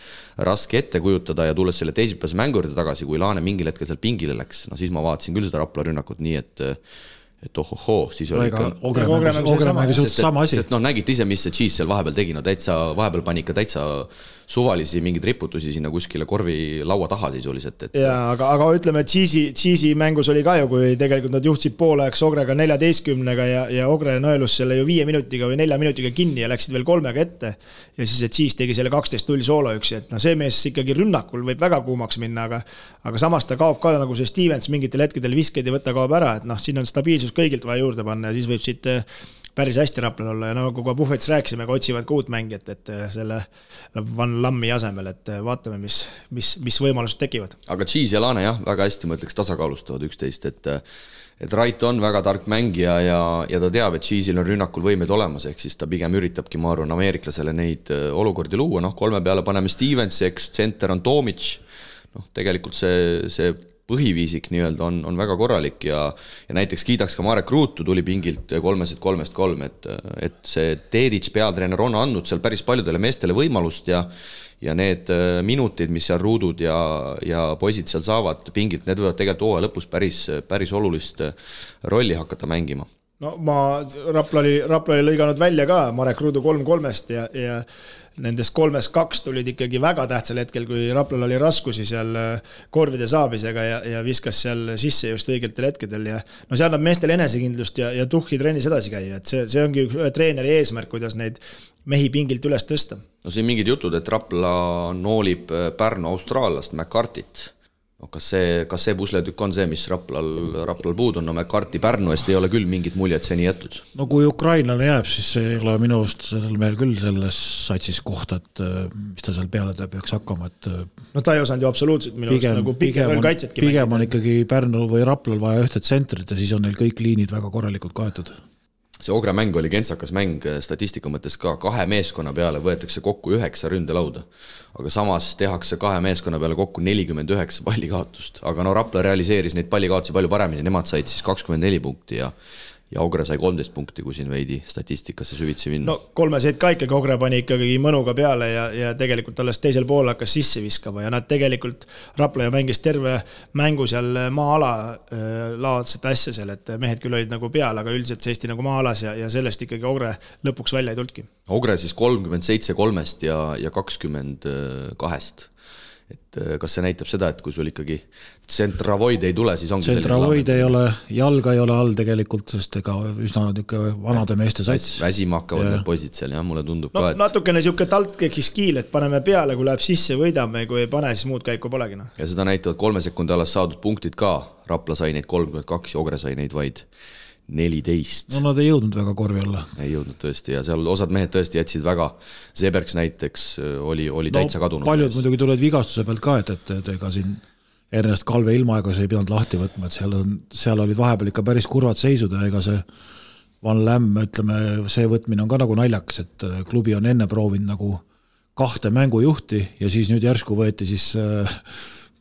raske ette kujutada ja tulles selle teisipäevase mängu juurde tagasi, kui Laane mingil hetkel seal pingile läks, no siis ma vaatasin küll seda Rapla rünnakut nii, et ohohoo, siis oli ikka Ogre mängi suht sama asi. Sest nägite ise, mis see Cheese seal vahepeal tegi, no vahepeal pani ikka täitsa suvalisi mingeid riputusi sinna kuskile korvi laua taha sisuliselt. Jaa, aga ütleme, et Cheese'i mängus oli ka ju, kui tegelikult nad juhtsid poolajaks Ogrega 14-ga ja Ogre nõelus selle ju 5 minutiga või 4 minutiga kinni ja läksid veel 3-ga ette. Ja siis, et Cheese tegi selle 12-0 sooloüksi, et see mees ikkagi rünnakul võib väga kuumaks minna, aga samas ta kaob ka nagu see Stevens mingitel hetkedel viskeid ja võtta kaob ära, et siin on stabiilsus kõigilt vaja juurde panna ja siis võib siit päris hästi Raplal olla ja nagu kui Puhvetis rääkisime, aga otsivad ka uut mängijat, et selle Van Lammi asemel, et vaatame, mis võimalused tekivad. Aga Cheese ja Laane jah, väga hästi ma ütleks tasakaalustavad üksteist, et Rait on väga tark mängija ja ta teab, et Cheese'il on rünnakul võimed olemas, ehk siis ta pigem üritabki, ma arvan, ameeriklasele neid olukordi luua, 3 peale paneme Stevens, eks center on Tomic, tegelikult see põhiviisik nii-öelda on väga korralik ja näiteks kiidaks ka Marek Ruutu tuli pingilt 3-3, et see Dedic peatreener on andnud seal päris paljudele meestele võimalust ja need minutid, mis seal Ruudud ja poisid seal saavad pingilt, need võivad tegelikult hooaja lõpus päris olulist rolli hakata mängima. No Rapla oli lõiganud välja ka Marek Ruudu 3-3-st ja nendest 3-2 tulid ikkagi väga tähtsal hetkel, kui Raplal oli raskusi seal korvide saabisega ja viskas seal sisse just õigetel hetkedel ja no see annab meestele enesekindlust ja tuhhi trennis edasi käia, et see ongi treeneri eesmärk, kuidas neid mehi pingilt üles tõsta. No siin mingid jutud, et Rapla noolib Pärnu austraallast McCartit. No, kas see pusletükk on see, mis Raplal puud on? No McCarti Pärnu eest ei ole küll mingit muljet seni jätud. No kui ukrainlane jääb, siis ei ole minu arust sellel mehel küll selles satsis kohta, et mis ta seal peale peaks hakkama. Et no ta ei osanud ju absoluutselt minu arust nagu pigem kaitsetki mängida. Pigem on ikkagi Pärnu või Raplal vaja ühte tsentrit ja siis on neil kõik liinid väga korralikult kaetud. See Ogre mäng oli kentsakas mäng statistika mõttes ka 2 meeskonna peale võetakse kokku 9 ründelauda, aga samas tehakse 2 meeskonna peale kokku 49 pallikaotust, aga Rapla realiseeris neid pallikaotusi palju paremini, nemad said siis 24 punkti ja Ogre sai 13 punkti, kui siin veidi statistikasse süvitsi minna. No 3 seid ka ikkagi Ogre pani ikkagi mõnuga peale ja tegelikult alles teisel pool hakkas sisse viskama ja nad tegelikult Rapla ja mängis terve mängu seal maa-ala laadset asja seal, et mehed küll olid nagu peal, aga üldiselt seisti nagu maa-alas ja sellest ikkagi Ogre lõpuks välja ei tulnudki. Ogre siis 37-3 ja 22. Et kas see näitab seda, et kui sul ikkagi tsentravoid ei tule, siis ongi tsentravoid ei ole, jalga ei ole all tegelikult, sest ega üsna vanade meeste sats. Väsima hakkavad need poisid seal, jah, mulle tundub ka, et natukene siuke taltkeks kiil, et paneme peale, kui läheb sisse, võidame, kui ei pane, siis muud käiku polegi. Ja seda näitavad 3 sekundi alas saadud punktid ka, Rapla sai neid 32 ja Ogre sai neid vaid 14. No nad ei jõudnud väga korvi alla. Ei jõudnud tõesti ja seal osad mehed tõesti jätsid väga, Sebergs näiteks oli täitsa kadunud. Paljud muidugi tulid vigastuse pealt ka, et ega siin Ernest Kalve ilmaaegas ei pidanud lahti võtma, et seal olid vahepeal ikka päris kurvad seisud ja ega see Van Lämm, ütleme, see võtmine on ka nagu naljakas, et klubi on enne proovinud nagu 2 mängujuhti ja siis nüüd järsku võeti siis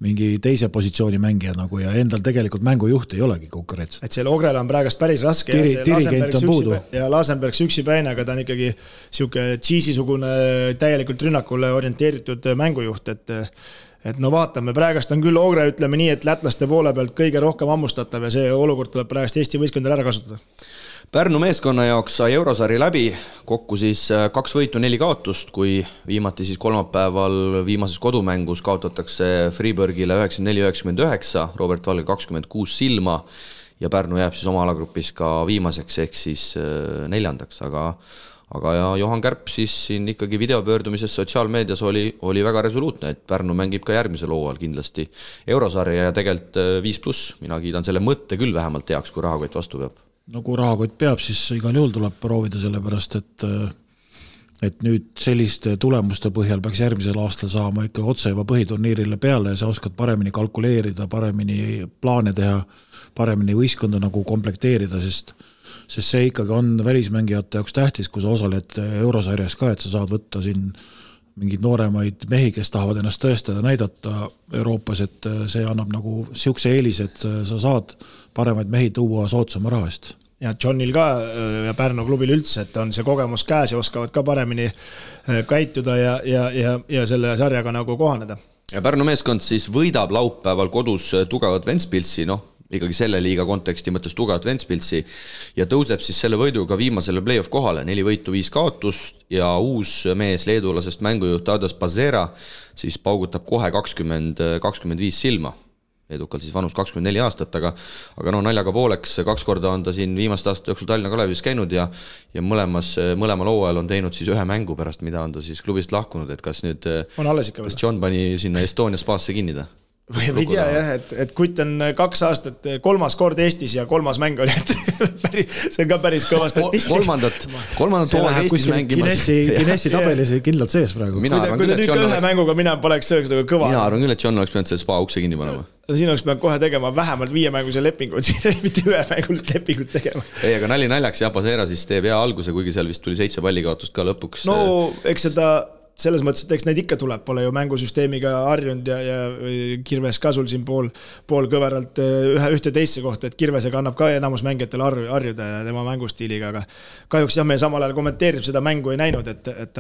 mingi teise positsiooni mängija nagu ja endal tegelikult mängujuht ei olegi konkurents. Et seal Ogrele on praegast päris raske dirigent on puudu. Ja Lasenberg üksipäine, aga ta on ikkagi siuke Cheese'i-sugune täielikult rünnakule orienteeritud mängujuht, et no vaatame, praegast on küll Ogre, ütleme nii, et lätlaste poole pealt kõige rohkem ammustatav ja see olukord tuleb praegast Eesti võistkondadel ära kasutada. Pärnu meeskonna jaoks sai Eurosari läbi, kokku siis 2 võitu, 4 kaotust, kui viimati siis kolmapäeval viimases kodumängus kaotatakse Freeburgile 94-99, Robert Valge 26 silma ja Pärnu jääb siis oma alagrupis ka viimaseks ehk siis 4. Aga ja Johan Kärp siis siin ikkagi videopöördumises sotsiaalmeedias oli väga resoluutne, et Pärnu mängib ka järgmisel hooajal kindlasti Eurosarja ja tegelikult 5+, mina kiidan selle mõtte küll vähemalt teaks, kui rahakott vastu peab. No kui rahakott peab, siis igal juhul tuleb proovida selle pärast, et nüüd selliste tulemuste põhjal peaks järgmisel aastal saama ikka otse juba põhiturniirile peale ja sa oskad paremini kalkuleerida, paremini plaane teha, paremini võistkonda nagu komplekteerida, sest see ikkagi on välismängijate jaoks tähtis, kui sa osaled eurosarjas ka, et sa saad võtta siin mingid nooremaid mehi, kes tahavad ennast tõestada, näidata Euroopas, et see annab nagu siukse eelis, et sa saad paremaid mehi tuua soodsama raha eest. Ja Johnil ka ja Pärnu klubil üldse, et on see kogemus käes ja oskavad ka paremini käituda ja selle sarjaga nagu kohaneda. Ja Pärnu meeskond siis võidab laupäeval kodus tugevat Ventspilsi, ikkagi selle liiga konteksti mõttes tugevat Ventspilsi ja tõuseb siis selle võiduga viimasele play-off kohale, 4 võitu, 5 kaotust ja uus mees leedulasest mängujuht Tadas Pazera siis paugutab kohe 20-25 silma. Edukalt siis vanus 24 aastat, aga naljaga pooleks 2 korda on ta siin viimast aastat jooksul Tallinna Kalevis käinud ja mõlemal hooajal on teinud siis 1 mängu pärast, mida on ta siis klubist lahkunud, et kas nüüd kas John pani sinna Estonia spaasse kinni ta? Või ei tea jah, et Kutt on 2 aastat 3. kord Eestis ja 3. mäng oli, et see on ka päris kõva statistika. Kolmandat hooaega Eestis mängimas. Guinessi tabelis kindlalt sees praegu. Kui ta nüüd ka 1 mänguga mina poleks sööks kõva. Mina arvan küll, et John oleks pidanud selle spa ukse kinni panema. Siin oleks pidanud kohe tegema vähemalt 5 mänguse lepingut, mitte 1 mängulist lepingut tegema. Ei, aga naljaks ja Pazera siis teeb hea alguse, kuigi seal vist tuli 7 pallikaotust ka lõpuks. No, eks seda selles mõttes, et eks neid ikka tuleb, pole ju mängusüsteemiga harjunud ja Kirves ka sul siin pool kõveralt ühte teisse kohta, et Kirvesega annab ka enamus mängijatel harjuda ja tema mängustiiliga, aga kahjuks jah, me samal ajal kommenteerib seda mängu ei näinud,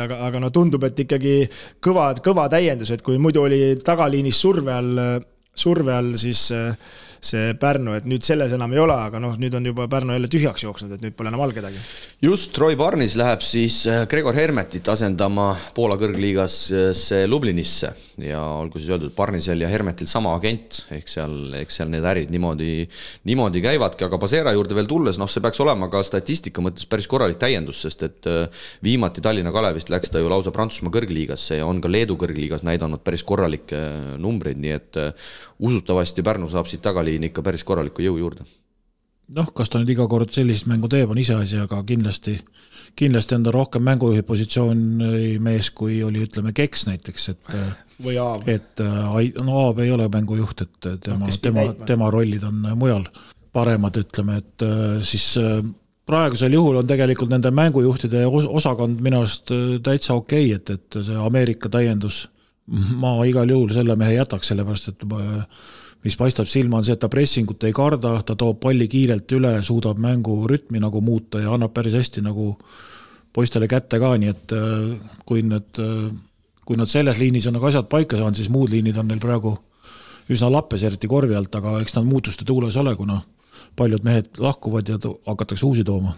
aga tundub, et ikkagi kõva täiendus, et kui muidu oli tagaliinis surve all siis see Pärnu, et nüüd selles enam ei ole, aga nüüd on juba Pärnu jälle tühjaks jooksnud, et nüüd pole enam all kedagi. Just Roy Barnis läheb siis Gregor Hermetit asendama Poola kõrgliigas Lublinisse ja olgu siis öeldud Barnisel ja Hermetil sama agent, ehk seal need ärid niimoodi käivadki, aga Pazera juurde veel tulles, see peaks olema ka statistika mõttes päris korralik täiendus, sest et viimati Tallinna Kalevist läks ta ju lausa Prantsusmaa kõrgliigasse ja on ka Leedu kõrgliigas näidanud päris korralikke numbreid, nii et usutavasti Pärnu saab siit tagaliin ikka päris korraliku jõu juurde. Kas ta nüüd iga kord sellist mängu teeb, on iseasi, aga kindlasti on ta rohkem mängujuhi positsiooni mees, kui oli, ütleme, Keks näiteks, või Aab. Aab ei ole mängujuht, et tema rollid on mujal paremad, ütleme, et siis praegusel juhul on tegelikult nende mängujuhtide osakond minu arust täitsa okei, et see Ameerika täiendus, ma igal juhul selle mehe jätaks, sellepärast, et mis paistab silma on see, et ta pressingut ei karda, ta toob palli kiirelt üle, suudab mängu rütmi nagu muuta ja annab päris hästi nagu poistele kätte ka, nii et kui nad selles liinis on nagu asjad paika saanud, siis muud liinid on neil praegu üsna lappes, eriti korvi alt, aga eks nad muutuste tuules ole, kuna paljud mehed lahkuvad ja hakatakse uusi tooma.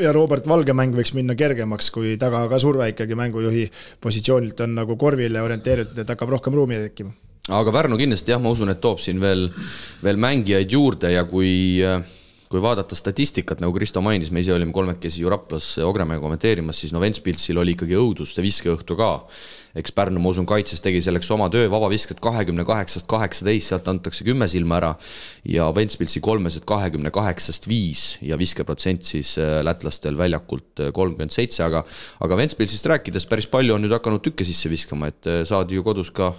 Ja Robert Valge mäng võiks minna kergemaks, kui taga ka surve ikkagi mängujuhi positsioonilt on nagu korvile orienteeritud, et hakkab rohkem ruumi tekkima. Aga Pärnu kindlasti jah, ma usun, et toob siin veel mängijaid juurde ja kui vaadata statistikat, nagu Kristo mainis, me ise olime 3 ju Raplas Ogremäe kommenteerimas, siis Ventspilsil oli ikkagi õudus see viskeõhtu ka. Eks Pärnu, ma usun, kaitses tegi selleks oma töö, vabavisked 28-18, sealt antakse 10 silma ära ja Ventspilsi 3-sed 28-5 ja viskeprotsent siis lätlastel väljakult 37, aga Ventspilsist rääkides päris palju on nüüd hakanud tükke sisse viskama, et saadi ju kodus ka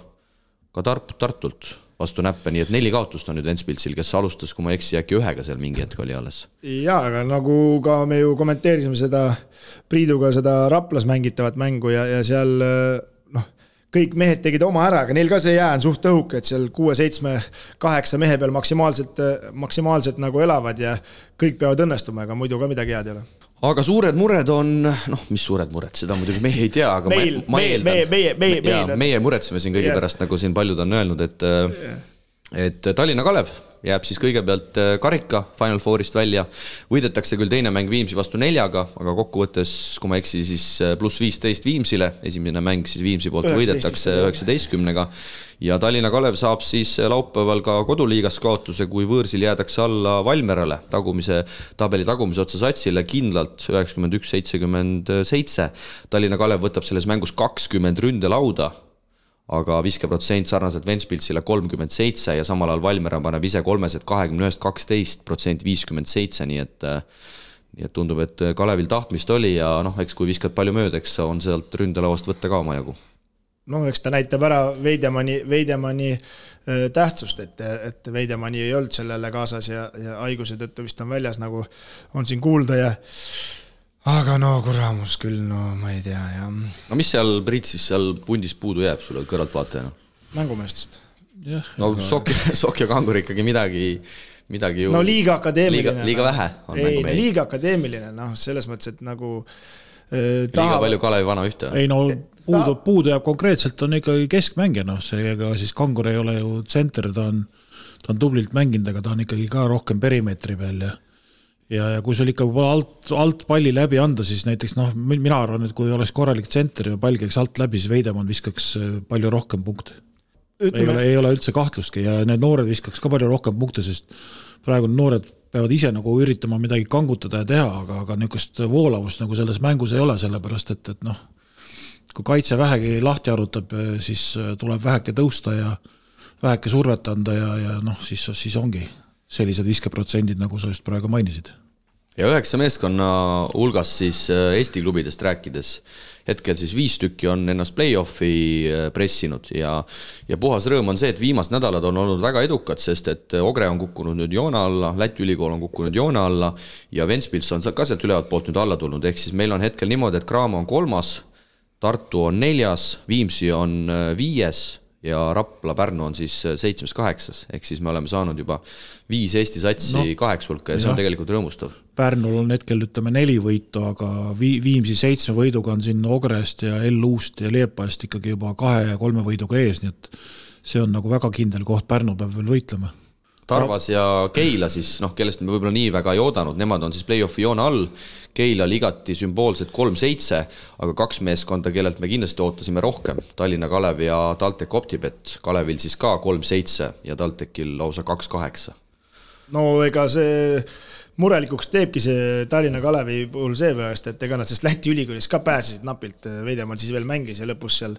Tartult vastu näppe, nii et 4 kaotust on nüüd Ventspilsil, kes alustas, kui ma eksi, äkki 1 seal mingi hetk oli alles. Jaa, aga nagu ka me ju kommenteerisime seda Priiduga seda Raplas mängitavat mängu ja seal kõik mehed tegid oma ära, aga neil ka see jää on suht õhuk, et seal 6, 7, 8 mehe peal maksimaalselt nagu elavad ja kõik peavad õnnestuma, aga muidu ka midagi head ei ole. Aga suured mured on, mis suured mured, seda muidugi meie ei tea, aga ma eeldan. Meie muretseme siin kõige pärast, nagu siin paljud on öelnud, et Tallinna Kalev jääb siis kõigepealt karika Final Fourist välja. Võidetakse küll teine mäng Viimsi vastu 4, aga kokkuvõttes, kui ma eksi, siis +15 Viimsile. Esimene mäng siis Viimsi poolt võidetakse 19-ga. Ja Tallinna Kalev saab siis laupäeval ka koduliigas kaotuse, kui võõrsil jäädakse alla Valmerale tabeli tagumise otsa satsile kindlalt 91-77. Tallinna Kalev võtab selles mängus 20 ründelauda, aga viskeprotsent sarnaselt Ventspilsile 37 ja samal ajal Valmera paneb ise 3-sed 21-12%, 57, nii et tundub, et Kalevil tahtmist oli ja noh, eks kui viskad palju mööda, eks on sealt ründelauast võtta ka oma jagu. No eks ta näitab ära Veidemanni tähtsust, et Veidemanni ei olnud sellele kaasas ja haiguse tõttu vist on väljas, nagu on siin kuulda ja aga no kuramus küll, no ma ei tea ja... No mis seal, Priit, siis seal pundis puudu jääb sulle kõrvaltvaatajana? Mängumeestest. No Sokk ja Kangur ikkagi midagi ju... No liiga akadeemiline. Liiga vähe on mängumehi. Liiga akadeemiline, noh, selles mõttes, et nagu... Liiga palju Kalevi vana ühte. Ei no puudu jääb konkreetselt, on ikkagi keskmängija, noh, seega siis Kangur ei ole ju tsenter, ta on tublilt mänginud, aga ta on ikkagi ka rohkem perimeetri peal ja kui sul ikka alt palli läbi anda, siis näiteks noh, mina arvan, et kui oleks korralik tsenter ja pall käiks alt läbi, siis Veidemann viskaks palju rohkem punkte. Ei ole üldse kahtlustki ja need noored viskaks ka palju rohkem punkte, sest praegu noored peavad ise nagu üritama midagi kangutada ja teha, aga niisugust voolavust nagu selles mängus ei ole, sellepärast et noh, kui kaitse vähegi lahti arutab, siis tuleb väheke tõusta ja väheke survet anda ja noh, siis ongi sellised viskeprotsendid, nagu sa just praegu mainisid. Ja 9 meeskonna hulgas siis Eesti klubidest rääkides, hetkel siis 5 tükki on ennast play-offi pressinud ja puhas rõõm on see, et viimased nädalad on olnud väga edukad, sest et Ogre on kukkunud nüüd joone alla, Läti ülikool on kukkunud joone alla ja Ventspils on ka sealt ülevalt poolt nüüd alla tulnud, ehk siis meil on hetkel niimoodi, et Graamo on 3, Tartu on 4, Viimsi on 5 ja Rapla Pärnu on siis 7-8, ehk siis me oleme saanud juba 5 Eesti satsi 8 hulka ja see on tegelikult rõõmustav. Pärnul on hetkel, ütleme, 4 võitu, aga Viimsi 7 võiduga on siin Ogrest ja L-Uust ja Leepaest ikkagi juba 2 ja 3 võiduga ees, nii et see on nagu väga kindel koht, Pärnu peab veel võitlema. Tarvas ja Keila siis, noh, kellest me võib-olla nii väga ei oodanud, nemad on siis play-offi joone all, Keila ligati sümboolselt 3-7, aga 2 meeskonda, kellelt me kindlasti ootasime rohkem, Tallinna Kalev ja TalTech Optibet, Kalevil siis ka 3-7 ja TalTechil lausa 2-8. No ega see murelikuks teebki see Tallinna Kalevi puhul seepärast, et ega nad sest Läti ülikoolis ka pääsesid napilt, Veidemann siis veel mängis ja lõpus seal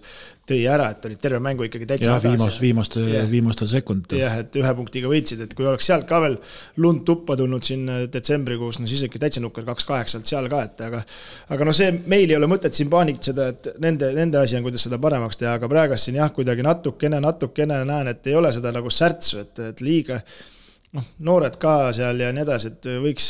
tõi ära, et olid terve mängu ikkagi täitsa viimastel sekundil. Jah, et 1 punktiga võitsid, et kui oleks sealt ka veel lund tuppa tulnud siin detsembrikuus, no siis ikka täitsa nukker 2-8 seal ka, et aga no see meil ei ole mõtet siin paanikseda, et nende asi on, kuidas seda paremaks teha, aga praegast siin jah, kuidagi natukene näen, et ei ole seda nagu särtsu, et liiga noored ka seal ja nii edasi, et võiks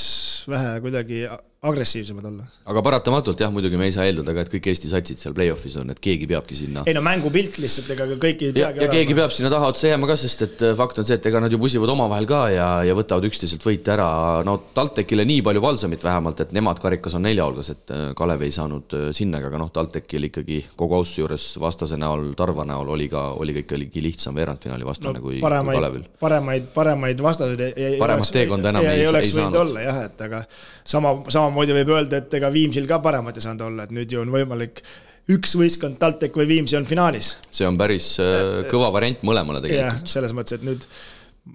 vähe kuidagi agressiivsemad olla. Aga paratamatult jah, muidugi me ei saa eeldada ka, et kõik Eesti satsid seal play-offis on, et keegi peabki sinna. Ei no mängupilt lihtsalt, ega kõik ei peagi ja keegi peab sinna taha otsa jääma ka, sest et fakt on see, et ega nad ju pusivad omavahel ka ja võtavad üksteiselt võite ära. No TalTechile nii palju valsamit vähemalt, et nemad karikas on 4 hulgas, et Kalev ei saanud sinna, aga noh, TalTechil ikkagi kogu ausse juures vastase näol, Tarva näol oli ka ikkagi lihtsam veerandfinaali vastane kui Kalevil. Paremaid vastaseid paremat teekonda enam ei saanud olla, jah, et aga samamoodi võib öelda, et ega Viimsil ka paremat ei saanud olla, et nüüd ju on võimalik üks võistkond TalTech või Viimsi on finaalis. See on päris kõva variant mõlemale tegelikult. Jah, selles mõttes, et nüüd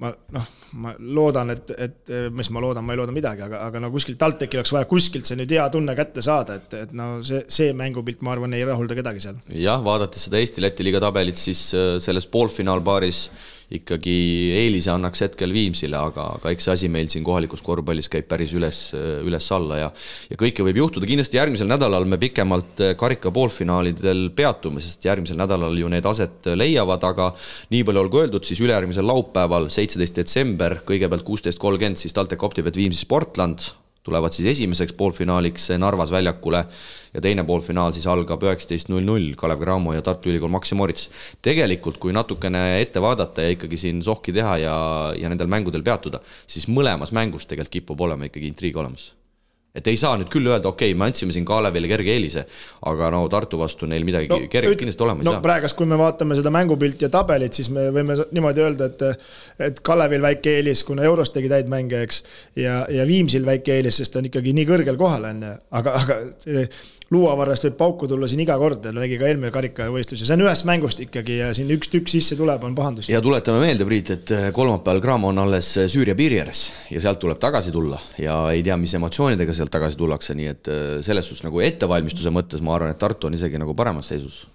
ma loodan, et mis ma ei looda midagi, aga no kuskilt TalTechil oleks vaja kuskilt see nüüd hea tunne kätte saada, et no see mängupilt, ma arvan, ei rahulda kedagi seal. Jah, vaadates seda Eesti-Läti liiga tabelit, siis selles poolfinaalpaaris ikkagi eelise annaks hetkel Viimsile, aga eks see asi meil siin kohalikus korvpallis käib päris üles alla ja kõike võib juhtuda. Kindlasti järgmisel nädalal me pikemalt karika poolfinaalidel peatume, sest järgmisel nädalal ju need aset leiavad, aga nii palju olgu öeldud, siis ülejärgmisel laupäeval 17. detsember, kõigepealt 16.30 siis TalTech Optibet Viimsi Sportland tulevad siis esimeseks poolfinaaliks Narvas väljakule ja teine poolfinaal siis algab 19.00 Kalev Cramo ja Tartu Ülikool Maxima Moritz. Tegelikult, kui natukene ette vaadata ja ikkagi siin sohki teha ja nendel mängudel peatuda, siis mõlemas mängus tegelikult kipub olema ikkagi intriig olemas. Et ei saa nüüd küll öelda, okei, me andsime siin Kalevile kerge eelise, aga no Tartu vastu neil midagi kerge kindlasti olema ei saa. Praegast, kui me vaatame seda mängupilti ja tabelit, siis me võime niimoodi öelda, et Kalevil väike eelis, kuna Euros tegi täid mänge, eks, ja Viimsil väike eelis, sest ta on ikkagi nii kõrgel kohal, aga luuavarast võib pauku tulla siin iga kord, nägi ka eelmine karikavõistlus ja see on ühest mängust ikkagi ja siin üks tükk sisse tuleb, on pahandus. Ja tuletame meelde, Priit, et kolmapäeval Cramo on alles Süüria piiri ääres ja sealt tuleb tagasi tulla ja ei tea, mis emotsioonidega sealt tagasi tullakse, nii et selles suhtes nagu ettevalmistuse mõttes ma arvan, et Tartu on isegi nagu paremas seisus.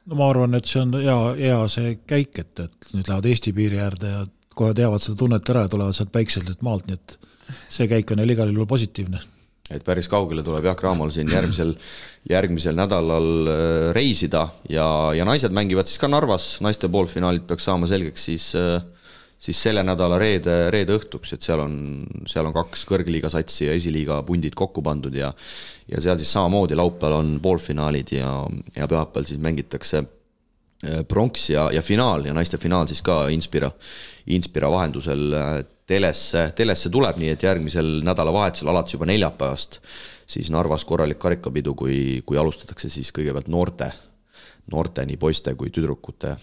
No ma arvan, et see on hea see käik, et nüüd lähevad Eesti piiri äärde ja kohe teavad seda tunnet ära ja tulevad sealt päikselt maalt, nii et see käik on igal juhul positiivne. et päris kaugele tuleb Jaak Raamol siin järgmisel nädalal reisida ja naised mängivad siis ka Narvas, naiste poolfinaalid peaks saama selgeks siis selle nädala reede õhtuks, et seal on 2 kõrgliiga satsi ja esiliiga pundid kokku pandud ja seal siis samamoodi laupäeval on poolfinaalid ja pühapäeval siis mängitakse pronks ja finaal ja naiste finaal siis ka Inspira vahendusel telesse tuleb, nii et järgmisel nädalavahetusel alates juba neljapäevast siis Narvas korralik karikapidu, kui alustatakse siis kõigepealt noorte nii poiste kui tüdrukute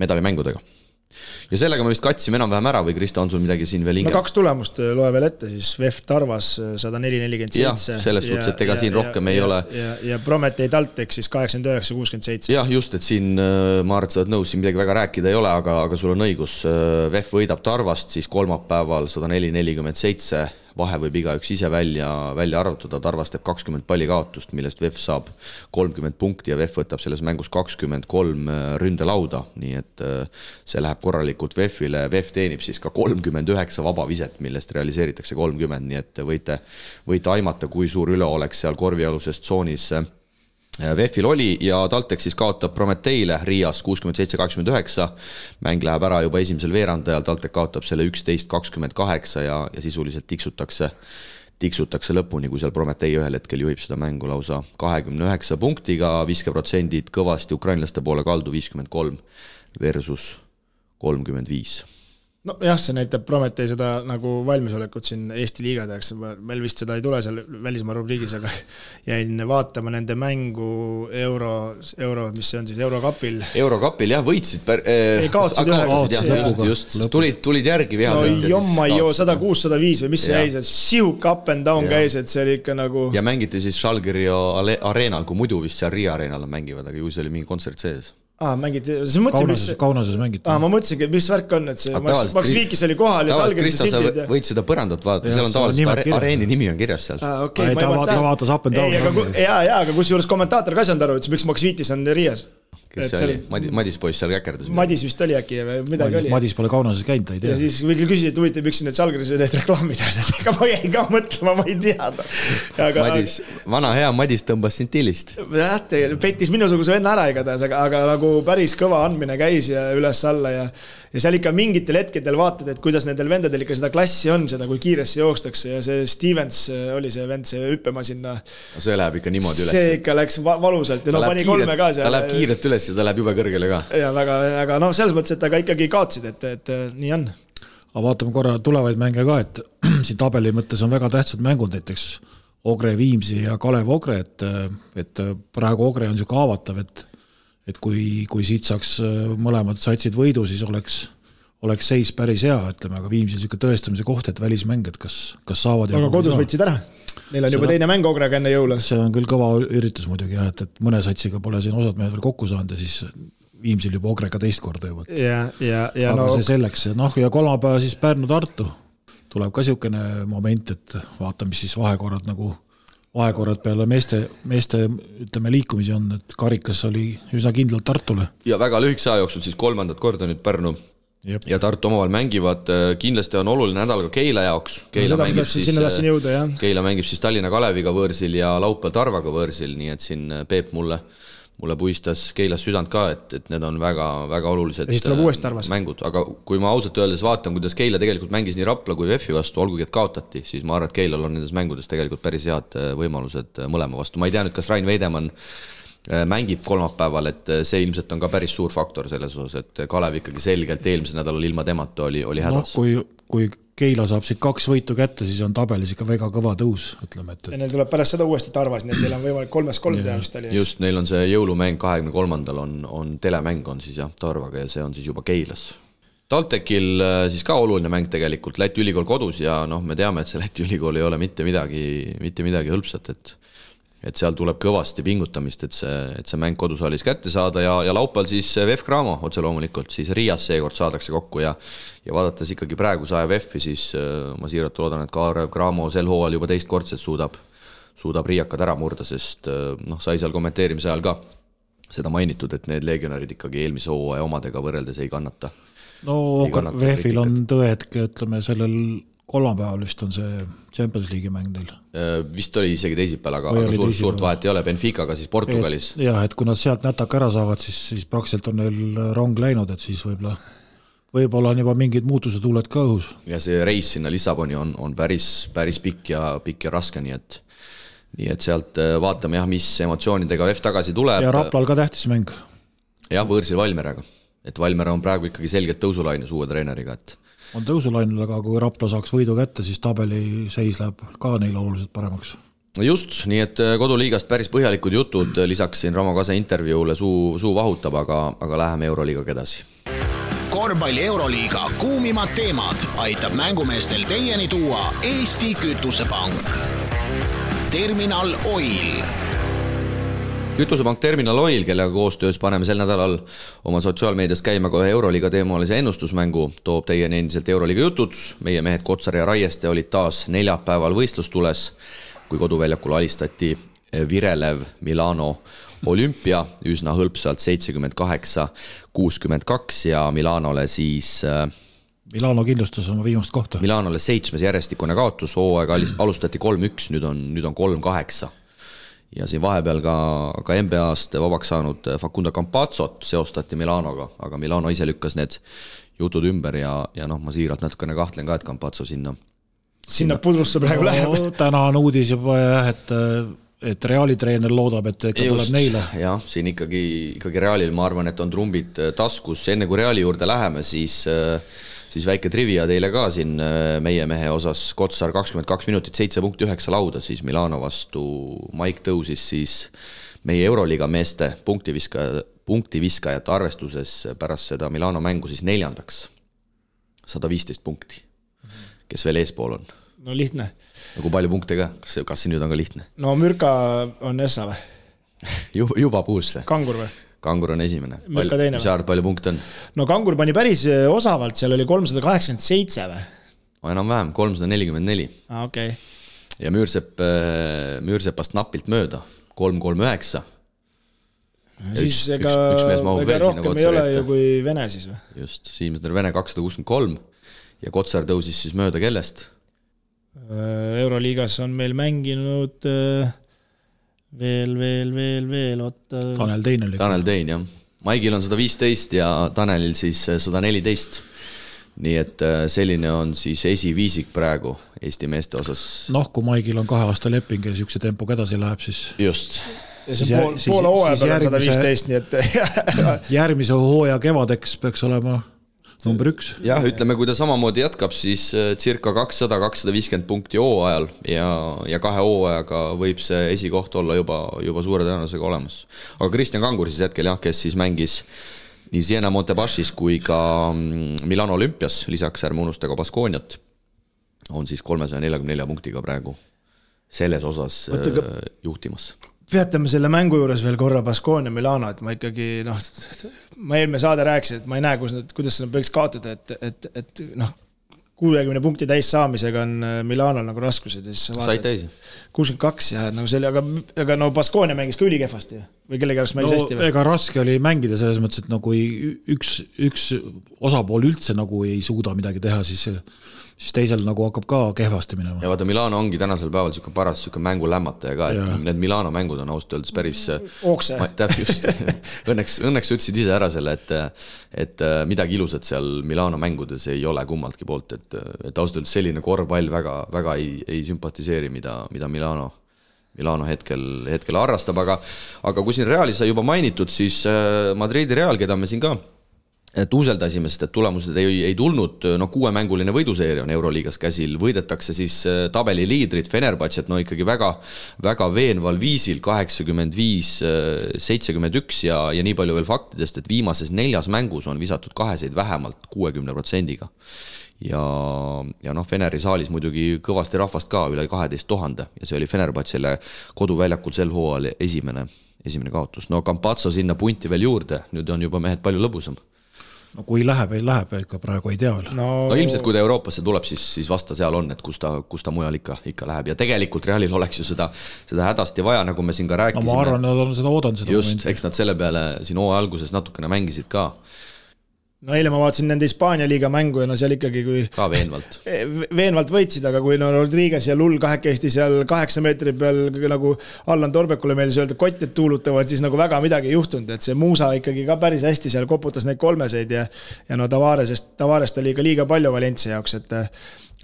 medalimängudega. Ja sellega me vist katsime enam-vähem ära või Krista, on sul midagi siin veel hingel? No 2 tulemust loe veel ette, siis VEF Tarvas 104-47. Jah, selles suhtes, et ega siin rohkem ei ole. Ja Prometee Taltek siis 89-67. Jah, just, et siin ma arvan, et sa oled nõus, siin midagi väga rääkida ei ole, aga sul on õigus. VEF võidab Tarvast siis kolmapäeval 104-47. Vahe võib igaüks ise välja arvutada, Tarvas teeb 20 palli kaotust, millest VEF saab 30 punkti ja VEF võtab selles mängus 23 ründelauda, nii et see läheb korralikult VEF-ile. VEF teenib siis ka 39 vabaviset, millest realiseeritakse 30, nii et võite aimata, kui suur üle oleks seal korvialuses tsoonis VEF-il oli ja Taltek siis kaotab Prometeile Riias 67-89. Mäng läheb ära juba esimesel veerandajal, Taltek kaotab selle 11-28 ja sisuliselt tiksutakse lõpuni, kui seal Prometei ühel hetkel juhib seda mängu lausa 29 punktiga, viskeprotsendid kõvasti ukrainlaste poole kaldu 53 versus 35. No jah, see näitab Prometei seda nagu valmisolekut siin Eesti liiga tehakse, meil vist seda ei tule seal välismaa rubriigis, aga jäin vaatama nende mängu euro, mis see on siis Eurokapil. Eurokapil jah, võitsid. Ei kaotsid just, tulid järgi vihaselt. No jomma jo, 106-105 või mis see jäi, sihuk up and down käis, et see oli ikka nagu... Ja mängiti siis Žalgirio areenal, kui muidu vist seal Riia areenal mängivad, aga ju see oli mingi kontsert sees. Mängiti, Kaunases mängiti. Ma mõtlesingi, mis värk on, et see Max Viikis oli kohal ja Salgeris sildid. Võid seda põrandat vaadata, seal on tavaliselt areeni nimi on kirjas seal. Ta vaatas up and down. Aga kus juures kommentaator ka saanud aru, et miks Max Viitis on Riias. Kes see oli? Madis poiss seal käkerdas. Madis vist oli äkki või midagi oli. Madis pole Kaunases käinud, ta ei tea. Ja siis võiks küsida, et huvitav, miks need Salgeris need reklaamid on. Ega ma jäin ka mõtlema, ma ei tea. Vana hea Madis tõmbas sintillist. Petis minusuguse venna ära igatahes, aga nagu päris kõva andmine käis ja üles alla ja seal ikka mingitel hetkedel vaatad, et kuidas nendel vendadel ikka seda klassi on, seda kui kiiresti jookstakse ja see Stevens oli see vend, see hüppema sinna. No see läheb ikka niimoodi üles. See ikka läks valusalt ja pani 3 ka seal. Ta läheb kiirelt üles ja ta läheb jube kõrgele ka. Ja väga selles mõttes, et ta ka ikkagi kaotsid, et nii on. Aga vaatame korra tulevaid mänge ka, et siin tabeli mõttes on väga tähtsad mängud, näiteks Ogre Viimsi ja Kalev Ogre, et praegu Ogre on siuke haavatav, et kui siit saaks mõlemad satsid võidu, siis oleks seis päris hea, ütleme, aga Viimsi on siuke tõestamise koht, et välismäng, et kas saavad. Aga kodus võtsid ära? Neil on juba teine mäng Ogrega enne jõule. See on küll kõva üritus muidugi, et mõne satsiga pole siin osad mehed veel kokku saanud ja siis Viimsil juba Ogrega teist korda juba. Aga see selleks. Ja kolmapäeva siis Pärnu-Tartu tuleb ka siukene moment, et vaatame, mis siis vahekorrad peale meeste ütleme liikumisi on, et karikas oli üsna kindlalt Tartule. Ja väga lühikese aja jooksul siis 3. korda nüüd Pärnu ja Tartu omavahel mängivad. Kindlasti on oluline nädal ka Keila jaoks. Keila mängib siis Tallinna Kaleviga võõrsil ja laupäeval Tarvaga võõrsil, nii et siin Peep mulle puistas Keilas südant ka, et need on väga, väga olulised mängud. Aga kui ma ausalt öeldes vaatan, kuidas Keila tegelikult mängis nii Rapla kui VEF-i vastu, olgugi et kaotati, siis ma arvan, et Keilal on nendes mängudes tegelikult päris head võimalused mõlema vastu. Ma ei tea nüüd, kas Rain Veidemann mängib kolmapäeval, et see ilmselt on ka päris suur faktor selles osas, et Kalev ikkagi selgelt eelmisel nädalal ilma temata oli hädas. Kui Keila saab siit 2 võitu kätte, siis on tabelis ikka väga kõva tõus, ütleme. Ja neil tuleb pärast seda uuesti Tarvas, nii et neil on võimalik 3-3 teha vist oli. Just, neil on see jõulumäng 23. on telemäng on siis jah Tarvaga ja see on siis juba Keilas. Taltekil siis ka oluline mäng tegelikult, Läti ülikool kodus ja me teame, et see Läti ülikool ei ole mitte midagi hõlpsat, et seal tuleb kõvasti pingutamist, et see mäng kodusaalis kätte saada ja laupäeval siis VEF Cramo otse loomulikult, siis Riias seekord saadakse kokku ja vaadates ikkagi praegu saja VEF-i, siis ma siiralt loodan, et Kalev Cramo sel hooajal juba teistkordselt suudab riiakad ära murda, sest sai seal kommenteerimise ajal ka seda mainitud, et need legionärid ikkagi eelmise hooaja omadega võrreldes ei kannata. VEF-il on tõetke, ütleme sellel kolmapäeval vist on see Champions League'i mäng neil. Vist oli isegi teisipäeval, aga suurt vahet ei ole, Benficaga siis Portugalis. Jah, et kui nad sealt nätaka ära saavad, siis praktiliselt on neil rong läinud, et siis võib-olla on juba mingid muutused tuuled ka õhus. Ja see reis sinna Lissaboni on päris pikk ja raske, nii et sealt vaatame jah, mis emotsioonidega VEF tagasi tuleb. Ja Raplal ka tähtis mäng. Ja võõrsil Valmeraga, et Valmera on praegu ikkagi selgelt tõusulainus uue treeneriga, et on tõusulainul, aga kui Rapla saaks võidu kätte, siis tabeli seis läheb ka neil oluliselt paremaks. Just, nii et koduliigast päris põhjalikud jutud, lisaks siin Ramo Kase intervjuule suu vahutab, aga läheme Euroliigaga edasi. Korvpalli Euroliiga kuumimad teemad aitab mängumeestel teieni tuua Eesti Kütusepank. Terminal Oil. Kütusepank Terminal Oil, kellega koostöös paneme sel nädalal oma sotsiaalmeedias käima kohe Euroliiga teemalise ennustusmängu, toob teieni endiselt Euroliiga jutud. Meie mehed Kotsar ja Raieste olid taas neljapäeval võistlustules, kui koduväljakul alistati Virelev Milano Olümpia üsna hõlpsalt 78-62 ja Milanole siis Milano kindlustas oma viimast kohta. Milanole 7. järjestikune kaotus, hooaega alustati 3-1, nüüd on 3-8. Ja siin vahepeal ka NBA-st vabaks saanud Facundo Campazzot seostati Milanoga, aga Milano ise lükkas need jutud ümber ja ma siiralt natukene kahtlen ka, et Campazzo sinna pudrusse praegu läheb. Täna on uudis juba jah, et Reali treener loodab, et tuleb neile. Jah, siin ikkagi Realil ma arvan, et on trumbid taskus. Enne kui Reali juurde läheme, siis väike trivia teile ka siin meie mehe osas. Kotsar 22 minutit, 7.9 lauda, siis Milano vastu Maik tõusis siis meie Euroliiga meeste punktiviskajate arvestuses pärast seda Milano mängu siis 4. 115 punkti, kes veel eespool on. No lihtne. Nagu palju punkte ka, kas see nüüd on ka lihtne? No Mürka on Essa või? juba puusse. Kangur või? Kangur on esimene. Mürka teine või? Mis arvad, palju punkte on? No Kangur pani päris osavalt, seal oli 387 või? Enam-vähem, 344. Okay. Ja Müürsepast napilt mööda, 339. Siis ega rohkem ei ole ju kui Vene siis või? Just, Siimsner Vene 263 ja Kotsar tõusis siis mööda kellest? Euroliigas on meil mänginud veel Tanel Tein oli. Tanel Tein, jah. Maigil on 115 ja Tanelil siis 114. Nii et selline on siis esiviisik praegu Eesti meeste osas. Kui Maigil on 2 aasta leping ja niisuguse tempoga edasi läheb, siis just. Ja see poole hooaja peal on 115, nii et järgmise hooaja kevadeks peaks olema number 1. Jah, ütleme, kui ta samamoodi jätkab, siis circa 200-250 punkti hooajal ja 2 hooajaga võib see esikoht olla juba suure tõenäosusega olemas. Aga Kristjan Kangur siis hetkel, jah, kes siis mängis nii Siena Montebashis kui ka Milano Olümpias, lisaks ärme unustaga Baskooniat, on siis 344 punktiga praegu selles osas juhtimas. Peatame selle mängu juures veel korra Baskonia Milano, et ma ikkagi, ma eelmine saade rääkisin, et ma ei näe, kuidas seda võiks kaotada, et 60 punkti täis saamisega on Milanol nagu raskused. Said täisi? 62 ja see oli, aga Baskonia mängis ka ülikehvasti või kellega oleks mängis hästi? Ega raske oli mängida selles mõttes, et kui üks osapool üldse ei suuda midagi teha, siis teisel hakkab ka kehvasti minema. Ja vaata, Milano ongi tänasel päeval paras mängu lämmataja ka, et need Milano mängud on ausalt öeldes päris Ookse. Just, õnneks ütlesid ise ära selle, et midagi ilusat seal Milano mängudes ei ole kummaltki poolt, et ausalt öeldes selline korvpall väga ei sümpatiseeri, mida Milano hetkel harrastab, aga kui siin Realis sai juba mainitud, siis Madridi Real, keda me siin ka tuuseldasime, sest et tulemused ei tulnud, 6-mänguline võiduseeria on Euroliigas käsil, võidetakse siis tabeli liidrid Fenerbahcet, ikkagi väga veenval viisil 85-71 ja nii palju veel faktidest, et viimases 4 mängus on visatud 2 vähemalt 60%-ga. Ja Feneri saalis muidugi kõvasti rahvast ka, üle 12 000 ja see oli Fenerbahcele koduväljakul sel hooajal esimene kaotus. Campazzo sinna punti veel juurde, nüüd on juba mehed palju lõbusam. Kui läheb, ikka praegu ei tea veel. Ilmselt kui ta Euroopasse tuleb, siis vasta seal on, et kus ta mujal ikka läheb. Ja tegelikult Realil oleks ju seda hädasti vaja, nagu me siin ka rääkisime. Ma arvan, nad on seda oodanud. Just, eks nad selle peale siin hooaja alguses natukene mängisid ka. no eile ma vaatasin nende Hispaania liiga mängu ja no seal ikkagi kui ka veenvalt võitsid, aga kui no Rodriguez ja Lull kahekesti seal 8 meetri peal nagu Allan Torbekule meil öelda kotted tuulutavad, siis nagu väga midagi ei juhtunud, et see Muusa ikkagi ka päris hästi seal koputas neid kolmeseid ja no Tavarest oli ka liiga palju Valencia jaoks, et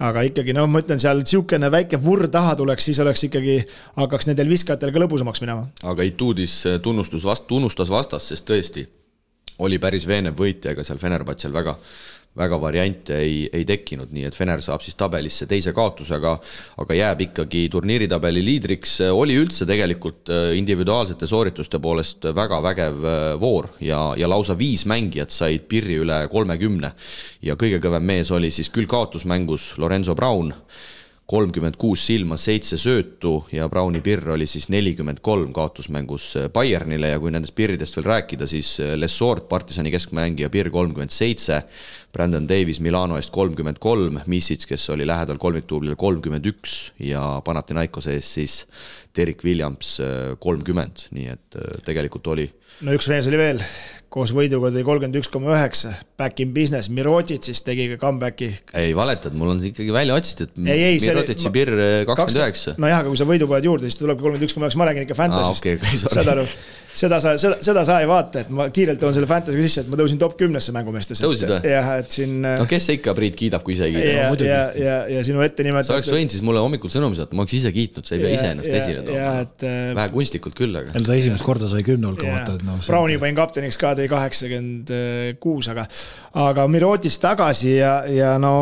aga ikkagi, no ma ütlen, seal siukene väike vurr taha tuleks, siis oleks ikkagi, hakkaks nendel viskajatel ka lõbusamaks minema. Aga Ituudis tunnustas vastas, sest tõesti oli päris veenev võitja, ega seal Fenerbahčel väga variante ei tekkinud, nii et Fener saab siis tabelisse teise kaotusega, aga jääb ikkagi turniiritabeli liidriks. Oli üldse tegelikult individuaalsete soorituste poolest väga vägev voor ja lausa 5 mängijat said pirri üle 30 ja kõige kõvem mees oli siis küll kaotusmängus Lorenzo Braun, 36 silma, 7 söötu ja Brauni pirr oli siis 43 kaotusmängus Bayernile ja kui nendest pirridest veel rääkida, siis Lessort, Partisani keskmängija pirr 37, Brandon Davis Milano eest 33, Misic, kes oli lähedal kolmiktuublile 31 ja Panathinaikose eest siis Derek Williams 30, nii et tegelikult oli. No üks mees oli veel, koos võiduga tõi 31,9, back in business, Mirotic siis tegi ka comebacki. Ei, valetad, mul on ikkagi välja otsitud, Mirotici pirr 29. No jah, aga kui sa võidu paned juurde, siis tuleb 31,9, ma räägin ikka fantasist. Seda sa ei vaata, et ma kiirelt toon selle fantasy sisse, et ma tõusin top 10-sse mängumeestesse. Tõusid või? Jah, et siin... No kes ikka Priit kiidab, kui ise ei kiida? Ja sinu ette nimetada... Sa oleks võinud siis mulle hommikul sõnumi saada, ma oleks ise kiitnud, sa ei pea ise ennast esile tooma. Vähe kunstlikult küll, aga... Ta esimest korda sai 10 hulka vaata. Brauni pain kapteniks ka, tõi 86, aga Mirotis tagasi ja no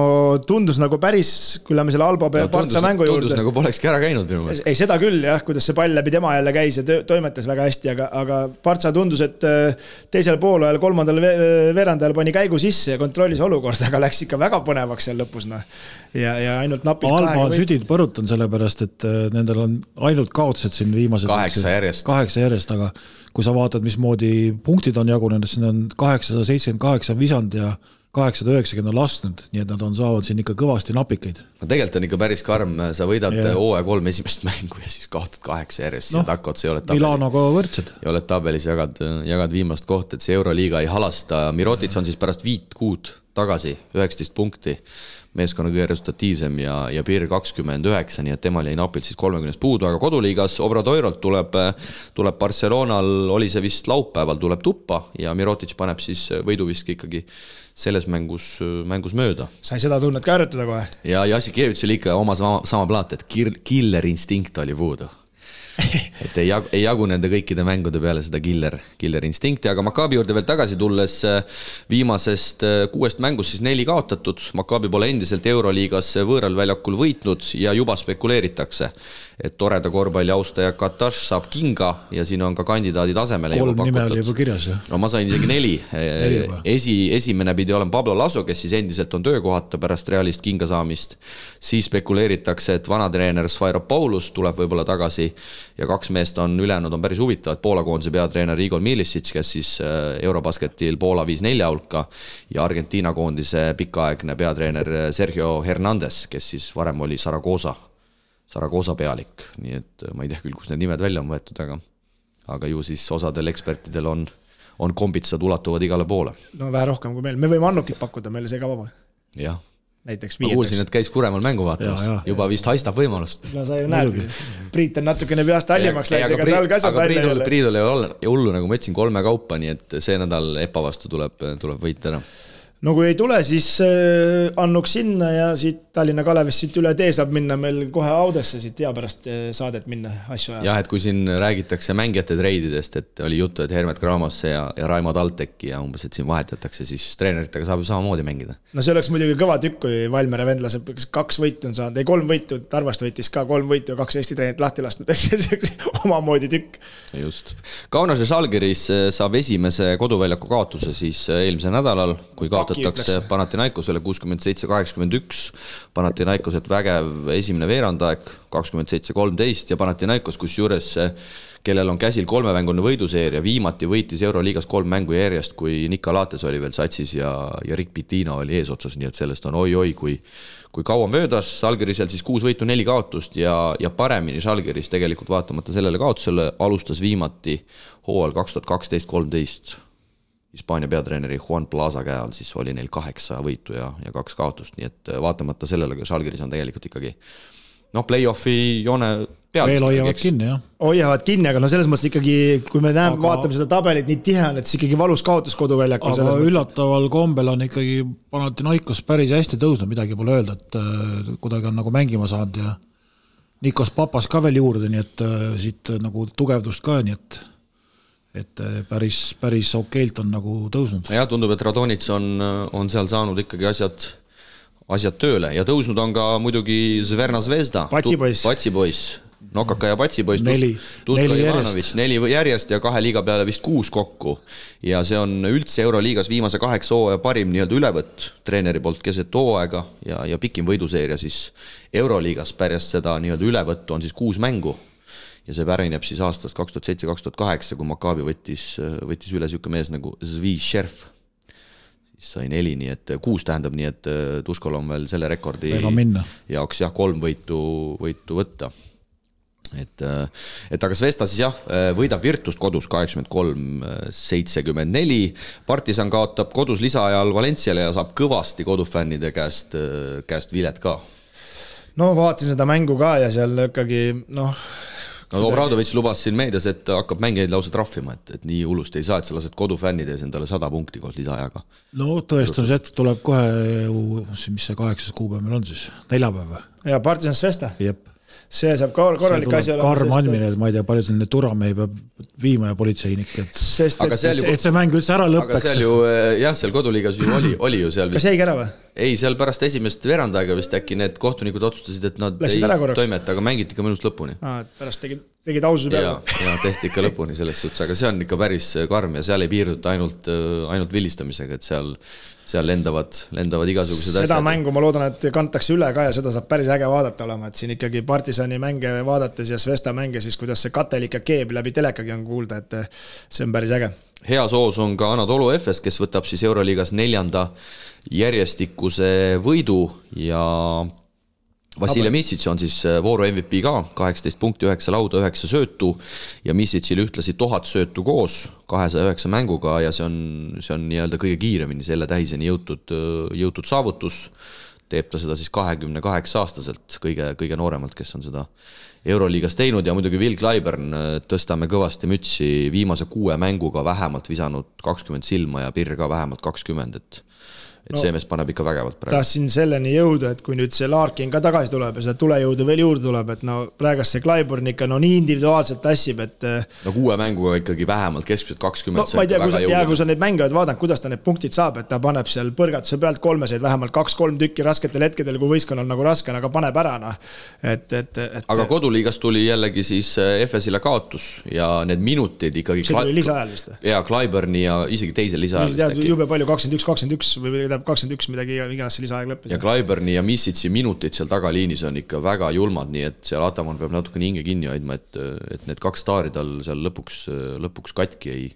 tundus nagu päris, kui lähme selle Alba Partsa mängu juurde. Tundus nagu polekski ära käinud minu meelest. Ei, seda küll jah, kuidas see pall läbi tema jälle käis ja toimetas väga hästi, aga Partsa tundus, et teisel poolajal, kolmandal veerandajal pani käigu sisse ja kontrollis olukorda, aga läks ikka väga põnevaks seal lõpus. No. Ja ainult napis Alba on südid põrutan sellepärast, et nendel on ainult kaotused siin viimased 8 järjest, aga kui sa vaatad, mismoodi punktid on jagunenud, siin on 878 visand ja 890 on lastnud, nii et nad saavad siin ikka kõvasti napikeid. No tegelikult on ikka päris karm, sa võidad OE3 esimest mängu ja siis kaotad 8 järjest ja takkot, see ei ole tabeli. Milanoga võrdsed. Ja oled tabelis, jagad viimast kohta, et see Euroliiga ei halasta. Mirotic on siis pärast 5 kuud tagasi, 19 punkti, meeskonna kõige resultatiivsem ja piir 29, nii et temal jäi napilt siis 30 puudu, aga koduliigas Obradoirolt tuleb Barcelonal, oli see vist laupäeval, tuleb tuppa ja Mirotic paneb siis võiduviski ikkagi selles mängus mööda. Sai seda tunnet ka ärjutada kohe? Ja Jassikevitš oli ikka oma sama plaat, et killer instinkt oli puudu. Et ei jagu nende kõikide mängude peale seda killer instinkti, aga Maccabi juurde veel tagasi tulles viimasest 6 mängust siis 4 kaotatud. Maccabi pole endiselt Euroliigas võõral väljakul võitnud ja juba spekuleeritakse, et toreda korvpalli austaja Kataš saab kinga ja siin on ka kandidaadid asemele 3 nime oli juba kirjas. No ma sain isegi 4. Esimene pidi olema Pablo Laso, kes siis endiselt on töökohata pärast Realist kinga saamist. Siis spekuleeritakse, et vanatreener Sfairopoulus tuleb võib-olla tagasi ja 2 meest on ülejäänud on päris huvitavad. Poola koondise peatreener Igor Milicic, kes siis Eurobasketil Poola 5-4 hulka ja Argentiina koondise pikaaegne peatreener Sergio Hernandez, kes siis varem oli Saragosa pealik, nii et ma ei tea küll, kus need nimed välja on võetud, aga ju siis osadel ekspertidel on kombitsad ulatuvad igale poole. No vähe rohkem kui meil, me võime Annukit pakkuda, meil see ka vaba. Jah. Näiteks ma kuulsin, et käis Kuremal mängu vaatamas, juba vist haistab võimalust. No sa ju näed, Priit on natukene peast hallimaks läinud, ega tal kasvab välja jälle. Priidul ei ole hullu, nagu ma ütlesin, 3 kaupa, nii et see nädal EPA vastu tuleb võita ära. No kui ei tule, siis annuks sinna ja siit Tallinna Kalevist siit üle tee saab minna meil kohe Audesse siit hea pärast saadet minna asju ajal. Jah, et kui siin räägitakse mängijate treididest, et oli juttu, et Hermet Gramosse ja Raimo Talteki ja umbes, et siin vahetatakse, siis treeneritega saab ju samamoodi mängida. No see oleks muidugi kõva tükk, kui Valmere vendlase 2 võitu on saanud, ei 3 võitu, Tarvast võitis ka 3 võitu ja 2 Eesti treenit lahti lastud, omamoodi tükk. Just. Kaunase Žalgiris saab esimese koduväljaku kaotuse siis eelmise nädalal, kui kaotatakse Panathinaikosele 67-81, Panathinaikoset vägev esimene veerandaeg 27-13 ja Panathinaikos, kus juures, kellel on käsil 3-mängune võiduseeria, viimati võitis Euroliigas 3 mängu järjest, kui Nikolates oli veel satsis ja Rick Pitino oli eesotsas, nii et sellest on oi, kui kaua möödas. Žalgirisel siis 6 võitu, 4 kaotust ja paremini Žalgiris tegelikult vaatamata sellele kaotusele alustas viimati hooajal 2012-13. Hispaania peatreeneri Juan Plaza käe all, siis oli neil 8 võitu ja 2 kaotust, nii et vaatamata sellele, kui Žalgiris on tegelikult ikkagi play-offi joone peal. Veel hoiavad kinni, jah. Hoiavad kinni, aga selles mõttes ikkagi, kui me vaatame seda tabelit nii tihe on, et siis ikkagi valus kaotus koduväljakul. Aga üllataval kombel on ikkagi Panathinaikos päris hästi tõusnud, midagi pole öelda, et kuidagi on nagu mängima saanud ja Nikos Papas ka veel juurde, nii et siit nagu tugevdust ka, nii et päris okeilt on nagu tõusnud. Ja tundub, et Radonits on seal saanud ikkagi asjad tööle ja tõusnud on ka muidugi Zverna Zvezda. Patsipoiss. Nokaka ja Patsipoiss. Tuska Ivanovic, 4 järjest ja 2 liiga peale vist 6 kokku. Ja see on üldse Euroliigas viimase 8 hooaja parim nii-öelda ülevõtt treeneri poolt keset hooaega ja pikim võiduseeria siis Euroliigas pärast seda nii-öelda ülevõttu on siis 6 mängu. Ja see pärineb siis aastast 2007-2008, kui Maccabi võttis üle siuke mees nagu Zvi Šerf. Siis sai 4, nii et 6 tähendab, nii et Tuskol on veel selle rekordi jaoks 3 võitu võtta. Et aga Zvesta siis võidab Virtust kodus 83-74. Partisan kaotab kodus lisaajal Valenciale ja saab kõvasti kodufännide käest vilet ka. No vaatasin seda mängu ka ja seal ikkagi Obradovic lubas siin meedias, et hakkab mängijaid lausa trahvima, et nii hullust ei saa, et sa lased kodufännides endale 100 punkti koos lisaajaga. No tõestamise hetk tuleb kohe, mis see 8. kuupäev meil on siis, 4 päeva. Ja Partisan Zvesta? Jep. See saab korralik asi olema. Karm andmine, et ma ei tea, palju selline turamehi peab viima ja politseinik. Et see mäng üldse ära lõppeks. Aga seal ju, seal koduliigas ju oli ju seal vist. Kas jäigi ära või? Ei, seal pärast esimest verandaega vist äkki need kohtunikud otsustasid, et nad ei toimeta, aga mängiti ka mõnust lõpuni. Pärast tegid aususe peale. Ja tehti ikka lõpuni selles suhtes, aga see on ikka päris karm ja seal ei piirduta ainult vilistamisega, et seal lendavad igasugused asjad. Seda mängu ma loodan, et kantakse üle ka ja seda saab päris äge vaadata olema, et siin ikkagi Partisani mänge vaadates ja Zvesta mänge, siis kuidas see katelik ja keeb läbi telekagi on kuulda, et see on päris äge. Hea soos on ka Anadolu Efes, kes võtab siis Euroliigas 4. järjestikuse võidu ja Vasilja Misic on siis vooru MVP ka, 18 punkti, 9 lauda, 9 söötu ja Misicil ühtlasi 1000 söötu koos 209 mänguga ja see on nii-öelda kõige kiiremini selle tähiseni jõutud saavutus. Teeb ta seda siis 28-aastaselt, kõige nooremalt, kes on seda Euroliigas teinud ja muidugi Will Clyburn tõstame kõvasti mütsi viimase 6 mänguga vähemalt visanud 20 silma ja Pirr ka vähemalt 20, et see mees paneb ikka vägevalt praegu. Tahtsin selleni jõuda, et kui nüüd see Larkin ka tagasi tuleb ja seda tulejõudu veel juurde tuleb, et praegast see Clyburn ikka nii individuaalselt tassib, et 6 mänguga ikkagi vähemalt keskmiselt 20 ma ei tea, kui sa neid mänge oled vaadanud, kuidas ta need punktid saab, et ta paneb seal põrgatuse pealt 3 vähemalt 2-3 tükki rasketel hetkedel, kui võistkonnal nagu raske on, aga paneb ära. Aga koduliigas tuli jällegi siis Efesile kaotus ja need minutid ikkagi see tuli lisaajal vist? Ja Clyburni ja isegi teisel lisaajal jube palju 21 või 21 midagi iganes see lisaaeg lõppis. Ja Clyburni ja Misic'i minutid seal tagaliinis on ikka väga julmad, nii et seal Ataman peab natuke hinge kinni hoidma, et need 2 staari tal seal lõpuks katki ei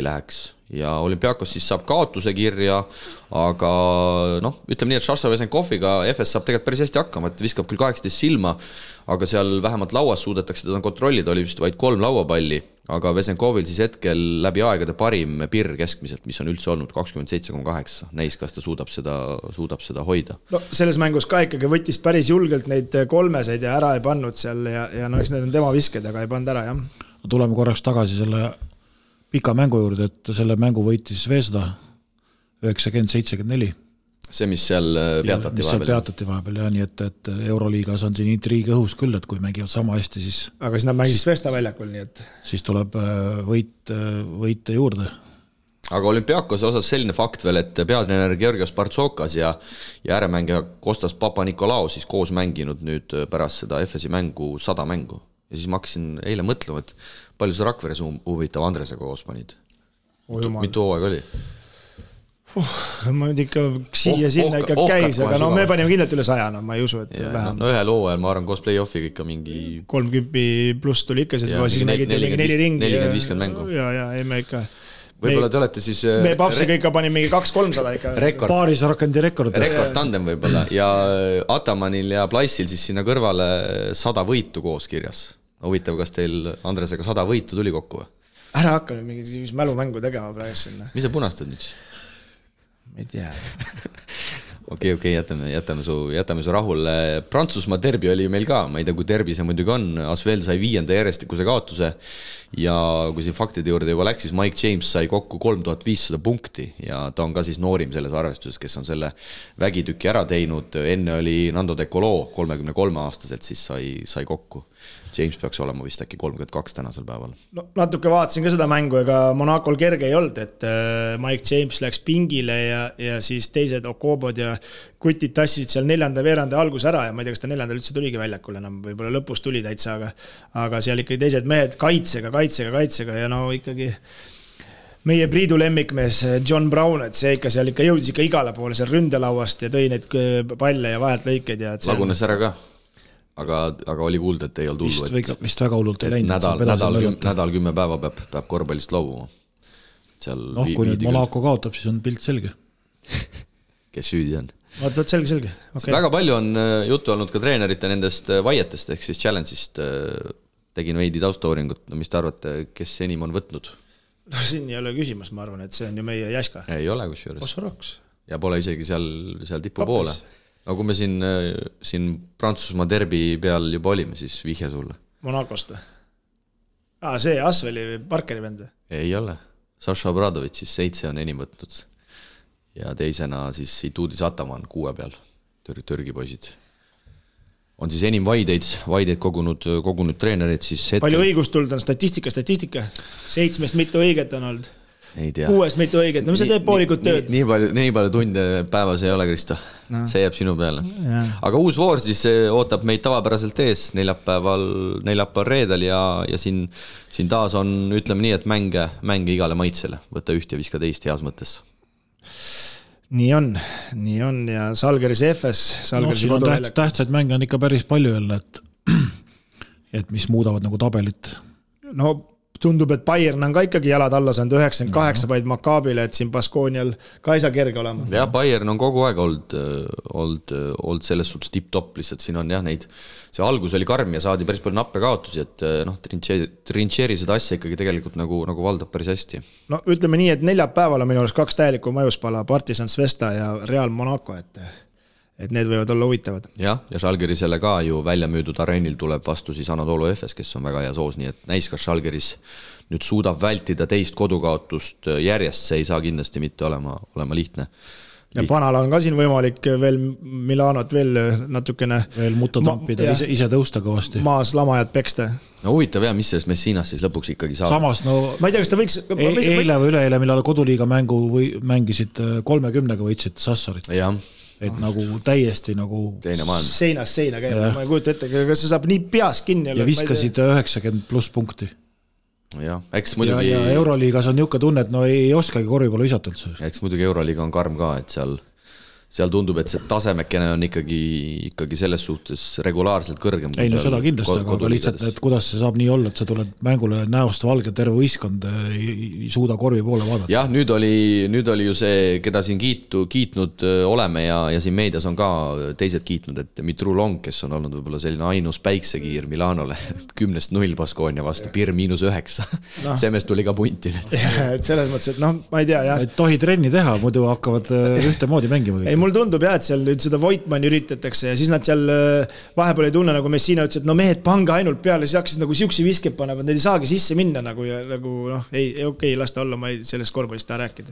läheks. Ja Olümpiakos siis saab kaotuse kirja, aga ütleme nii, et Šaša Vesenkoviga FS saab tegelikult päris hästi hakkama, et viskab küll 18 silma, aga seal vähemalt lauas suudetakse teda kontrollida, oli vist vaid 3 lauapalli, aga Vesenkovil siis hetkel läbi aegade parim Pirr keskmiselt, mis on üldse olnud 27,8. Näis, kas ta suudab seda hoida. No selles mängus ka ikkagi võttis päris julgelt neid 3 ja ära ei pannud seal ja eks need on tema visked, aga ei pannud ära, jah. Tuleme korraks tagasi selle pika mängu juurde, et selle mängu võitis Zvezda 90-74. See, mis seal peatati vahepeal, ja nii et Euroliigas on siin intriigi õhus küll, et kui mängivad sama hästi, siis aga siis nad mängis Zvezda väljakul, nii et siis tuleb võite juurde. Aga Olümpiakose osas selline fakt veel, et peatreener Georgios Partsokas ja ääremängija Kostas Papa-Nikolaou siis koos mänginud nüüd pärast seda FSi mängu 100 mängu. Ja siis ma hakkasin eile mõtlema, et palju see Rakveres huvitav Andresega koos panid? Mitu hooaeg oli? Ma nüüd ikka siia-sinna ikka käis, aga me panime kindlalt üle 100, ma ei usu, et vähem. Ühel hooajal, ma arvan, koos play-offiga ikka mingi 30 pluss tuli ikka, siis nägite mingi 4 ringi. 40-50 mängu. Ja, ei me ikka võib-olla te olete siis me papsiga ikka pani mingi 200-300 ikka paaris rakandi rekord tandem võib-olla ja Atamanil ja Plaissil siis sinna kõrvale 100 võitu koos kirjas. Huvitav, kas teil Andresega 100 võitu tuli kokku või? ära hakka nüüd mingi mälumängu tegema praegu sinna. Mis sa punastad nüüd? Ma ei tea. Okei, jätame su rahule. Prantsusmaa derbi oli meil ka, ma ei tea, kui derbi see muidugi on. Asvel sai 5. järjestikuse kaotuse ja kui siin faktide juurde juba läks, siis Mike James sai kokku 3500 punkti ja ta on ka siis noorim selles arvestuses, kes on selle vägitüki ära teinud. Enne oli Nando De Colo 33-aastaselt, siis sai kokku. James peaks olema vist äkki 32 tänasel päeval. No, natuke vaatasin ka seda mängu, ega Monacol kerge ei olnud, et Mike James läks pingile ja siis teised Okobod ja kutid tassisid seal 4. veeranda algus ära ja ma ei tea, kas ta 4. üldse tuligi väljakul enam, võib-olla lõpus tuli täitsa, aga seal ikkagi teised mehed kaitsega ja no ikkagi meie Priidu lemmikmees John Brown, et see ikka seal ikka jõudis ikka igale poole seal ründelauast ja tõi neid palle ja vahelt lõikeid ja lagunes ära ka. Aga oli kuulda, et ei olnud hullu. Vist väga hullult ei läinud. Nädal 10 päeva peab korvpallist loobuma. Kui nüüd Monaco kaotab, siis on pilt selge. Kes süüdi on? Vaatad selge. Okay. Väga palju on juttu olnud ka treenerite nendest vaietest, ehk siis challenge'ist. Tegin veidi taustauringut. No mis te arvate, kes enim on võtnud? No siin ei ole küsimus, ma arvan, et see on ju meie Jaska. Ei ole kusjuures. Osoroks. Ja pole isegi seal tipu poole. No kui me siin Prantsusmaa derbi peal juba olime, siis vihje sulle. Monacost või? See Asveli Parkeri vend või? Ei ole. Saša Obradovic siis 7 on enim võtnud. Ja teisena siis Ituudis Ataman 6 peal. Türgi poisid. On siis enim vaideid kogunud treenerid. Siis palju õigust tuld on statistika? 7 mitu õiget on olnud. Ei tea. 6 mitu õiget, no mis see teeb poolikut tööd? Nii palju tunde päevas ei ole, Kristo. No. See jääb sinu peale. Ja. Aga uus voor siis ootab meid tavapäraselt ees neljapäeval reedel ja siin taas on, ütleme nii, et mänge igale maitsele. Võta üht ja viska teist heas mõttes. Nii on ja Salgeris FS. Siin on tähtsaid mänge on ikka päris palju jälle, et mis muudavad nagu tabelit. No tundub, et Bayern on ka ikkagi jalad alla saanud 98 vaid Makaabile, et siin Baskoonial ka ei saa kerge olema. Ja Bayern on kogu aeg olnud selles suhtes tip-top, lihtsalt siin on jah neid, see algus oli karm ja saadi päris palju nappe kaotusi, et Trincheri seda asja ikkagi tegelikult nagu valdab päris hästi. No ütleme nii, et neljapäeval on minu arust 2 täielikku majuspala, Partizan Svesta ja Real Monaco, et need võivad olla huvitavad. Ja Žalgirisele ka ju välja müüdud areenil tuleb vastu siis Anadolu FS, kes on väga hea soos, nii et näis, kas Žalgiris nüüd suudab vältida teist kodukaotust järjest, see ei saa kindlasti mitte olema lihtne. Ja Panal on ka siin võimalik veel Milanot veel natukene veel mutta tampida, ise tõusta kõvasti. Maas lamajad peksta. No huvitav jah, mis sellest Messinas siis lõpuks ikkagi saab. Samas, ma ei tea, kas ta võiks... Eile või üleeile, millal koduliiga mängu mängisid 30-ga võitsid Sassarit. Jah. Et nagu täiesti nagu seinast seina käib, ma ei kujuta ette, kas see saab nii peas kinni ja viskasid 90+ punkti ja, eks muidugi ja Euroliigas on niuke tunne, et no ei oskagi korvipallu visata üldse. Eks muidugi Euroliiga on karm ka, et seal tundub, et see tasemekene on ikkagi selles suhtes regulaarselt kõrgem. Ei no seda kindlasti, aga lihtsalt, et kuidas see saab nii olla, et sa tuled mängule näost valge terve võistkond ei suuda korvi poole vaadata. Jah, nüüd oli ju see, keda siin kiitnud oleme ja siin meedias on ka teised kiitnud, et Mitru Long, kes on olnud võib-olla selline ainus päiksekiir Milanole 10-0 Baskonia vastu, Pir -9. Semes tuli ka punti nüüd. Et selles mõttes, et ma ei tea, jah. Et tohi trenni teha, muidu hakkavad ühtemoodi mängima. Ei, mul tundub jah, et seal nüüd seda Voitmanni üritatakse ja siis nad seal vahepeal ei tunne, nagu Messina ütles, et no mehed pange ainult peale, siis hakkasid nagu siuksi viskeb panevad, need ei saagi sisse minna nagu ja nagu ei lasta olla, ma ei sellest korvpallist taha rääkida.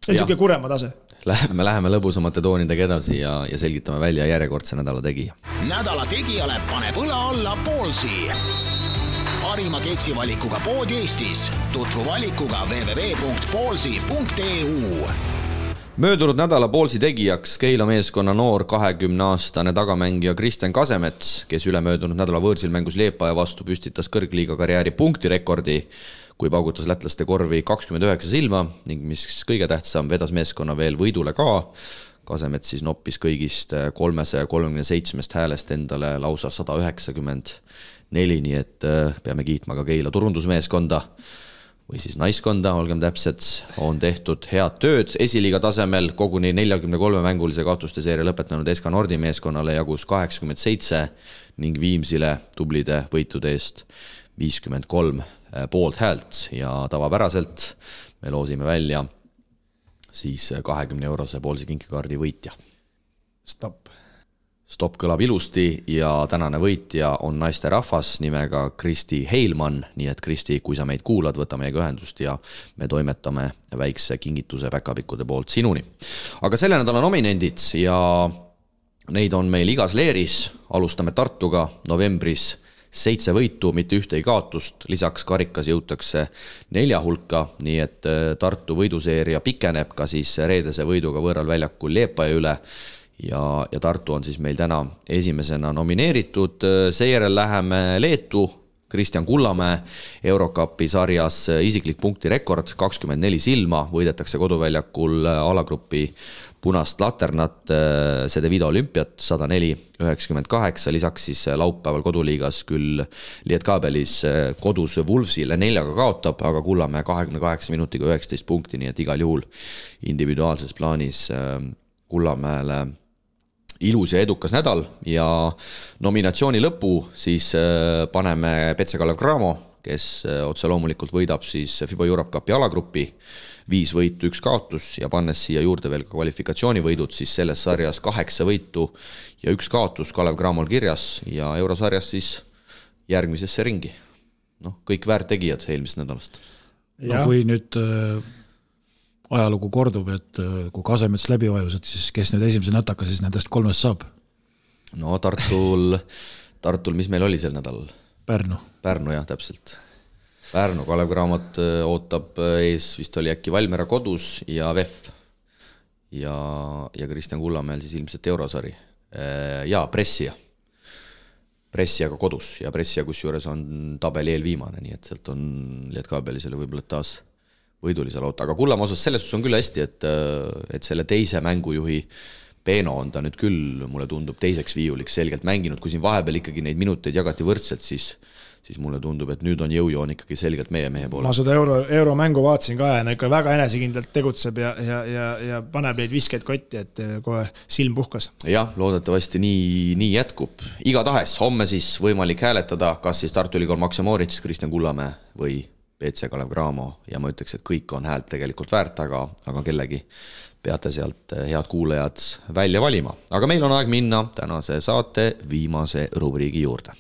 See on siuke kurema tase. Läheme lõbusamate toonidega edasi ja selgitame välja järjekordse nädala tegija. Nädala tegijale paneb õla alla Poolsi. Parima keksivalikuga pood Eestis. Tutvu valikuga www.poolsi.eu. Möödunud nädala Poolsi tegijaks Keila meeskonna noor 20-aastane tagamängija Kristjan Kasemets, kes ülemöödunud nädala võõrsil mängus Liepaja vastu püstitas kõrgliiga karjääri punktirekordi, kui paugutas lätlaste korvi 29 silma ning mis kõige tähtsam, vedas meeskonna veel võidule ka. Kasemets siis noppis kõigist 337 häälest endale lausa 194, nii et peame kiitma ka Keila turundusmeeskonda või siis naiskonda, olgem täpsed, on tehtud head tööd. Esiliiga tasemel koguni 43 mängulise kaotuste seeria lõpetanud SK Nordi meeskonnale jagus 87 ning Viimsile tublide võitude eest 53 poolt häält ja tavapäraselt me loosime välja siis 20-eurose poolse kinkikaardi võitja. Stopp kõlab ilusti ja tänane võitja on naisterahvas nimega Kristi Heilmann, nii et Kristi, kui sa meid kuulad, võta meiega ühendust ja me toimetame väikse kingituse päkapikkude poolt sinuni. Aga selle nädala nominendid ja neid on meil igas leeris, alustame Tartuga novembris 7 võitu, mitte ühte kaotust, lisaks karikas jõutakse 4 hulka, nii et Tartu võiduseeria pikeneb ka siis reedese võiduga võõral väljakul Liepaja üle ja Tartu on siis meil täna esimesena nomineeritud, seejärel läheme Leetu, Kristjan Kullamäe Eurocupi sarjas isiklik punktirekord 24 silma, võidetakse koduväljakul alagrupi punast laternat, Cedevita Olümpiat 104-98, lisaks siis laupäeval koduliigas küll Lietkabelis kodus Wolvesile 4 kaotab, aga Kullamäe 28 minutiga 19 punkti, nii et igal juhul individuaalses plaanis Kullamäele ilus ja edukas nädal ja nominatsiooni lõpu siis paneme Petse Kalev Cramo, kes otse loomulikult võidab siis FIBA Europe Cupi alagrupi 5 võitu, 1 kaotus ja pannes siia juurde veel ka kvalifikatsioonivõidud, siis selles sarjas 8 võitu ja 1 kaotus Kalev Cramol kirjas ja eurosarjas siis järgmisesse ringi. Kõik väärtegijad eelmisest nädalast. Kui nüüd ajalugu kordub, et kui Kasemets läbi vajus, et siis kes nüüd esimese nätaka siis nendest 3 saab? Tartul, mis meil oli sel nädalal? Pärnu jah, täpselt. Pärnu Kalev Cramot ootab ees, vist oli äkki Valmiera kodus ja VEF ja Kristjan Kullamäel siis ilmselt eurosari ja Pressiaga kodus ja Pressia kusjuures on tabeli eelviimane, nii et sealt on Lietkabelisele võib-olla taas võidulise loota, aga Kullamäe osas selles on küll hästi, et selle teise mängujuhi Peeno on ta nüüd küll, mulle tundub, teiseks viiuliks selgelt mänginud, kui siin vahepeal ikkagi neid minuteid jagati võrdselt, siis mulle tundub, et nüüd on jõujoon ikkagi selgelt meie mehe poole. Ma seda euromängu vaatasin ka ja ikka väga enesekindlalt tegutseb ja paneb neid viskeid kotti, et kohe silm puhkas. Jah, loodetavasti nii jätkub. Igatahes homme siis võimalik hääletada, kas siis Tartu Ülikool Maxe Moritz, Kristjan Kullamäe või Petse Kalev Cramo ja ma ütleks, et kõik on häält tegelikult väärt, aga kellegi peate sealt head kuulajad välja valima. Aga meil on aeg minna tänase saate viimase rubriigi juurde.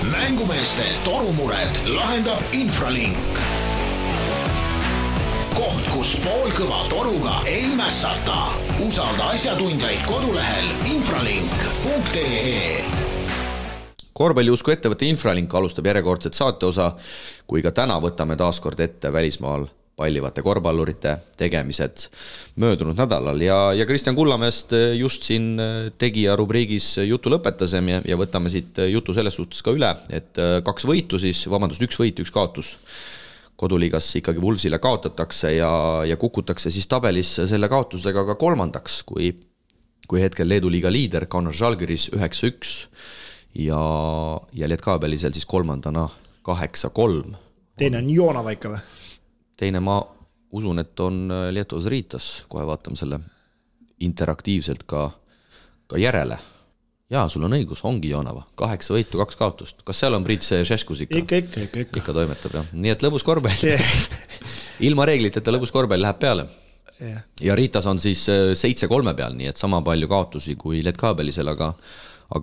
Mängumeeste torumured lahendab Infralink. Koht, kus poolkõva toruga ei mässata. Usalda asjatundjaid kodulehel infralink.ee. Korvpalliusku ettevõtte Infralink alustab järjekordset saateosa, kui ka täna võtame taaskord ette välismaal pallivate korvpallurite tegemised möödunud nädalal ja Kristjan Kullamäest just siin tegija rubriigis jutu lõpetasem ja võtame siit jutu selles suhtes ka üle, et 2 võitu siis, 1 võit, 1 kaotus koduliigas ikkagi Wolvesile kaotatakse ja kukutakse siis tabelis selle kaotusega ka 3. kui hetkel Leedu liiga liider Kaunas Žalgiris 9-1 ja Lietkabelisel siis 3. 8-3. Teine on Joonava ikka või? Teine ma usun, et on Lietuas Riitas, kohe vaatame selle interaktiivselt ka järele. Jaa, sul on õigus, ongi Joonava, 8 võitu, 2 kaotust. Kas seal on Priit Šeškus ikka? Ikka toimetab, jah. Nii et lõbus korvpall. Ilma reegliteta lõbus korvpall läheb peale. Ja Riitas on siis 7-3 peal, nii et sama palju kaotusi kui Lietkabelisel, aga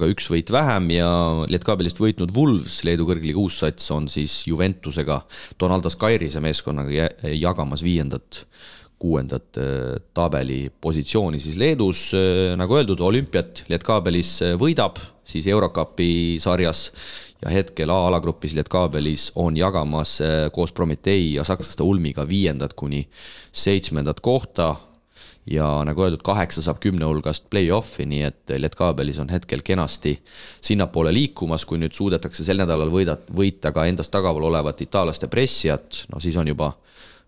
1 võit vähem ja Lietkabelist võitnud Wolves, Leedu kõrgliiga uussats, on siis Juventusega Donaldas Kairise meeskonnaga jagamas 5. 6. tabeli positsiooni siis Leedus. Nagu öeldud, Olümpiat Lietkabelis võidab siis Eurocupi sarjas ja hetkel A-alagrupis Lietkabelis on jagamas koos Prometei ja sakslaste Ulmiga 5. kuni 7. kohta. Ja nagu öeldud, 8 saab 10 hulgast play-offi, nii et Lietkabelis on hetkel kenasti sinnapoole liikumas, kui nüüd suudetakse sel nädalal võita ka endast tagaval olevat itaalaste Pressiat, siis on juba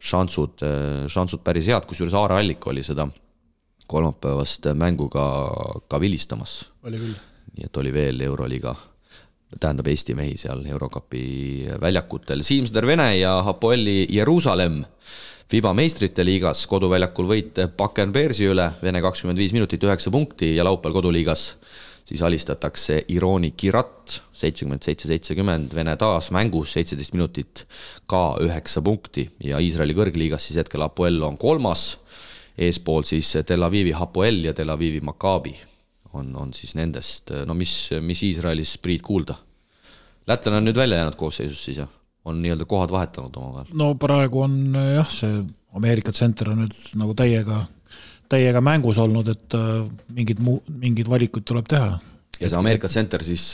šansud päris head, kusjuures Aare Allik oli seda kolmapäevast mänguga ka vilistamas. Oli küll. Nii et oli veel Euroliiga, tähendab Eesti mehi seal Eurocupi väljakutel. Siimsder Vene ja Hapoeli Jeruusalemm FIBA meistrite liigas koduväljakul võit Bakken Bearsi üle, Vene 25 minutit 9 punkti ja laupäeval koduliigas siis alistatakse Ironi Kirat 77-70, Vene taas mängus 17 minutit ka 9 punkti ja Iisraeli kõrgliigas siis hetkel Hapoel on 3, eespool siis Tel Avivi Hapoel ja Tel Avivi Maccabi on siis nendest, no mis Iisraelis Priit kuulda? Lätlane on nüüd välja jäänud koosseisus siis ja on nii-öelda kohad vahetanud omavahel. No praegu on jah, see Ameerika tsenter on nüüd nagu täiega mängus olnud, et mingid valikud tuleb teha. Ja see Ameerika tsenter siis,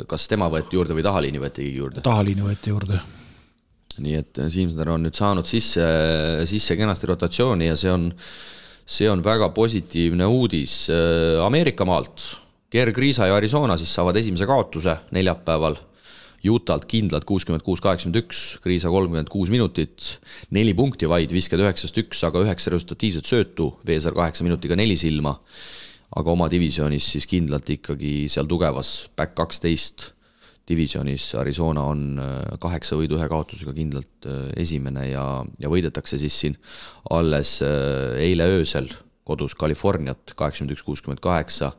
kas tema võeti juurde või tahaliini võeti juurde? Tahaliini võeti juurde. Nii et Siimsner on nüüd saanud sisse kenasti rotatsiooni ja see on väga positiivne uudis. Ameerika maalt Gerg Riisa ja Arizona siis saavad esimese kaotuse neljapäeval. Utalt kindlalt 66-81, Kriisa 36 minutit, 4 punkti vaid, visked 9-1, aga 9 resultatiivset söötu, Veesar 8 minutiga 4 silma, aga oma divisionis siis kindlalt ikkagi seal tugevas back 12 divisionis Arizona on 8 võidu 1 kaotusega kindlalt esimene ja võidetakse siis siin alles eile öösel kodus Californiat 81-68,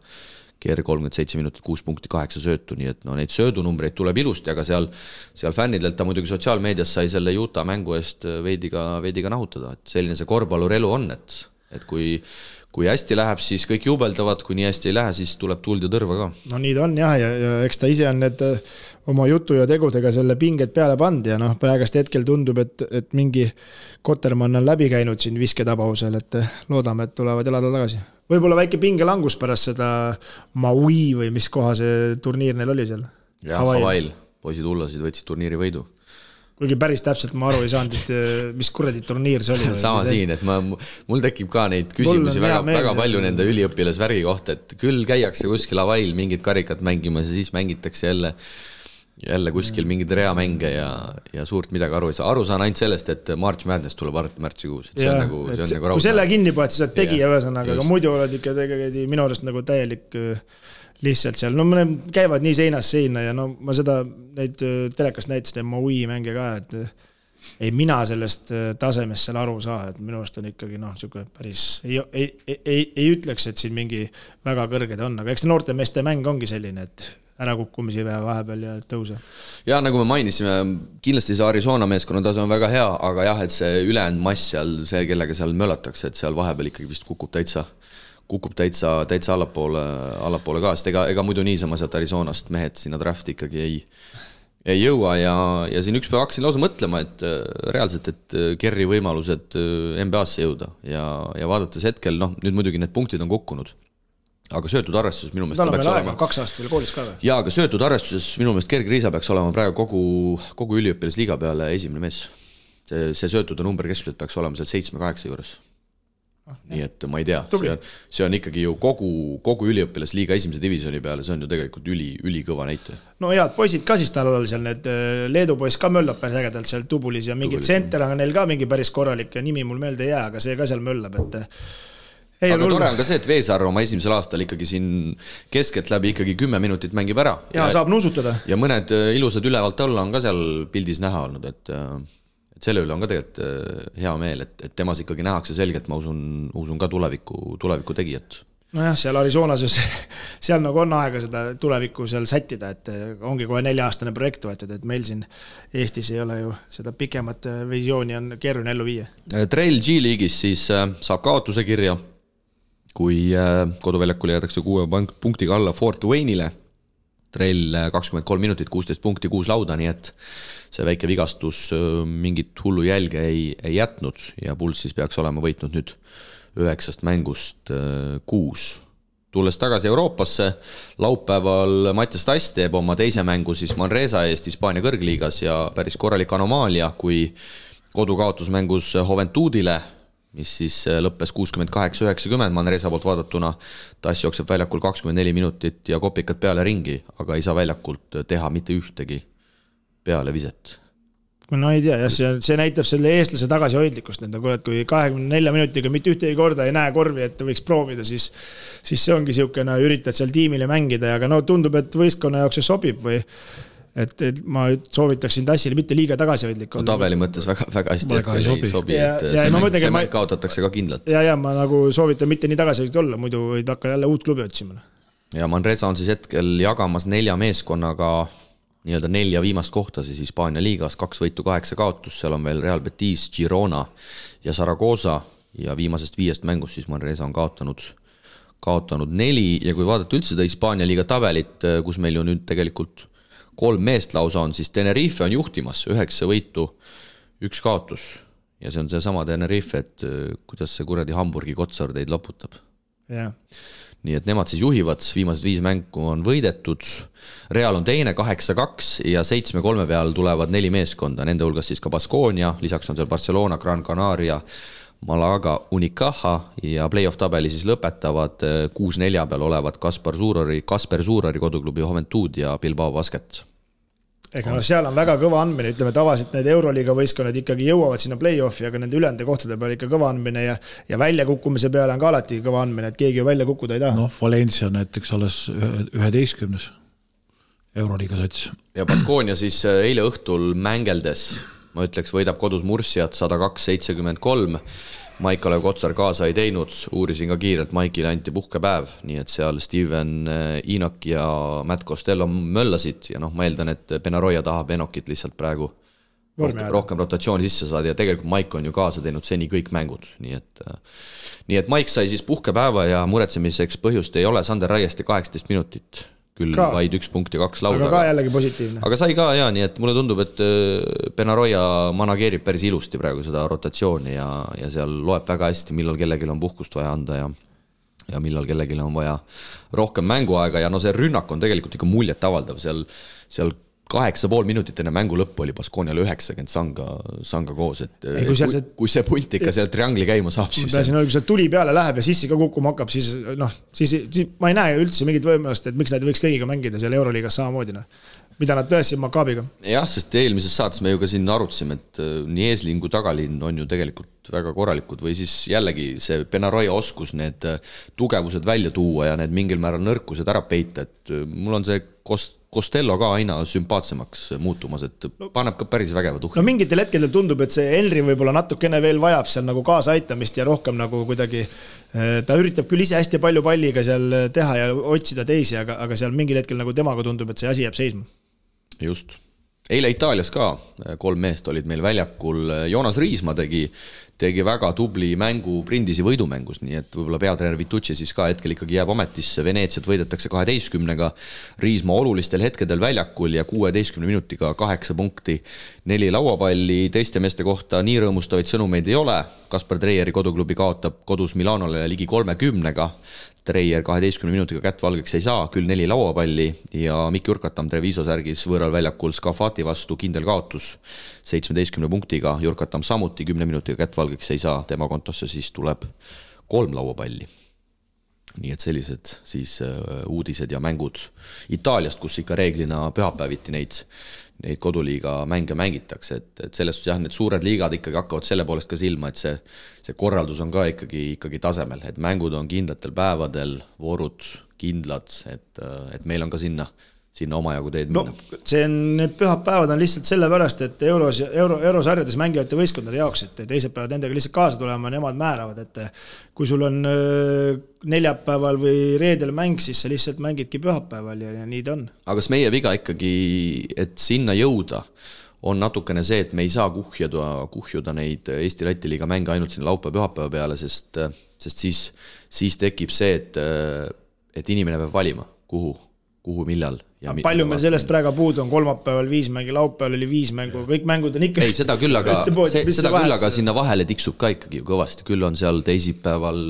Ker 37 minutit, 6 punkti, 8 söötu, nii et neid söödunumbreid tuleb ilusti, aga seal fännidelt ta muidugi sotsiaalmeedias sai selle Utah mängu eest veidi ka nahutada, et selline see korvpallurelu on, et kui hästi läheb, siis kõik jubeldavad, kui nii hästi ei lähe, siis tuleb tuld ja tõrva ka. No nii ta on jah, ja eks ta ise on need oma jutu ja tegudega selle pinget peale pand ja praegast hetkel tundub, et mingi Kotermann on läbi käinud siin visketabausel, et loodame, et tulevad elada tagasi. Võib-olla väike pingelangus pärast seda Maui või mis koha see turniir neil oli seal? Jah, Havail. Poisid hullasid võtsid turniiri võidu. Kuigi päris täpselt ma aru ei saanud, et mis kuradi turniir see oli. Sama siin, et mul tekib ka neid küsimusi väga palju nende üliõpilasvärgi kohta, et küll käiakse kuskil Havail mingid karikat mängimas ja siis mängitakse jälle kuskil mingid reamänge ja suurt midagi aru ei saa. Aru saan ainult sellest, et March Madness tuleb märtsikuus. See on nagu kui selle kinni poed, siis oled tegija ühesõnaga, aga muidu oled ikka tegelikult minu arust nagu täielik lihtsalt seal. No mõne käivad nii seinast seina ja no ma seda neid telekast näitasin Maui mänge ka, et ei mina sellest tasemest seal aru saa, et minu arust on ikkagi päris ei ütleks, et siin mingi väga kõrged on, aga eks noorte meeste mäng ongi selline, et ära kukkumisi vahepeal ja tõuse. Ja nagu me mainisime, kindlasti see Arizona meeskonna tase on väga hea, aga jah, et see ülejäänud mass seal, see kellega seal möllatakse, et seal vahepeal ikkagi vist kukub täitsa allapoole ka, sest ega muidu niisama sealt Arizonast mehed sinna drafti ikkagi ei jõua ja siin üks päev hakkasin lausa mõtlema, et reaalselt, et Kerri võimalused NBA-sse jõuda ja vaadates hetkel, nüüd muidugi need punktid on kukkunud. Aga söötud arvestuses minu meelest peaks olema 2 aastat veel koolis ka või? Jaa, aga söötud arvestuses minu meelest Gerg Riisa peaks olema praegu kogu üliõpilasliiga peale esimene mees. See söötude number keskselt peaks olema seal 7-8 juures. Nii et ma ei tea, see on ikkagi ju kogu üliõpilasliiga esimese divisjoni peale, see on ju tegelikult ülikõva näite. No head poisid ka siis tal oli seal need Leedu poiss ka möllab päris ägedalt seal Tubulis ja mingi tsenter on neil ka mingi päris korralik ja nimi mul meelde ei jää, aga see ka seal möllab, et aga tore on ka see, et Veesar oma esimesel aastal ikkagi siin keskelt läbi ikkagi 10 minutit mängib ära. Ja saab nuusutada. Ja mõned ilusad ülevalt alla on ka seal pildis näha olnud, et selle üle on ka tegelikult hea meel, et temas ikkagi nähakse selgelt, ma usun ka tuleviku tegijat. Nojah, seal Arizonas, seal nagu on aega seda tulevikku seal sättida, et ongi kohe 4-aastane projekt võetud, et meil siin Eestis ei ole ju seda pikemat visiooni on keeruline ellu viia. Trail G-liigis siis saab kaotuse kirja, kui koduväljakul jäädakse 6 punktiga alla Fort Wayne'ile. Trail 23 minutit, 16 punkti, 6 lauda, nii et see väike vigastus mingit hullu jälge ei jätnud ja Puls siis peaks olema võitnud nüüd 9 mängust 6. Tulles tagasi Euroopasse, laupäeval Mattias Tass teeb oma teise mängu siis Manresa eest Hispaania kõrgliigas ja päris korralik anomaalia, kui kodukaotusmängus Juventudile, mis siis lõppes 68-90 Manresa poolt vaadatuna. Tass jookseb väljakul 24 minutit ja kopikad peale ringi, aga ei saa väljakult teha mitte ühtegi peale viset. No ei tea, see näitab selle eestlase tagasihoidlikkust, kui 24 minutiga mitte ühtegi korda ei näe korvi, et võiks proovida, siis see ongi siukene, üritad seal tiimile mängida, aga tundub, et võistkonna jaoks see sobib või et ma soovitaksin Tassile mitte liiga tagasihoidlik olla. Tabeli mõttes väga hästi ei sobi, et see mäng kaotatakse ka kindlalt. Ja ma nagu soovitan mitte nii tagasihoidlik olla, muidu võid hakka jälle uut klubi otsima. ja Manresa on siis hetkel jagamas 4 meeskonnaga nii-öelda 4 viimast kohta siis Hispaania liigas, 2 võitu, 8 kaotus, seal on veel Real Betis, Girona ja Zaragoza ja viimasest 5 mängust siis Manresa on kaotanud 4 ja kui vaadata üldse seda Hispaania liiga tabelit, kus meil ju nüüd tegelikult 3 meest lausa on, siis Tenerife on juhtimas 9 võitu, 1 kaotus ja see on see sama Tenerife, et kuidas see kuradi Hamburgi Kotsar teid loputab. Jah. Nii et nemad siis juhivad, viimased 5 mängu on võidetud, Real on teine 8-2 ja 7-3 peal tulevad 4 meeskonda, nende hulgas siis ka Baskonia, lisaks on seal Barcelona, Gran Canaria, Malaga, Unicaja ja play-off tabeli siis lõpetavad 6-4 peal olevad Kasper Suurari koduklubi Juventud ja Bilbao Basket. Ega no seal on väga kõva andmine, ütleme tavaliselt need Euroliiga võistkonnad ikkagi jõuavad sinna play-offi, aga nende ülende kohtade peal ikka kõva andmine ja väljakukkumise peale on ka alati kõva andmine, et keegi ju välja kukkuda ei taha. Noh, Valencia näiteks alles 11. Euroliiga sats. Ja Baskonia siis eile õhtul mängeldes, ma ütleks, võidab kodus Mursiat 102-73. Maik-Kalev Kotsar kaasa ei teinud, uurisin ka kiirelt, Maikile anti puhkepäev, nii et seal Steven Inak ja Matt Costello möllasid ja ma eeldan, et Benaroya tahab Enokit lihtsalt praegu rohkem rotatsiooni sisse saada ja tegelikult Maik on ju kaasa teinud seni kõik mängud, nii et Maik sai siis puhkepäeva ja muretsemiseks põhjust ei ole, Sander Raiesti 18 minutit, küll ka vaid 1 punkt ja 2 lauda. Aga ka jällegi positiivne. Aga sai ka ja nii, et mulle tundub, et Benaroya manageerib päris ilusti praegu seda rotatsiooni ja seal loeb väga hästi, millal kellelgi on puhkust vaja anda ja millal kellelgi on vaja rohkem mänguaega ja see rünnak on tegelikult ikka muljet avaldav, seal 8,5 minutit enne mängu lõppu oli Baskonial 90 sanga koos, et kui see punt ikka seal triangli käima saab, siis kui see tuli peale läheb ja sissi ka kukkuma hakkab, siis ma ei näe üldse mingit võimalust, et miks nad võiks kõigiga mängida seal Euroliigas samamoodi, mida nad tõestsid Makaabiga. Jah, sest eelmises saates me ju ka siin arutasime, et nii eesliin kui tagalinn on ju tegelikult väga korralikud või siis jällegi see Benaroya oskus need tugevused välja tuua ja need mingil määral nõrkused ära peita, et mul on see Costello ka aina sümpaatsemaks muutumas, et paneb ka päris vägeva tuhli. Mingitel hetkedel tundub, et see Henry võib-olla natukene veel vajab seal nagu kaasa aitamist ja rohkem nagu kuidagi ta üritab küll ise hästi palju palliga seal teha ja otsida teisi, aga seal mingil hetkel nagu temaga tundub, et see asi jääb seisma. Just. Eile Itaalias ka 3 meest olid meil väljakul, Joonas Riisma tegi väga tubli mängu Brindisi võidumängus, nii et võib-olla peatreener Vitucci siis ka hetkel ikkagi jääb ametisse, Veneetsiat võidetakse 12-ga, Riisma olulistel hetkedel väljakul ja 16 minutiga 8 punkti, 4 lauapalli, teiste meeste kohta nii rõõmustavaid sõnumeid ei ole, Kasper Treieri koduklubi kaotab kodus Milanole ligi 30-ga, Treier 12 minutiga kätt valgeks ei saa, küll 4 lauapalli ja Mikk Jurkatam Treviso särgis võõral väljakul Scafati vastu kindel kaotus 17 punktiga, Jurkatam samuti 10 minutiga kätt valgeks ei saa, tema kontosse siis tuleb 3 lauapalli. Nii et sellised siis uudised ja mängud Itaaliast, kus ikka reeglina pühapäeviti neid koduliiga mänge mängitakse, et selles suhtes jah, need suured liigad ikkagi hakkavad selle poolest ka silma, et see korraldus on ka ikkagi tasemel, et mängud on kindlatel päevadel, voorud kindlad, et meil on ka sinna omajagu teed minna. Need pühapäevad on lihtsalt sellepärast, et eurosarjades mängivate võistkondade jaoks, et teised päevad nendega lihtsalt kaasa tulema, nemad määravad, et kui sul on neljapäeval või reedel mäng, siis sa lihtsalt mängidki pühapäeval ja nii ta on. Aga kas meie viga ikkagi, et sinna jõuda, on natukene see, et me ei saa kuhjuda neid Eesti-Läti liiga mänge ainult sinna laupäeva-pühapäeva peale, sest siis tekib see, et inimene peab valima, kuhu, millal. Palju meil sellest praegu puudu on, kolmapäeval 5 mängi, laupäeval oli 5 mängu, kõik mängud on ikka... Ei, seda küll, aga sinna vahele tiksub ka ikkagi kõvasti, küll on seal teisipäeval,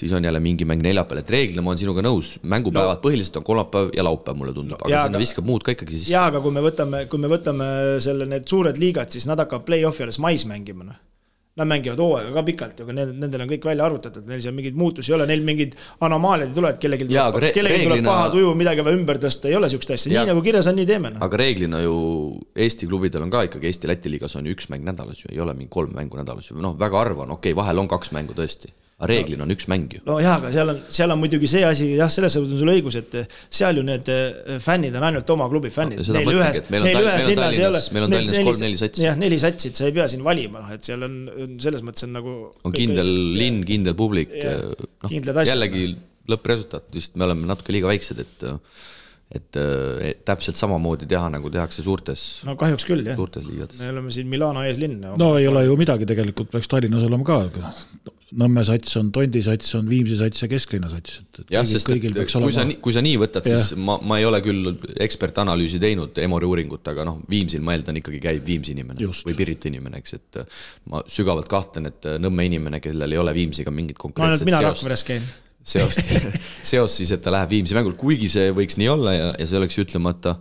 siis on jälle mingi mäng neljapäeval, et reeglina ma olen sinuga nõus, mängupäevad põhiliselt on kolmapäev ja laupäev, mulle tundub, aga sinna viskab muud ka ikkagi siis. Jaa, aga kui me võtame need suured liigad, siis nad hakkab play-offi alles mais mängima, Nad mängivad hooaega ka pikalt, aga nendel on kõik välja arvutatud, neil seal mingid muutusi ei ole, neil mingid anomaaliad ei tule, et kellelgi tuleb paha tuju, midagi või ümber tõsta, ei ole sükst asja, nii nagu kirjas on, nii teeme. Aga reeglina ju Eesti klubidel on ka ikkagi Eesti-Läti liigas on ju 1 mäng nädalas ju, ei ole mingi 3 mängu nädalas ju, väga harva on, vahel on 2 mängu tõesti. Reeglina on 1 mäng ju. No jah, aga seal on muidugi see asi, jah, selles on sul õigus, et seal ju need fännid on ainult oma klubi fännid. Meil on Tallinnas 3-4 satsi. Jah, 4 satsid, sa ei pea siin valima, et seal on selles mõttes on nagu... On kindel linn, kindel publik. Kindlad asjad. Jällegi lõppresultaat, vist me oleme natuke liiga väiksed, et täpselt samamoodi teha, nagu tehakse suurtes kahjuks küll, jah. Suurtes liigades. Me oleme siin Milano eeslinn. No ei ole ju midagi tegelikult, peaks Tallinnas olema ka. Nõmme sats on, Tondi sats on, Viimsi sats ja Kesklinna sats. Jah, sest kui sa nii võtad, siis ma ei ole küll ekspertanalüüsi teinud Emori uuringut, aga Viimsil ma eeldan ikkagi käib Viimsi inimene või Pirita inimene, eks, et ma sügavalt kahtlen, et Nõmme inimene, kellel ei ole Viimsiga mingit konkreetset mina Rakveres käin. Seos siis, et ta läheb Viimsi mängul, kuigi see võiks nii olla ja see oleks ütlemata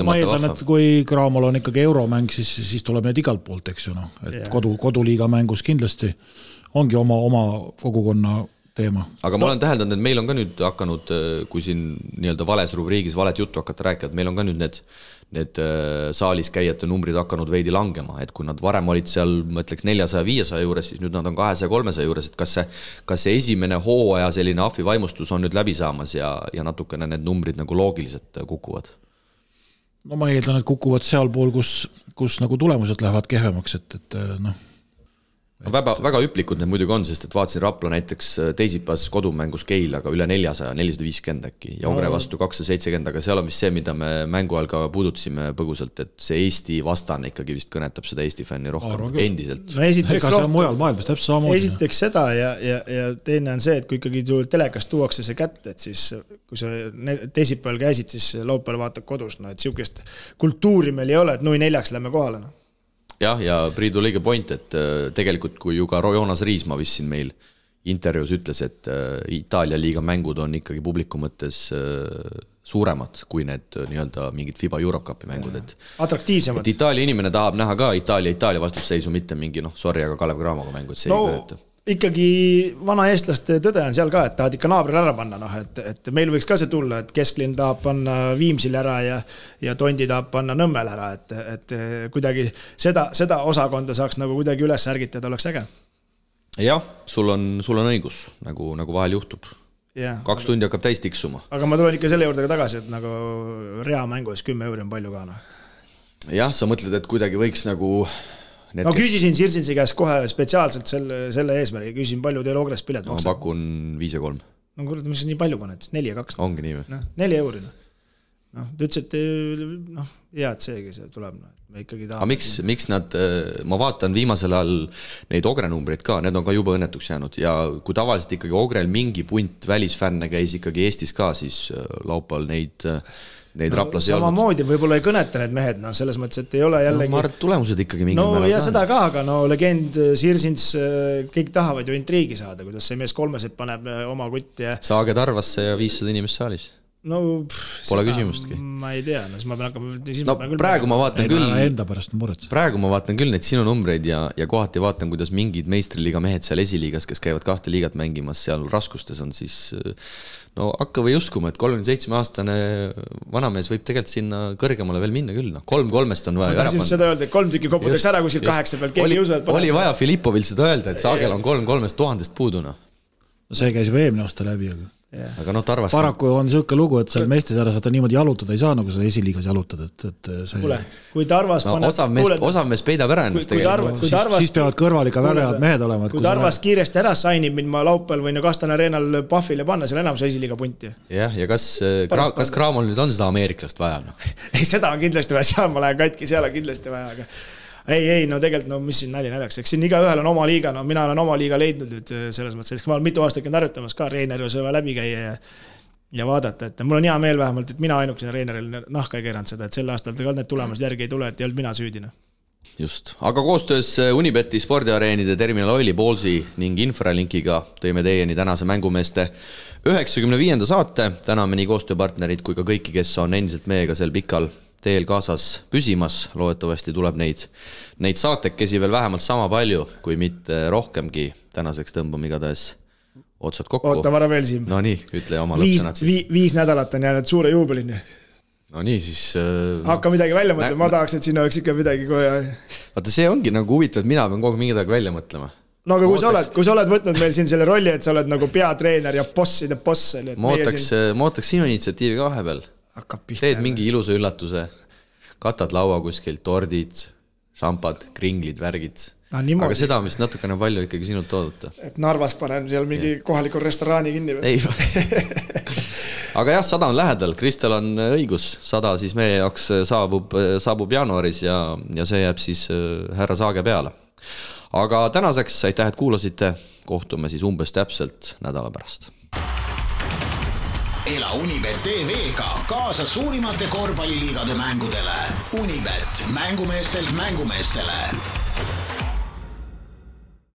ma eeldan, et kui Graamol on ikkagi euromäng, siis tuleb need igalt poolt, eks ju, et koduliiga mängus kindlasti ongi oma kogukonna teema. Aga ma olen täheldanud, et meil on ka nüüd hakanud, kui siin nii-öelda vales rubriigis valet juttu hakata rääkida, et meil on ka nüüd need saalis käijate numbrid hakanud veidi langema, et kui nad varem olid seal, ma ütleks 400-500 juures, siis nüüd nad on 200-300 juures, et kas see esimene hooaja selline ahvi vaimustus on nüüd läbi saamas ja natukene need numbrid nagu loogiliselt kukuvad? No ma eeldan, et kukuvad seal pool, kus nagu tulemused lähevad kehvemaks, et väga hüplikud need muidugi on, sest et vaatasin Rapla näiteks teisipäevas kodumängus Keilaga üle 400, 450 äkki ja Ogre vastu 270, aga seal on vist see, mida me mängu ajal ka puudutasime põgusalt, et see Eesti vastane ikkagi vist kõnetab seda Eesti fänni rohkem endiselt. No ega see on mujal maailmas täpselt samamoodi. Esiteks seda ja teine on see, et kui ikkagi telekast tuuakse see kätte, et siis kui sa teisipäeval käisid, siis laupäeval vaatad kodus, et siukest kultuuri meil ei ole, et 4-4 lähme kohale. Jah, ja Priidu lõige point, et tegelikult kui ju ka Joonas Riisma vist siin meil intervjuus ütles, et Itaalia liiga mängud on ikkagi publiku mõttes suuremad kui need nii-öelda mingid FIBA Eurocupi mängud. Atraktiivsemad. Et Itaalia inimene tahab näha ka Itaalia vastusseisu, mitte mingi sorry, aga Kalev Cramoga mängu, et see ei kõneta. Ikkagi vana eestlaste tõde on seal ka, et tahad ikka naabril ära panna, et meil võiks ka see tulla, et Kesklinn tahab panna Viimsil ära ja Tondi tahab panna Nõmmel ära, et kuidagi seda osakonda saaks nagu kuidagi üles ärgitada, oleks äge. Jah, sul on õigus, nagu vahel juhtub. 2 tundi hakkab täis tiksuma. Aga ma tulen ikka selle juurde ka tagasi, et nagu rea mängus 10 € on palju ka. Jah, sa mõtled, et kuidagi võiks nagu küsisin Sirsinsi käest kohe spetsiaalselt selle eesmärgi, küsisin palju teil Ogres pilet maksab. Ma pakun 5 ja 3. No kurat, mis nii palju paned, 4 ja 2. Ongi nii või? 4 €. Ta ütles, et hea, et seegi see tuleb. Me ikkagi aga miks nad, ma vaatan viimasel ajal neid Ogre numbreid ka, need on ka juba õnnetuks jäänud ja kui tavaliselt ikkagi Ogrel mingi punt välisfänne käis ikkagi Eestis ka, siis laupäeval neid Raplas ei olnud. Samamoodi võib-olla ei kõneta need mehed, selles mõttes, et ei ole jällegi... ma arvan, tulemused ikkagi mingi ja seda ka, aga legend Sirsins, kõik tahavad ju intriigi saada, kuidas see mees 3 paneb oma kutti ja... Saage Tarvasse ja 500 inimest saalis. Pole küsimustki. Ma ei tea, siis ma pean hakkama... praegu ma vaatan küll... Enda pärast on muret. Praegu ma vaatan küll neid sinu numbreid ja kohati vaatan, kuidas mingid meistriliiga mehed seal esiliigas, kes käivad 2 liigat mängimas seal raskustes on, siis hakka või uskuma, et 37-aastane vanamees võib tegelikult sinna kõrgemale veel minna küll. 3-3-st on vaja ära panna. Seda öelda, et 3 tükki koputaks ära kuskil 8 pealt, keegi ei usu, et oli vaja Filippovil seda öelda, et Saagel on 3-3-st 1000 puuduna. See käis juba eelmine aasta läbi, aga Tarvas... Paraku on selline lugu, et seal meestesarjas vaata niimoodi jalutada ei saa, nagu seda esiliigas jalutada, et see... Kuule, kui Tarvas osav mees peidab ära ennast tegelikult. Siis peavad kõrval ikka väga head mehed olema. Kui Tarvas kiiresti ära sainib, mind ma laupäeval võin Kastane areenal Puffile panna, seal enamus esiliiga punti. Jah, ja kas Cramol nüüd on seda ameeriklast vaja? Ei, seda on kindlasti vaja, seal ma lähen katki, seal on kindlasti vaja, aga... Ei, tegelikult, mis siin naljaks, eks siin igaühel on oma liiga, mina olen oma liiga leidnud nüüd selles mõttes, ma olen mitu aastat käinud harjutamas ka Reineri sõva läbi käia ja vaadata, et mul on hea meel vähemalt, et mina ainukesena Reineril nahka ei keeranud seda, et sel aastal ka need tulemused järgi ei tule, et ei olnud mina süüdina. Just, aga koostöös Unibeti spordiareenide Terminal Oili, Ballsi ning Infralinkiga tõime teieni tänase mängumeeste 95. saate, täname nii koostööpartnerid kui ka kõiki, kes on endiselt meiega sel pikal teel kaasas püsimas, loodetavasti tuleb neid saatekesi veel vähemalt sama palju, kui mitte rohkemgi. Tänaseks tõmbame igatahes otsad kokku. Oota vara veel siin. No nii, ütle oma lõpsõnad siis. 5 nädalat on jäänud suure juubelini. No nii, siis... Hakka midagi välja mõtlema, ma tahaks, et sinna oleks ikka midagi kohe... Vaata, see ongi nagu huvitav, et mina pean kogu midagi välja mõtlema. No aga kui sa oled võtnud meil siin selle rolli, et sa oled nagu peatreener ja bosside boss. Ma ootaks sinu initsiatiivi ka vahepeal. Teed mingi ilusa üllatuse, katad laua kuskil, tordid, šampad, kringlid, värgid. aga seda on vist natukene palju ikkagi sinult oodata. Et Narvas panen seal mingi kohalikul restoraani kinni või? Ei, aga jah, 100 on lähedal, Kristel on õigus, 100 siis meie jaoks saabub jaanuaris ja see jääb siis härra Saage peale. Aga tänaseks aitäh, et kuulasite, kohtume siis umbes täpselt nädala pärast. Ela Unibet TV-ga kaasa suurimate korvpalliliigade mängudele. Unibet, mängumeestelt mängumeestele.